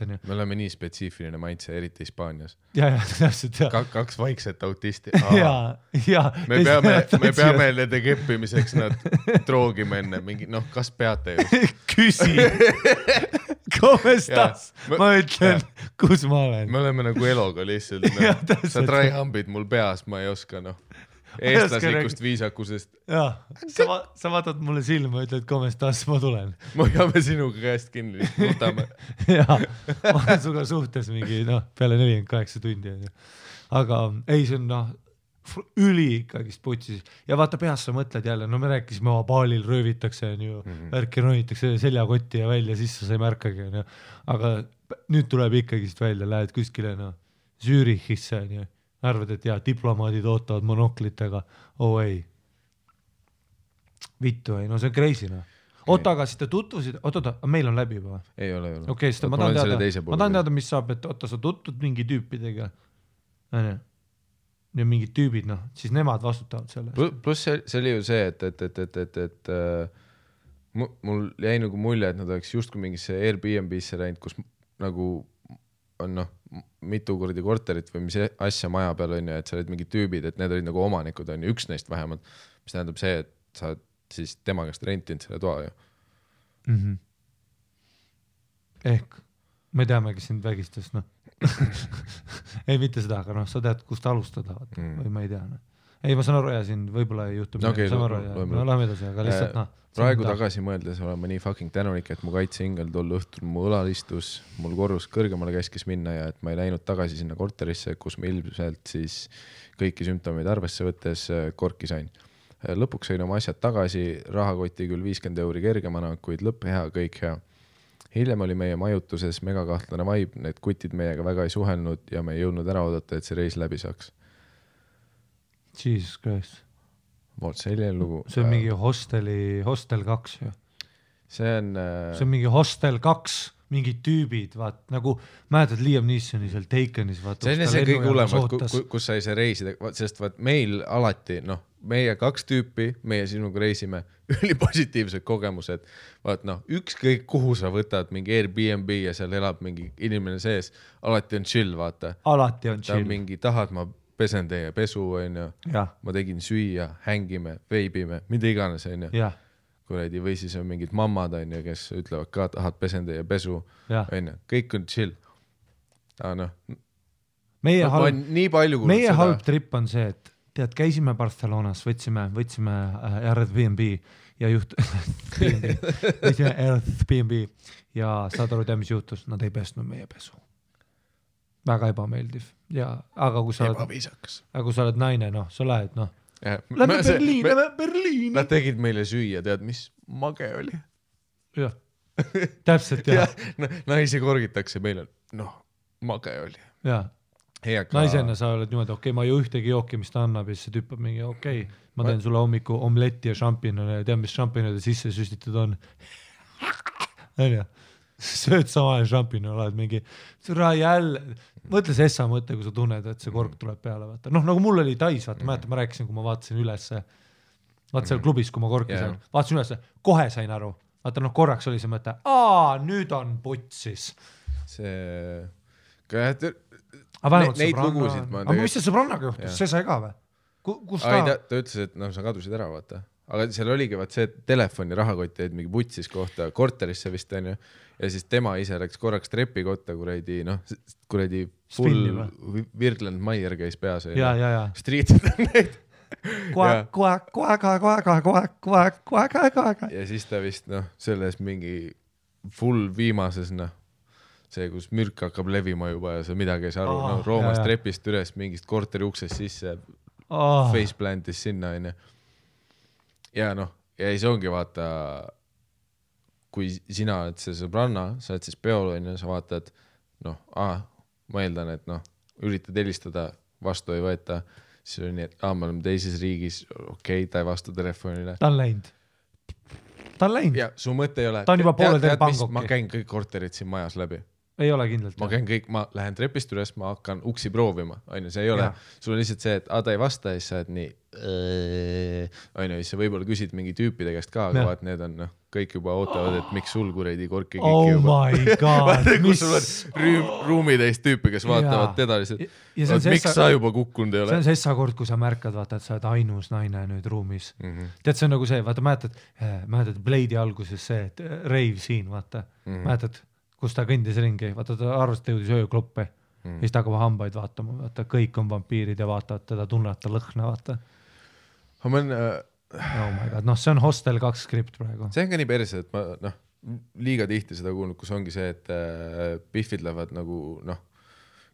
on ju. Me oleme nii spetsiifiline maitse, eriti Hispaanias. Ja, täpselt, ja. Kaks vaikset autisti. Ja. Me peame nende keppimiseks nad troogime enne. Mingi, noh, kas peate just? Küsi. Komestas? Ma ütlen, kus ma olen. Me oleme nagu eloga lihtsalt. Sa tryhambid mul peas, ma ei oska, noh. Eestlaslikust viisakusest. Jaa, sa vaatad mulle silma, ütled, komestas, ma tulen. Ma peame sinuga käest kinni, võtame. Jaa, ma olen suga suhtes mingi, peale 48 tundi. Aga ei, see on üli ikkagist putsis. Ja vaata peas sa mõtled jälle, me rääkisime baalil röövitakse, värki ronitakse seljakotti ja välja, siis sa ei märkagi. Aga nüüd tuleb ikkagist välja, lähed kuskile Zürichisse, arvad, et diplomaadid ootavad monoklitega. Ei. Vittu ei, see on crazy. Oota, aga siis te tutvusid, meil on läbi juba? Ei ole. Okei, ma tahan teada, mis saab, et sa tutud mingi tüüpidega. Ja mingid tüübid, siis nemad vastutavad selle. Plus see oli ju see, et mul jäi nagu mulje, et nad oleks justkui mingisse Airbnb-sse läinud, kus nagu on mitu kordi korterit või mis asja maja peal on ja et sa olid mingid tüübid, et need olid nagu omanikud on ju, üks neist vähemalt, mis tähendab see, et sa siis tema käest rentinud selle toa ju. Ehk me teamegi sind vägistas, ei mitte seda, aga sa tead, kust alustada või ma ei tea. ei, ma saan aru ja siin võib-olla ei juhtu Okay, saan aru ja no lähme edasi, aga lihtsalt praegu tagasi mõeldes olen ma nii fucking tänulik, et mu kaitseingel tol õhtul mu õlal istus, mul korrus kõrgemale käskis minna ja et ma ei läinud tagasi sinna korterisse, kus ma ilmselt siis kõiki sümptomeid arvesse võttes korki sain. Lõpuks sain oma asjad tagasi, rahakoti küll 50 € kergemana, kuid lõpp hea, kõik hea. Hiljem oli meie majutuses megakahtlane vibe, need kutid meiega väga ei suhelnud ja me ei jõudnud ära oodata, et see reis läbi saaks. Jesus Christ. Vot selline lugu. See on mingi Hostel 2 ju. See on mingi Hostel 2, mingid tüübid, vaat nagu mäletad Liam Neesoni seal Takenis, vaat. See on see kõige hullem, kus sai see reisida, sest vaat meil alati, meie 2 tüüpi, meie sinuga reisime, ülipositiivsed kogemused, vaat ükskõik kuhu sa võtad mingi Airbnb ja seal elab mingi inimene sees, alati on chill, vaata. Alati on chill. Ta mingi tahad, ma pesen teie pesu, ma tegin süüa, hängime, veibime, mida iganes, kuradi, või siis on mingid mammad, kes ütlevad ka, tahad pesen teie pesu, kõik on chill. Meie halb trip on see, et tead, käisime Barcelonas, võtsime Airbnb ja võtsime Airbnb ja saad aru, mis juhtus, nad ei pesnud meie pesu. Väga ebameeldiv. Ja, aga kui sa oled naine, sa lähed, lähme Berliini. Nad tegid meile süüa, tead, mis mage oli. Jah, täpselt, jah. Naisi korgitakse meile, mage oli. Jah, naisena sa oled niimoodi, okei, ma ei ühtegi jooki, mis ta annab ja siis see tüüpab mingi, okei, ma teen sulle hommiku omletti ja šampinone ja tead, mis šampinode sisse süstitud on. Sööd samale šampinone, oled mingi, jälle, mõtle see essa mõte, kui sa tunned, et see kork tuleb peale, vaata. Nagu mul oli Tais, vaata, ma rääkisin, kui ma vaatasin ülesse, vaata seal klubis, kui ma korki sain, vaatasin ülesse, kohe sain aru, vaata, korraks oli see mõte, nüüd on putsis. Neid lugusid ma aga mis see sõbrannaga juhtus, see sai ka või? Kus ta ütles, et sa kadusid ära, vaata. Aga seal oligi vaat see telefoni rahakott jäid mingi vutsis kohta korterisse vist on ju ja siis tema ise läks korraks trepi kotta kuradi full Virgland Maier käis peas ja striitid on neid koeg ja siis ta vist selles mingi full viimases see kus mürk hakkab levima juba ja sa midagi ei saa aru Roomas trepist üles mingist korteri uksest sisse faceplantis sinna on ju ja ja siis ongi vaata, kui sina oled see sõbranna, sa oled siis peol ja sa vaatad, ma eeldan, et üritad helistada, vastu ei võeta, siis on nii, et me oleme teises riigis, okei, ta ei vasta telefonile. Ta on läinud. Ja su mõte ei ole, ta on juba poole teil pangokki. Ma käin kõik korterid siin majas läbi. Ei ole kindlalt. Ma lähen trepist üles, ma hakkan uksi proovima, see ei ole, sul on lihtsalt see, et ta ei vasta ja siis sa oled nii siis sa võib-olla küsid mingi tüüpide käest ka, aga vaat need on kõik juba ootavad, et miks sul kuredi korki kiki juba. Oh my god, mis? Sul on ruumitäis tüüpi, kes vaatavad teda lihtsalt, miks sa juba kukkunud ei ole? See on sessa kord, kui sa märkad, vaata, et sa oled ainus naine nüüd ruumis. Tead, see on nagu see, vaata, mäletad Blade'i alguses see, et rave siin, vaata, mäletad, kus ta kõndis ringi, vaata, ta arvas, et jõudis öökloppe ja siis ta hakkab hambaid vaatama, vaata, kõik on vampiirid ja vaatavad teda, tunnevad ta lõhna, vaata. Oh my god, see on Hostel 2 skript praegu. See on ka nii perse, et ma liiga tihti seda kuulnud, kus ongi see, et biffid lähevad nagu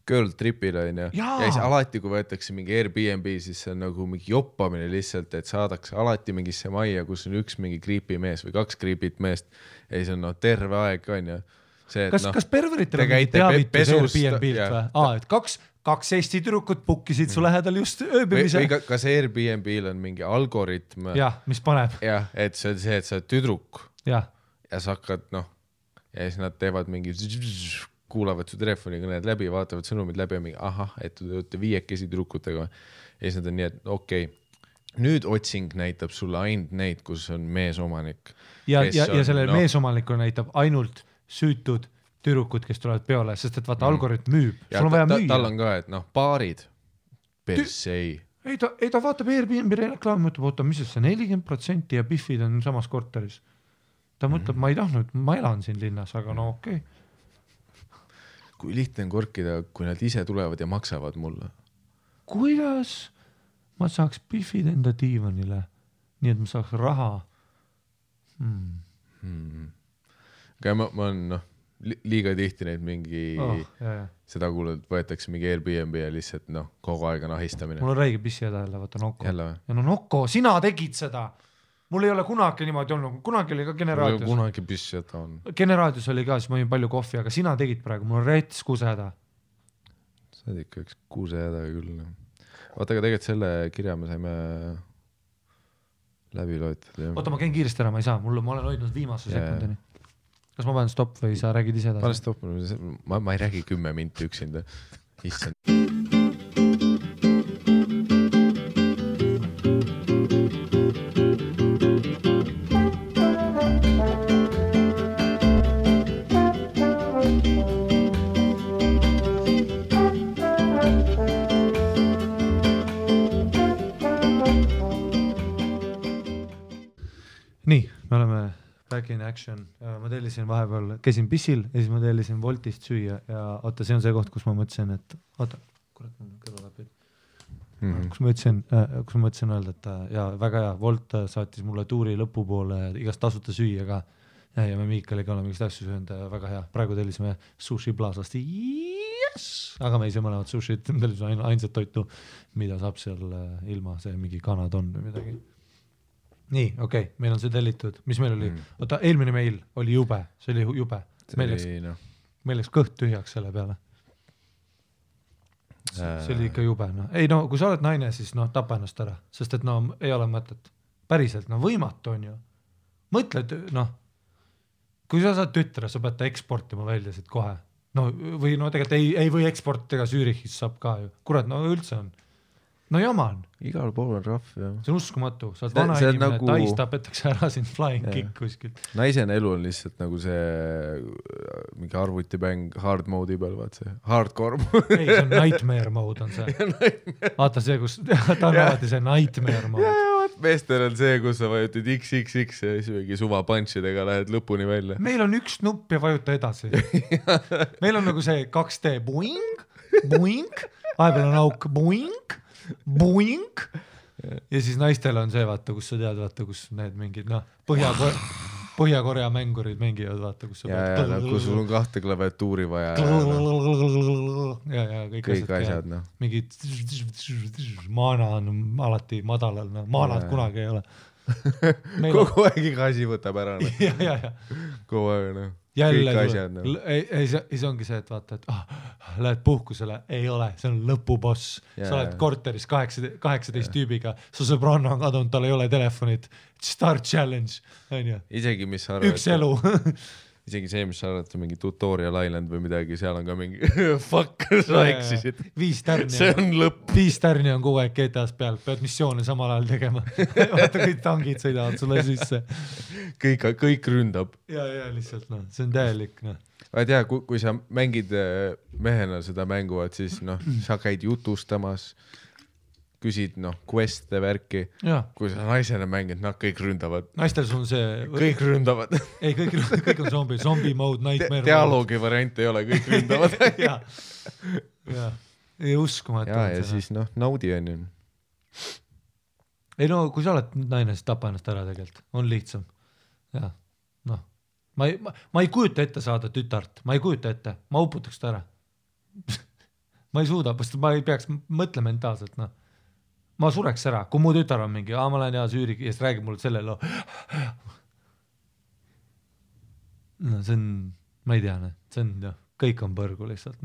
girl tripile ja siis alati, kui võetakse mingi Airbnb, siis see on nagu mingi joppamine lihtsalt, et saadakse alati mingisse majja, kus on üks mingi creepy mees või 2 creepy't meest ja siis on terve aeg on ja see, et kas perveritel on mingi teavitus Airbnb-lt või? Et kaks Eesti tüdrukut pukkisid su lähedal just ööbimise. Või kas Airbnb-l on mingi algoritm? Jah, mis paneb. Jah, et see on see, et sa oled tüdruk ja sa hakkad, ja siis nad teevad mingi, kuulavad su telefonikõned läbi, vaatavad sõnumid läbi ja mingi, et te olete 5 tüdrukutega ja siis nad on nii, et okei, nüüd otsing näitab sulle ainult neid, kus on meesomanik. Ja sellel meesomanikul näitab ainult süütud tüdrukud, kes tulevad peole, sest et vaata algoritm müüb. Sul on vaja müüa. Tal on ka, et paarid persei. Ei, ta vaatab Airbnb reklaami, mõtleb, mis see 40% ja biffid on samas korteris. Ta mõtleb, ma ei tahtnud, ma elan siin linnas, aga okei. Kui lihtne on korkida, kui nad ise tulevad ja maksavad mulle? Kuidas? ma saaks Biffid enda diivanile, nii et ma saaks raha. Aga ma olen liiga tihti neid mingi seda kuulnud, võetakse mingi Airbnb ja lihtsalt kogu aeg on ahistamine. Mul on räige pissi jälle, vaata Nokko. Jälle või? Ja Nokko, sina tegid seda. Mul ei ole kunagi niimoodi olnud, kunagi oli ka Generaadios. Kunagi pissi jätta on. Generaadios oli ka, siis ma jõin palju kohvi, aga sina tegid praegu, mul on rets kusehäda. Sa oled ikka üks kusehäda küll. Vaata, aga tegelikult selle kirja me saime läbi loetud. Oota, ma käin kiiresti ära, ma ei saa, ma olen hoidnud viimase sekundini. Kas ma panen stopp või sa räägid ise edasi? Pane stopp, ma ei räägi 10 minti üksinda. Issand. Nii, me oleme back in action. Ma tellisin vahepeal, käisin pissil ja siis ma tellisin Woltist süüa ja oota, see on see koht, kus ma mõtlesin, et oota, kurat, mul on kõrvalapid. Kus ma mõtlesin öelda, et ja väga hea, Wolt saatis mulle tuuri lõpupoole igast tasuta süüa ka ja me Miikaliga oleme igast asju söönud, väga hea. Praegu tellisime Sushi Plaazast, yes! Aga me ei saa mõlemad sushit, tellisime ainsat toitu, mida saab seal ilma see mingi kanadon või midagi. Nii, okei, meil on see tellitud. Mis meil oli? Oota, eelmine meil oli jube. See oli jube. Meil läks kõht tühjaks selle peale. See oli ikka jube. Ei kui sa oled naine, siis tapa ennast ära. Sest et ei ole mõtet. Päriselt, võimatu on ju. Mõtled, kui sa saad tütre, sa pead ta eksportima välja siit kohe. Või tegelikult ei või eksportiga Zürichis saab ka ju. Kurat, üldse on. Jama on. Igal pool on rahv, jah. See on uskumatu. Sa oled vana inimene, tais tapetakse ära siin flying kick kuskilt. Naisen elu on lihtsalt nagu see mingi arvutipäng hard mode'i peal, vaat see hardcore. Ei, see on nightmare mode on see. Vaata see, kus ta on alati see nightmare mode. Meestel on see, kus sa vajutid XXX ja siis mingi suva punchidega lähed lõpuni välja. Meil on üks nupp ja vajuta edasi. Meil on nagu see 2D boing, boing, vahepeal on auk boing, boing ja siis naistel on see, vaata, kus sa tead, vaata, kus need mingid, Põhja-Korea mängurid mängivad, vaata, kus sa pead. Kus sul on 2 klaviatuuri vaja. Ja kõik asjad, Mingid maana on alati madalal, maanad kunagi ei ole. Kogu aeg iga asi võtab ära. Ja. Kogu aeg, jälle ei see ongi see, et vaata, et lähed puhkusele, ei ole, see on lõpuboss. Sa oled korteris 18 tüübiga, su sõbranna on kadunud, tal ei ole telefonit, start challenge, on ju. Isegi mis sa arvad, üks elu. Isegi see, mis sa arvad, mingi Tutorial Island või midagi, seal on ka mingi fuck, sa eksisid. 5 tärni. See on lõpp. 5 tärni on kogu aeg GTA-s peal, pead missioone samal ajal tegema. Vaata, kõik tangid sõidavad sulle sisse. Kõik ründab. Ja, lihtsalt, see on täielik, Vaid jah, kui sa mängid mehena seda mänguvad, siis sa käid jutustamas, küsid quest'e värki. Kui sa naisena mängid, kõik ründavad. Naistel on see... Kõik ründavad. Ei, kõik on zombie mode, nightmare mode. Dialoogi variant ei ole, kõik ründavad. Ja. Ei uskumatu. Ja siis naudi on ju. Ei kui sa oled naine, siis tapa ennast ära tegelikult. On lihtsam. Ja, ma ei kujuta ette saada tütart. Ma ei kujuta ette. Ma uputaks ta ära. Ma ei suuda, ma ei peaks mõtle mentaalselt, Ma sureks ära, kui mu tütar on mingi, ma lähen Zürich ja siis räägib mulle selle loo. See on, ma ei tea, see on, kõik on põrgu lihtsalt,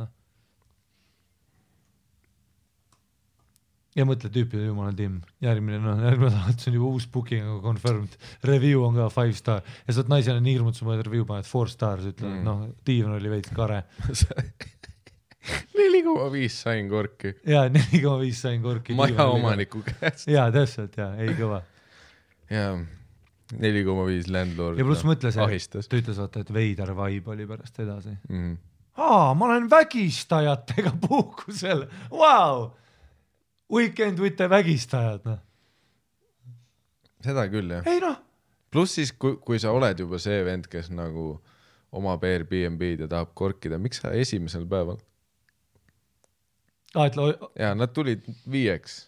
Ja mõtle tüüpi, jumala tiim, järgmine salat, see on juba uus booking, aga confirmed, review on ka 5 star ja sa oled naisena nii hirmud, sa mõned review paned 4 stars, ütled, diivan oli veits kare. 4,5 sain korki. Jaa, 4,5 sain korki. Maja omaniku käest. Jaa, täpselt, ei kõva. Jaa, 4,5 landlord. Ja pluss mõtle see, ta ütles, et veider vibe oli pärast edasi. Ma olen vägistajatega puhkusel. Wow! Weekend with the vägistajad. Seda küll, jah. Ei Pluss siis, kui sa oled juba see vend, kes nagu omab Airbnb-d ja tahab korkida, miks sa esimesel päeval? Ja nad tulid 5.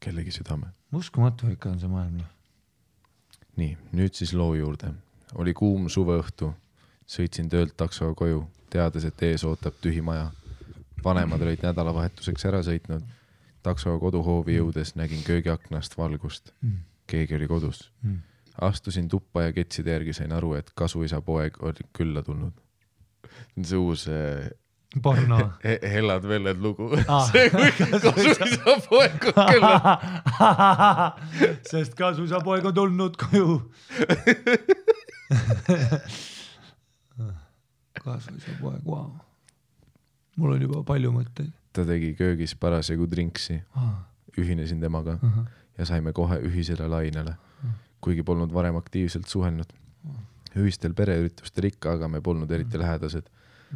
kellegi südame. Uskumatu ikka on see maailm. Nii, nüüd siis loo juurde. Oli kuum suveõhtu. Sõitsin töölt taksoga koju, teades, et ees ootab tühi maja. Vanemad olid nädalavahetuseks ära sõitnud. Taksoga koduhoovi jõudes nägin köögiaknast valgust. Keegi oli kodus. Astusin tuppa ja ketside järgi sain aru, et kasuisa poeg oli külla tulnud. See uus porno. Hellad velled lugu. See kui kasuisa poeg on külla. Sest kasuisa poeg on tulnud koju. Kasuisa poeg, wow. Mul on juba palju mõtteid. Ta tegi köögis parasjagu drinksi. Ühinesin temaga ja saime kohe ühisele lainele. Kuigi polnud varem aktiivselt suhelnud. Ühistel pereüritustel ikka, aga me polnud eriti lähedased.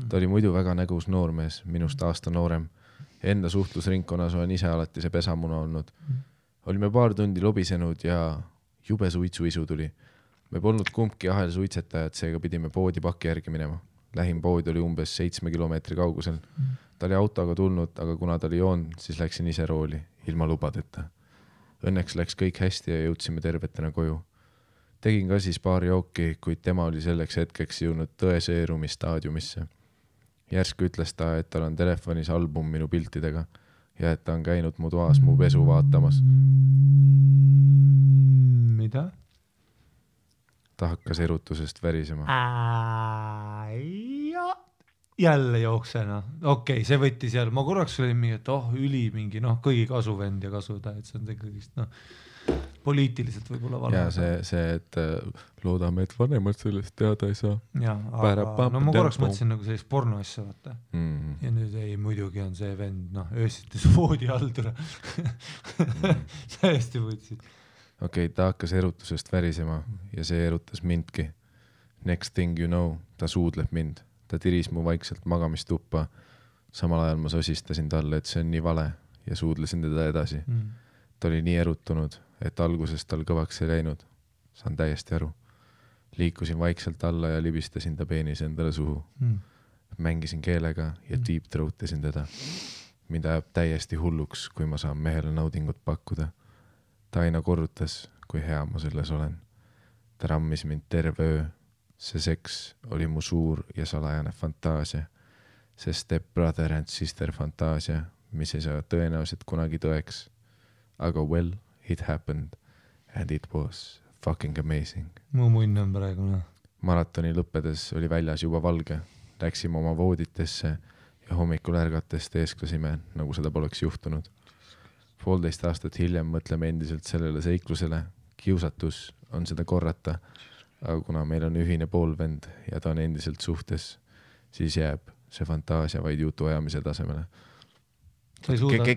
Ta oli muidu väga nägus noormees, minust aasta noorem. Enda suhtlusringkonnas olen ise alati see pesamuna olnud. Olime paar tundi lobisenud ja jube suitsuisu tuli. Me polnud kumbki ahel suitsetajad, seega pidime poodi paki järgi minema. Lähim pood oli umbes 7 kilomeetri kaugusel. Ta oli autoga tulnud, aga kuna ta oli joon, siis läksin ise rooli, ilma lubadeta. Õnneks läks kõik hästi ja jõudsime tervetena koju. Tegin ka siis paar jooki, kuid tema oli selleks hetkeks jõudnud tõeseerumi staadiumisse. Järsku ütles ta, et tal on telefonis album minu piltidega ja et ta on käinud mu toas mu pesu vaatamas. Mida? Ta hakkas erutusest värisema. Jälle jooksena. Okei, see võttis jälle. Ma korraks olin mingi, et üli mingi, kõigi kasuvend ja kasuda, et see on tegelikult, poliitiliselt võib-olla vale. Ja see, et loodame, et vanemad sellest teada ei saa. Ja, aga ma korraks mõtlesin nagu sellist porno asja, vaata. Ja nüüd ei, muidugi on see vend, öösites voodi haldura. Täiesti võtsid. Okei, ta hakkas erutusest värisema ja see erutas mindki. Next thing you know, ta suudleb mind. Ta tiris mu vaikselt magamistuppa. Samal ajal ma sosistasin talle, et see on nii vale ja suudlesin teda edasi. Ta oli nii erutunud, et alguses tal kõvaks ei läinud. Saan täiesti aru. Liikusin vaikselt alla ja libistasin ta peenis endale suhu. Mängisin keelega ja deep throatisin teda. Mind ajab täiesti hulluks, kui ma saan mehele naudingut pakkuda. Ta aina korrutas, kui hea ma selles olen. Ta rammis mind terve öö. See seks oli mu suur ja salajane fantaasia. See step brother and sister fantaasia, mis ei saa tõenäoliselt kunagi tõeks. Aga well, it happened and it was fucking amazing. Mu munn on praegu. Maratoni lõppedes oli väljas juba valge. Läksime oma vooditesse ja hommikul ärgates teesklasime, nagu seda poleks juhtunud. 1,5 aastat hiljem mõtleme endiselt sellele seiklusele. Kiusatus on seda korrata. Aga kuna meil on ühine poolvend ja ta on endiselt suhtes, siis jääb see fantaasia vaid jutu ajamise tasemele.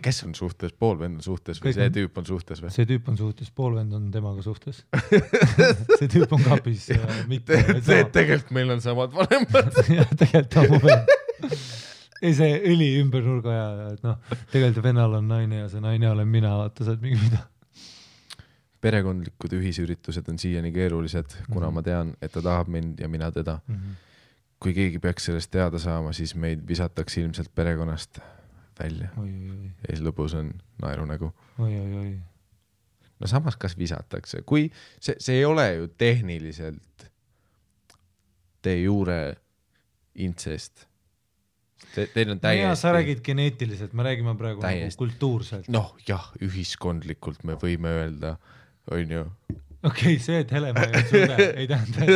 Kes on suhtes? Poolvend on suhtes või see tüüp on suhtes või? See tüüp on suhtes, poolvend on temaga suhtes. See tüüp on kapis. Tegelikult meil on samad vanemad. Tegelikult on mu vend. Ei, see õli ümber nurga ja tegelikult vennal on naine ja see naine olen mina, vaata saad mingi mida. Perekondlikud ühisüritused on siiani keerulised, kuna ma tean, et ta tahab mind ja mina teda. Kui keegi peaks sellest teada saama, siis meid visatakse ilmselt perekonnast välja. Ja siis lõpus on naerunägu. No samas kas visatakse? Kui see ei ole ju tehniliselt de jure incest. Teil on täiesti... Ja sa räägid geneetiliselt, me räägime praegu nagu kultuurselt. Jah, ühiskondlikult me võime öelda... on ju. Okei, see, et Helema ei suuda, ei tähenda,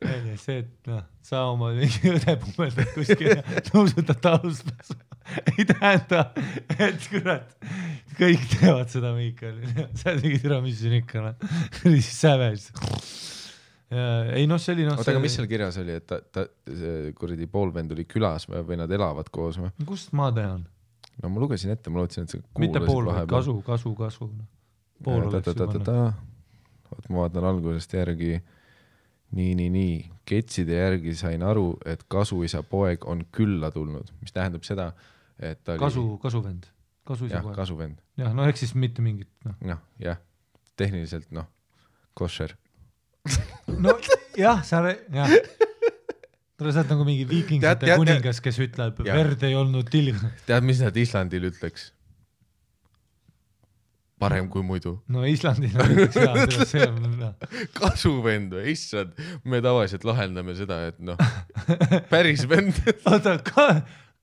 et see, et sa oma mingi õde pummeldad kuskil ja nõusutad taluspääsu. Ei tähenda, et kurat, kõik teevad seda Miikal. Sa mingi türa, mis siin ikka on. Siis säves. Ei see oli Oota, aga mis seal kirjas oli, et ta kuradi poolvend oli külas või nad elavad koos või? Kust ma tean? No ma lugesin ette, ma lootsin, et sa kuulasid mitte pool, kasu. Pool oleks juba. Oot, ma vaatan algusest järgi. Nii. Ketside järgi sain aru, et kasuisa poeg on külla tulnud, mis tähendab seda, et ta oli... Kasuvend. Jah, kasuvend. Jah, ehk siis mitte mingit. Jah, tehniliselt, kosher. Jah, jah. Tule saad nagu mingi viikingsete kuningas, kes ütleb, verd ei olnud tilg. Tead, mis nad Islandil ütleks? parem kui muidu. No Islandil näiteks see on kasuvend või, issand, me tavaliselt lahendame seda, et noh, päris vend. Oota,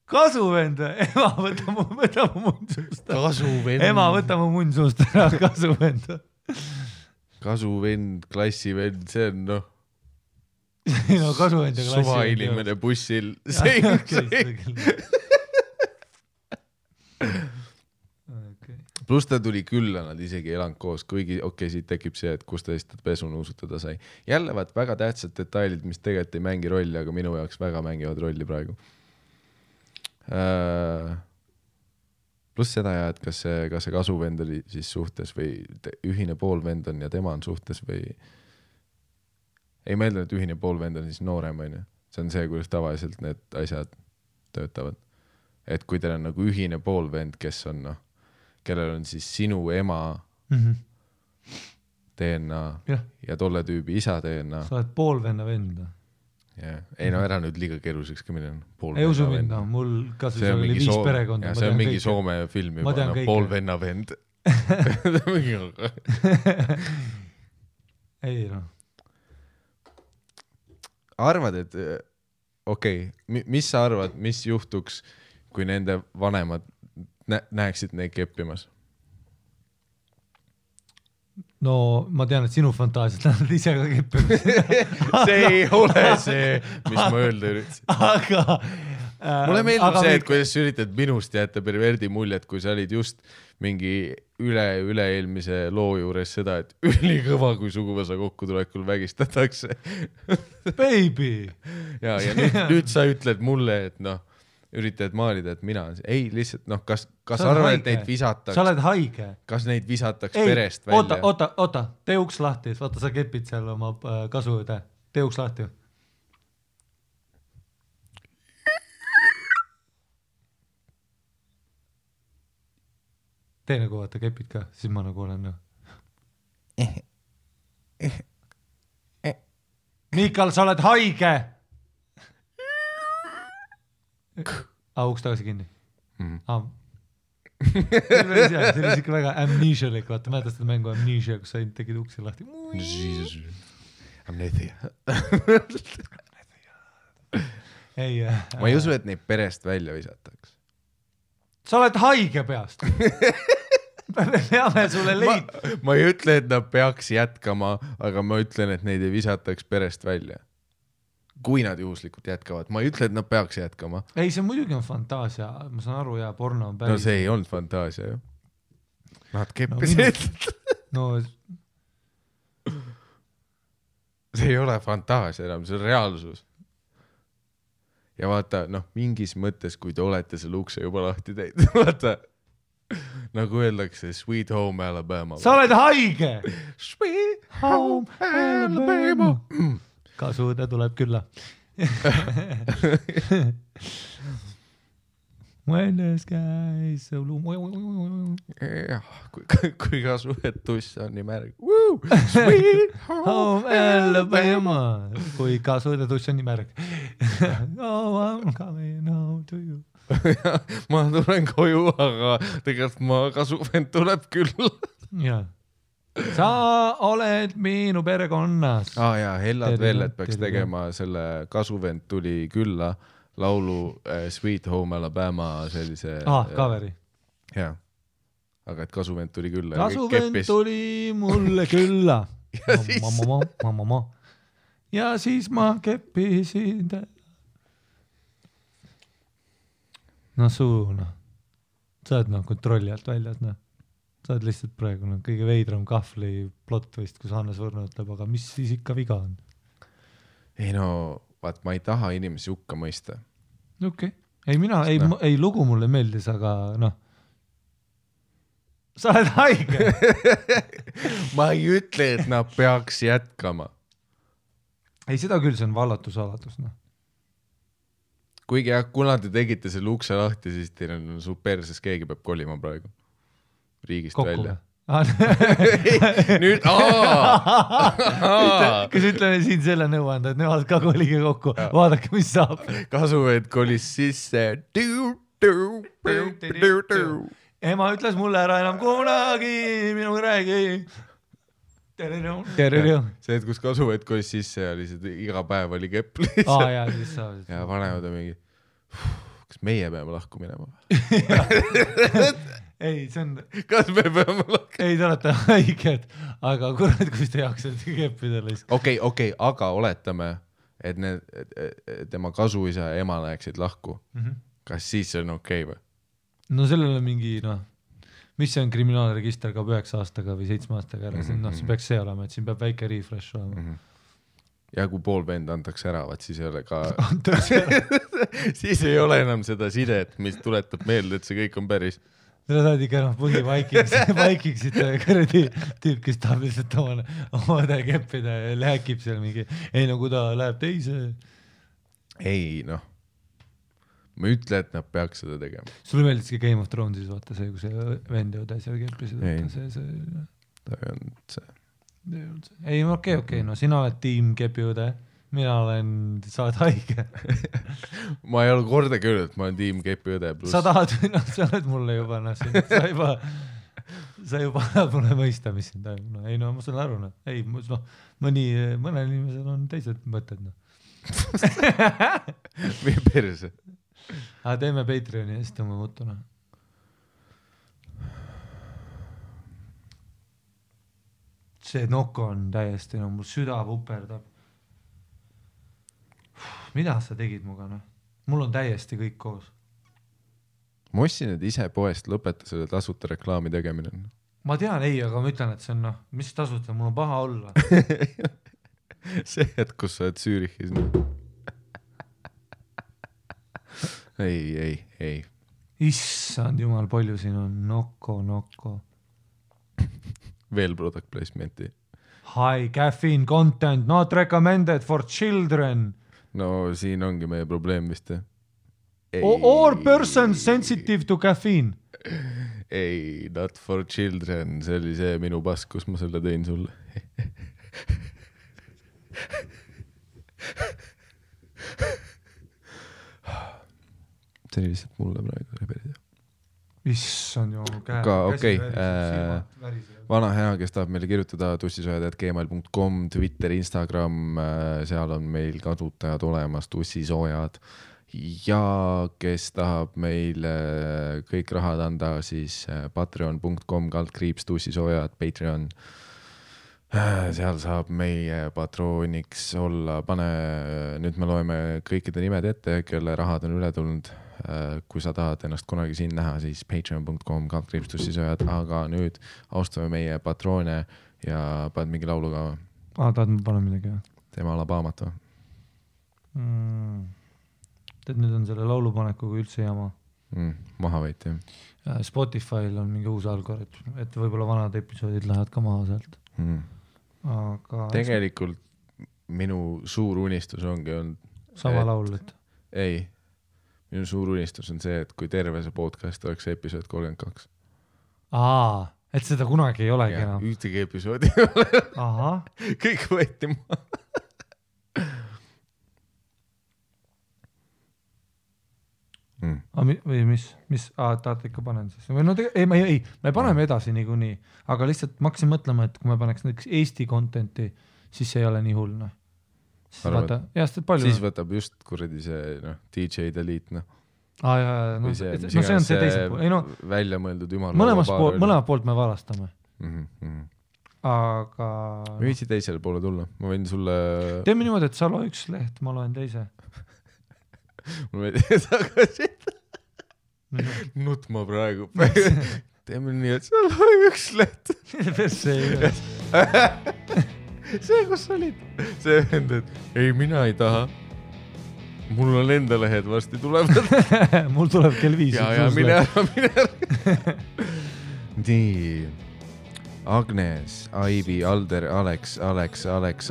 kasuvend või? Ema, võta mu munn suust. Kasuvend. Ema, võta mu munn suust ära, kasuvend. Kasuvend, klassivend, see on noh. No kasuvend ja klassivend. Suva inimene bussil. Plus ta tuli külla, nad isegi elanud koos, kuigi siit tekib see, et kus ta lihtsalt pesu nuusutada sai. Jälle vaat väga tähtsad detailid, mis tegelikult ei mängi rolli, aga minu jaoks väga mängivad rolli praegu. Plus seda ja, et kas see kasuvend oli siis suhtes või ühine poolvend on ja tema on suhtes või ei meelda, et ühine poolvend on siis noorem, on ju. See on see, kuidas tavaliselt need asjad töötavad. Et kui teil on nagu ühine poolvend, kes on kellel on siis sinu ema DNA ja tolle tüübi isa DNA. Sa oled poolvenna vend. Ei no ära nüüd liiga keeruliseks ka minna. Ei usu mind, mul kasvõi seal oli 5 perekonda. See on mingi Soome film juba, poolvenna vend. Ei no. Arvad, et mis sa arvad, mis juhtuks, kui nende vanemad näeksid neid keppimas? No ma tean, et sinu fantaasiat nad ise ka keppimas. See ei ole see, mis ma öelda üritasin. Aga mulle meeldib see, et kuidas sa üritad minust jätta perverdi muljet, kui sa olid just mingi üle-eelmise loo juures seda, et ülikõva, kui suguvõsa kokkutulekul vägistatakse. Baby! Ja nüüd sa ütled mulle, et noh, üritad maalida, et mina on see. Ei, lihtsalt, noh, kas arvad, et neid visataks? Sa oled haige. Kas neid visataks perest välja? Oota, tee uks lahti. Vaata, sa kepid seal oma kasuvõde. Tee uks lahti. Tee nagu vaata, kepid ka, siis ma nagu olen. Mikal, sa oled haige! Uks tagasi kinni. See oli ikka väga amnesialik, vaata, mäletad seda mängu Amnesia, kus sa tegid uksi lahti. Amnesia. Ma ei usu, et neid perest välja visataks. Sa oled haige peast. Me peame sulle leid. Ma ei ütle, et nad peaks jätkama, aga ma ütlen, et neid ei visataks perest välja. Kui nad juhuslikult jätkavad. Ma ei ütle, et nad peaks jätkama. Ei, see muidugi on fantaasia. Ma saan aru, ja porno on päris. No see ei olnud fantaasia, ju. Nad keppisid. No, see ei ole fantaasia enam, see on reaalsus. Ja vaata, noh, mingis mõttes, kui te olete selle ukse juba lahti teinud, vaata, nagu öeldakse, Sweet Home Alabama. Sa oled haige! Sweet Home Alabama! Kasuvõde tuleb külla. When the sky is so blue. Kui kasuvõtuss on nii märg. Sweet home Alabama. Kui kasuvõtuss on nii märg. Oh, I'm coming home to you. Ma tulen koju, aga tegelikult kasuvõnd tuleb küll. Jaa. Sa oled minu perekonnas. Jaa, Hellad veel, et peaks tegema selle kasuvend tuli külla laulu Sweet Home Alabama sellise... Kaveri. Jaa, aga et kasuvend tuli külla. Kasuvend tuli mulle külla. Ja siis ma keppisin. No suuna. Sa oled kontrolli alt väljas, Sa oled lihtsalt praegu kõige veidram kahvli plott vist, kus Hannes Võrno ütleb, aga mis siis ikka viga on? Ei no, vaat ma ei taha inimesi hukka mõista. Okei. Ei mina, ei lugu mulle meeldis, aga noh. Sa oled haige. Ma ei ütle, et nad peaks jätkama. Ei, seda küll, see on vallatusalatus, Kuigi kuna te tegite selle ukse lahti, siis teil on su perses, keegi peab kolima praegu. Riigist kokku välja. Nüüd, kas ütleme siin selle nõuanda, et nemad ka kolige kokku, vaadake, mis saab. Kasuvõed kolis sisse. ema ütles mulle ära enam kunagi minuga räägi. See, et kus kasuvõtt kolis sisse ja lihtsalt iga päev oli kepp lihtsalt. Ja siis sa. Ja vanemad on mingi, kas meie peame lahku minema? Ei, see on... Kas me peame lahku? Ei, te olete haiged, aga kurat, kus te jaksate keppida lihtsalt. Okei, aga oletame, et tema kasuisa ja ema läheksid lahku. Kas siis on okei või? No sellele mingi, mis see on kriminaalregister ka 9 aastaga või 7 aastaga ära, see peaks see olema, et siin peab väike refresh olema. Ja kui pool vend antakse ära, siis ei ole ka... siis ei ole enam seda sidet, mis tuletab meelde, et see kõik on päris. Te saad ikka vaikiksid kõredi tüüp, kes tahab lihtsalt omade keppida ja lähekib seal mingi, ei no kui ta läheb teise. Ei, ma ei ütle, et nad peaks seda tegema. Sulle meeldiski Game of Thronesis, vaata see, kui see vend ja seal keppisid. Ta ei olnud see. Ei, okei, sina oled tiim kepiõde. Mina sa oled haige. Ma ei ole kordagi öelnud, et ma olen tiim kepiõde plus. Sa tahad, sa oled mulle juba, sa juba annad mulle mõista, mis siin toimub. Ei, ma saan aru, ei, mõnel inimesel on teised mõtted. Või perse. Aga teeme Patreoni ja siis tõmme mutuna. See nokko on täiesti, mul süda puperdab. Mida sa tegid muga, Mul on täiesti kõik koos. Ma ostsin need ise poest, lõpeta selle tasuta reklaami tegemine. Ma tean, ei, aga ma ütlen, et see on, mis tasuta, mul on paha olla. See, et kus sa oled Zürichis. Ei. Issand jumal, palju siin on nokko. Veel product placement'i. High caffeine content, not recommended for children. No siin ongi meie probleem vist. Or person sensitive to caffeine. Ei, not for children. See oli see minu pask, kus ma selle tõin sulle. See oli lihtsalt mulle praegu reberida. Issand ju käe. Aga okei, vana hea, kes tahab meile kirjutada tussisojad@gmail.com, Twitter, Instagram, seal on meil kasutajad olemas, tussisoojad. Ja kes tahab meile kõik rahad anda, siis patreon.com/tussisoojad, Patreon. Seal saab meie patrooniks olla, nüüd me loeme kõikide nimed ette, kelle rahad on üle tulnud. Kui sa tahad ennast kunagi siin näha, siis patreon.com/tussisojad, aga nüüd austame meie patroone ja paned mingi laulu ka. Tahad ma panen midagi? Teeme Alabaamat või? Tead, nüüd on selle laulupanekuga üldse jama. Maha võiti. Spotify'l on mingi uus algoritm, et võib-olla vanad episoodid lähevad ka maha sealt. Aga... Tegelikult minu suur unistus ongi olnud... Sama laul, et... Ei. Minu suur unistus on see, et kui terve see podcast oleks episood 32. Et seda kunagi ei olegi enam. Ühtegi episoodi ei ole. Aha. Kõik võeti maha. Või mis? Tahate ikka panen siis? Me paneme edasi niikuinii, aga lihtsalt ma hakkasin mõtlema, et kui me paneks näiteks Eesti contenti, siis see ei ole nii hull, Siis võtab just kuradi see DJ Delete see on see teise pool. Välja mõeldud jumal. Mõlemad poolt me valastame. Aga... Me võitsi teisele poole tulla. Ma võin sulle... Teeme niimoodi, et sa loe üks leht, ma loen teise. Mul võidi tagasi. Nutma praegu. Teeme nii, et sa loe üks leht. Perse ei ole. See, kus olid? See vend, et ei, mina ei taha. Mul on enda lehed varsti tulevad. Mul tuleb kell 5. Ja, mine ära. Nii. Agnes, Aivi, Alder, Alex,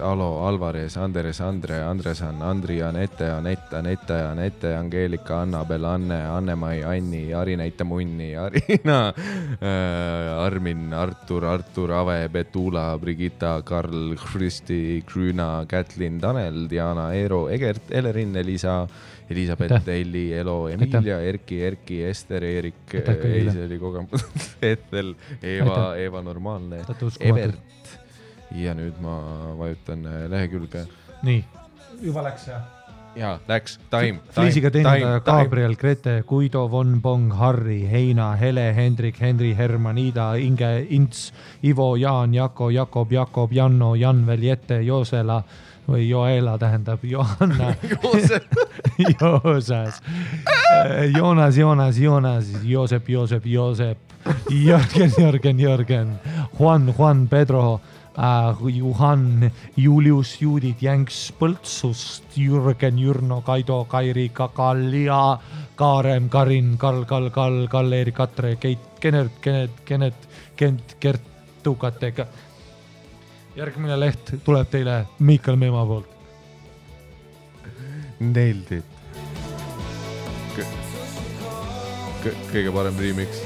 Alo, Alvarez, Andres, Andre, Andresan, Andri, Anette, Anette, Angeelika, Annabel, Anne, Anne-Mai, Anni, Arineita Munni, Arina, Armin, Artur, Ave, Betula, Brigitta, Karl, Kristi, Krüüna, Kätlin, Tanel, Diana, Eero, Egert, Elerin, Elisa, Elisabeth, Elli, Elo, Emilia, Erki, Ester, Eerik, Eiseli kogemus, Ethel, Eva Normaalne, Evert ja nüüd ma vajutan lehekülge. Nii, juba läks ja? Jaa, läks, time. Fliisiga teenindaja Gabriel, Grete, Guido, Von Bong, Harri, Heina, Hele, Hendrik, Henri, Herman, Ida, Inge, Ints, Ivo, Jaan, Jako, Jakob, Janno, Janvel, Jette, Joosela või Joela tähendab Johanna Joosas Joonas Joosep Jörgen Juan Pedro Juhan Julius Judit Jänks Põltsust Jürgen Jürno Kaido Kairi Kakalia Kaarem Karin Kall Erik Katre Keit Kent Kertukatega. Järgmine leht tuleb teile Miikal Meemaa poolt. Nailed it. Kõige parem remix.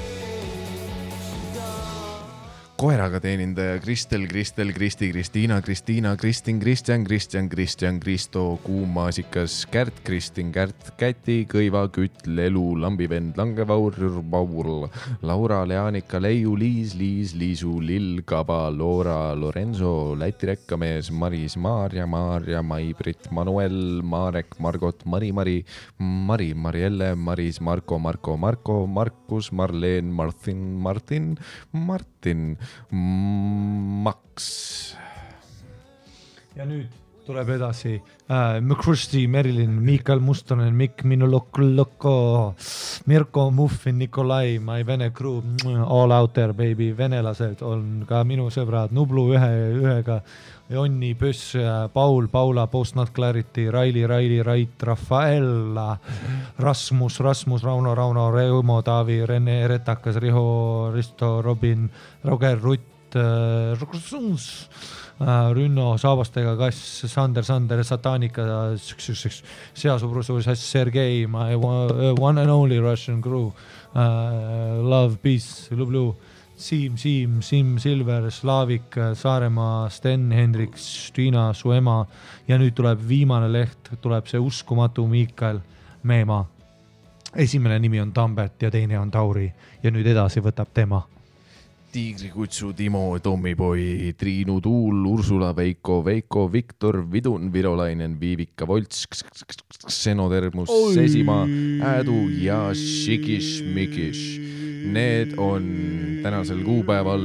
Koeraga teenindaja Kristel, Kristi, Kristiina, Kristin, Kristjan, Kristo, Kuumaasikas, Kärt, Kristin, Kärt, Käti, Kõiva, Kütt, Lelu, Lambivend, Langevaur, Laura, Leanika, Leiu, Liisu, Lill, Kaba, Loora, Lorenzo, Läti rekkamees, Maris, Maarja, Mai-Brit, Manuel, Marek, Margot, Mari, Marielle, Maris, Marko, Markus, Marleen, Martin, Max. Ja nüüd tuleb edasi Mkrusti, Merilin, Miikal Mustonen, Mikk, Minu Loko, Mirko, Muffin, Nikolai, My Vene Crew, All Out There Baby, venelased on ka minu sõbrad, Nublu ühega, Jonni, Pöss, Paul, Paula, Post Not Clarity, Raili, Rait, Rafaela, Rasmus, Rauno, Reumo, Taavi, Rene, Retakas, Risto, Robin, Roger, Rutt, Rünno, Saabastega Kass, Sander, Satanika, Seasubrusu, Sergei, my one and only Russian crew, Love, Peace, Lublu, Siim, Silver, Slaavik, Saaremaa, Sten, Hendrik, Stiina, su ema ja nüüd tuleb viimane leht, tuleb see uskumatu Miikal Meemaa. Esimene nimi on Tambet ja teine on Tauri ja nüüd edasi võtab tema. Tiigrikutsu, Timo, Tommipoi, Triinu, Tuul, Ursula, Veiko, Viktor, Vidun, Virolainen, Viivika, Volts, Xenotermus, Sesimaa, Äädu ja Šikiš. Need on tänasel kuupäeval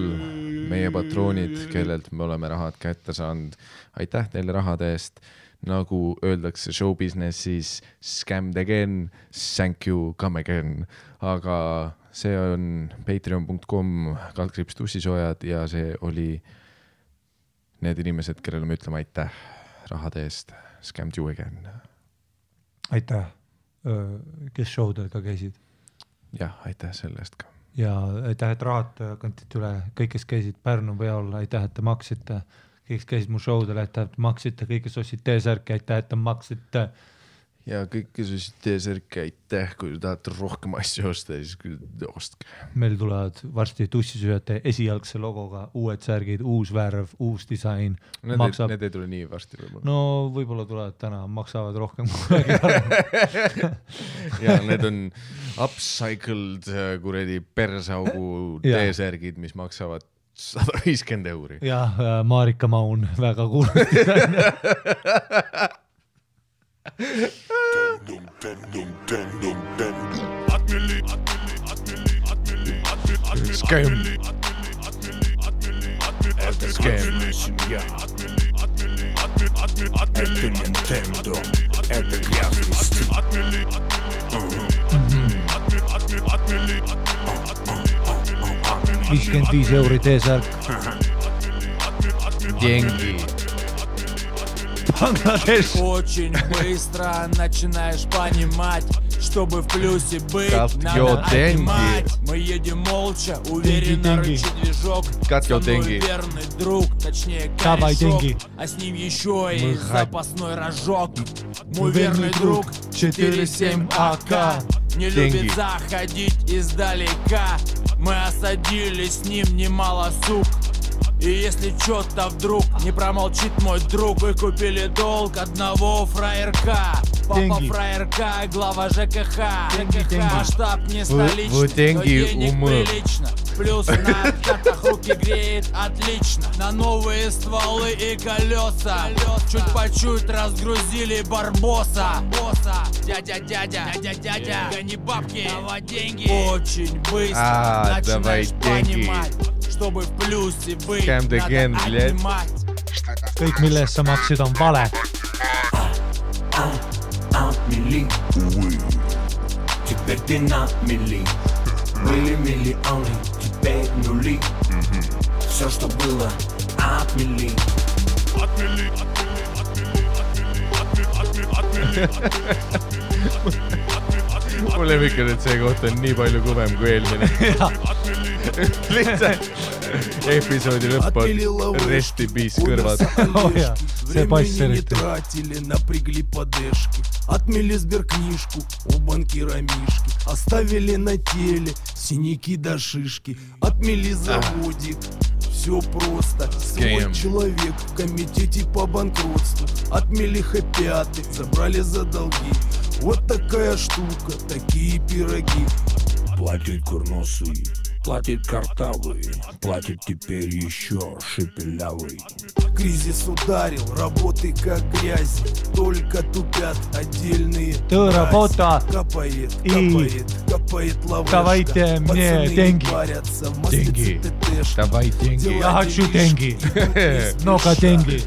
meie patroonid, kellelt me oleme rahad kätte saanud. Aitäh teile rahade eest. Nagu öeldakse show businessis, scammed again, thank you, come again. Aga see on patreon.com/tussisoojad ja see oli need inimesed, kellele me ütleme aitäh rahade eest. Scammed you again. Aitäh, kes showdel ka käisid. Jah, aitäh selle eest ka. Ja aitäh, et rahad kantid üle. Kõik, kes käisid Pärnu peal, aitäh, et te maksite. Kõik, kes käisid mu showdel, aitäh, et maksite. Kõik, kes ostsid T-särki, aitäh, et te maksite. Ja kõik, kes ostsid T-särki, aitäh. Kui tahate rohkem asju osta, siis ostke. Meil tulevad varsti tussisööjate esialgse logoga uued särgid, uus värv, uus disain. Need ei tule nii varsti võib-olla. No võib-olla tulevad täna, maksavad rohkem. Ja need on upcycled kuredi persaugu T-särgid, mis maksavad 150 €. Ja Marika Maun väga kuulnud. Scam. Это скамная семья. Это Nintendo. Это грязный стиль. 55 € T-särk. Деньги. Очень быстро начинаешь понимать, чтобы в плюсе быть, Got надо your отнимать. Мы едем молча, уверенно рычит движок. Got your Со мной деньги. верный друг, точнее Давай корешок, деньги. а с ним еще и Мы запасной рожок. Мой верный друг 4-7 АК не Деньги. любит заходить издалека. Мы осадили с ним немало сук. И если чё-то вдруг не промолчит мой друг, вы купили долг одного фраерка. Папа Деньги. фраерка, глава ЖКХ. Деньги. Масштаб не столичный, вы деньги но денег умы. прилично. Плюс на картах руки греет отлично. На новые стволы и колеса. Чуть по чуть разгрузили барбоса. Дядя, гони бабки, давай деньги. Очень быстро давай начинаешь деньги. понимать, чтобы в плюсе быть, Scam the надо game, блядь. отнимать. kõik millest sa maksid on vale Отмели, увы. Теперь ты на мели. Были миллионы, теперь нули. Все, что было, отмели. Mul lemmikad, et see koht on nii palju kõvem kui eelmine. Lihtsalt episoodi lõpp on rest in peace kõrvad. oh, jah. see pass Времени не eriti тратили, напрягли подешки. Отмели сберкнижку у банкира Мишки. Оставили на теле синяки до шишки. Отмели заводик, все просто. Свой Scam. человек в комитете по банкротству. Отмели хэппи-аты, забрали за долги. Вот такая штука, такие пироги. Платит курносый, платит картавый, платит теперь еще шепелявый. Кризис ударил, работы как грязь. Только тупят отдельные Tööraboda. Капает, И капает лавашка. давайте мне Пацаны деньги. не парятся, в Деньги. маслице ТТшка. Давай деньги. Я хочу деньги. Много деньги.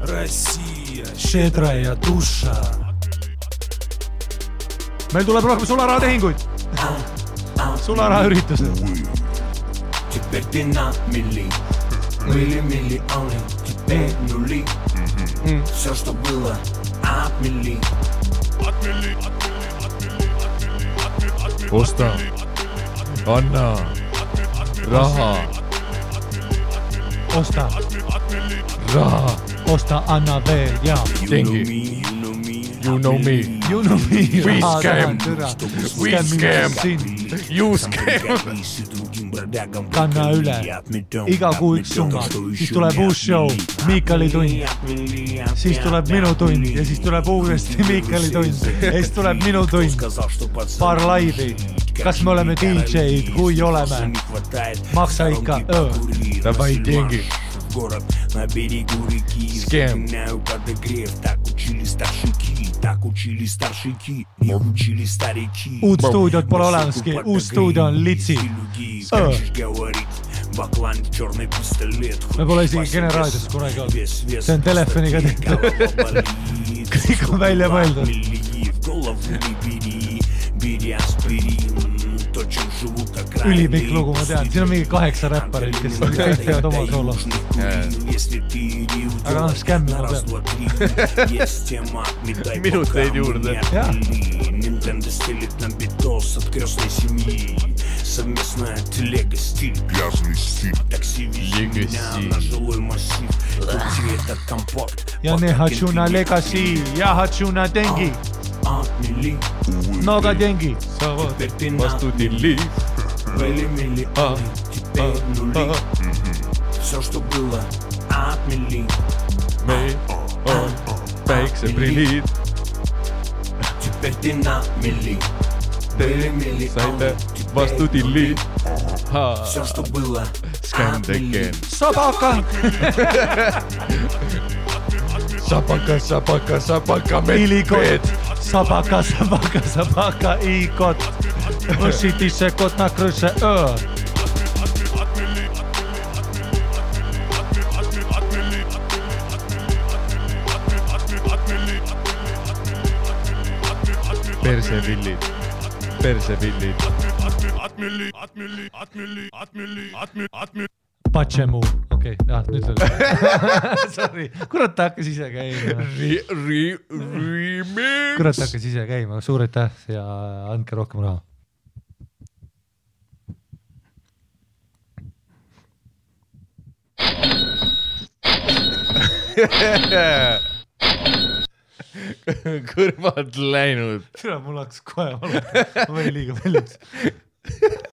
Россия, Щедрая душа. Meil tuleb rohkem sularahatehinguid. Sularahaüritused. Теперь ты на мели. Были миллионы, теперь нули. Все, что было, отмели. Osta. Anna. Raha. Osta, Raha. osta, anna veel ja. Dengi. You know me. You know me. We scam. We scam. You scam. Kanna üle. Iga kuu üks summa. Siis tuleb uus show. Miikali tund. Siis tuleb minu tund. Ja siis tuleb uuesti Miikali tund. Ja siis tuleb minu tund. Paar laivi. Kas me oleme DJ-d? Kui oleme? Maksa ikka. Давай деньги. Город на берегу реки. Scam. Вспоминаю подогрев. Так учили старшики. Так учили старшики. Не учили старики. Uut stuudiot pole olemaski. Uus stuudio on litsi. Скачешь говорить. Баклан, черный пистолет. Me pole isegi generaadios kunagi olnud. See on telefoniga tehtud. Kõik on välja mõeldud. Ülipikk lugu, ma tean. Siin on mingi 8 räpparit, kes kõik teevad oma soolo. Aga noh, skämmi ma tean. Minuteid juurde. Jah. Nintendo стелит на битос от крестной семьи. Совместная телега, стиль. Грязный стиль. Такси везет меня на жилой массив. Крути этот компакт. Ja ne Hatsuna Legacy ja Hatsuna Dengi. Отмели. Много деньги. Теперь ты Vastu tilli. Были миллионы, теперь нули. Все, что было, отмели. Meil on päikseprillid. Теперь ты на мели. Были миллионы, Saite vastu tilli. все, что было, Scam the game. Sabaka. Sapaka, sapaka, sapaka, Ilikot. medved. Sabaka, sabaka, sabaka i kot. Õsiti se kot na krõse. Persepillid. Persepillid. Patsemu. Okei, nüüd oli. Sorry. Kurat, ta hakkas ise käima. kurat hakkas ise käima, suur aitäh ja andke rohkem raha. Kõrvad läinud. Tule, mul hakkas kohe valata, ma võin liiga paljuks.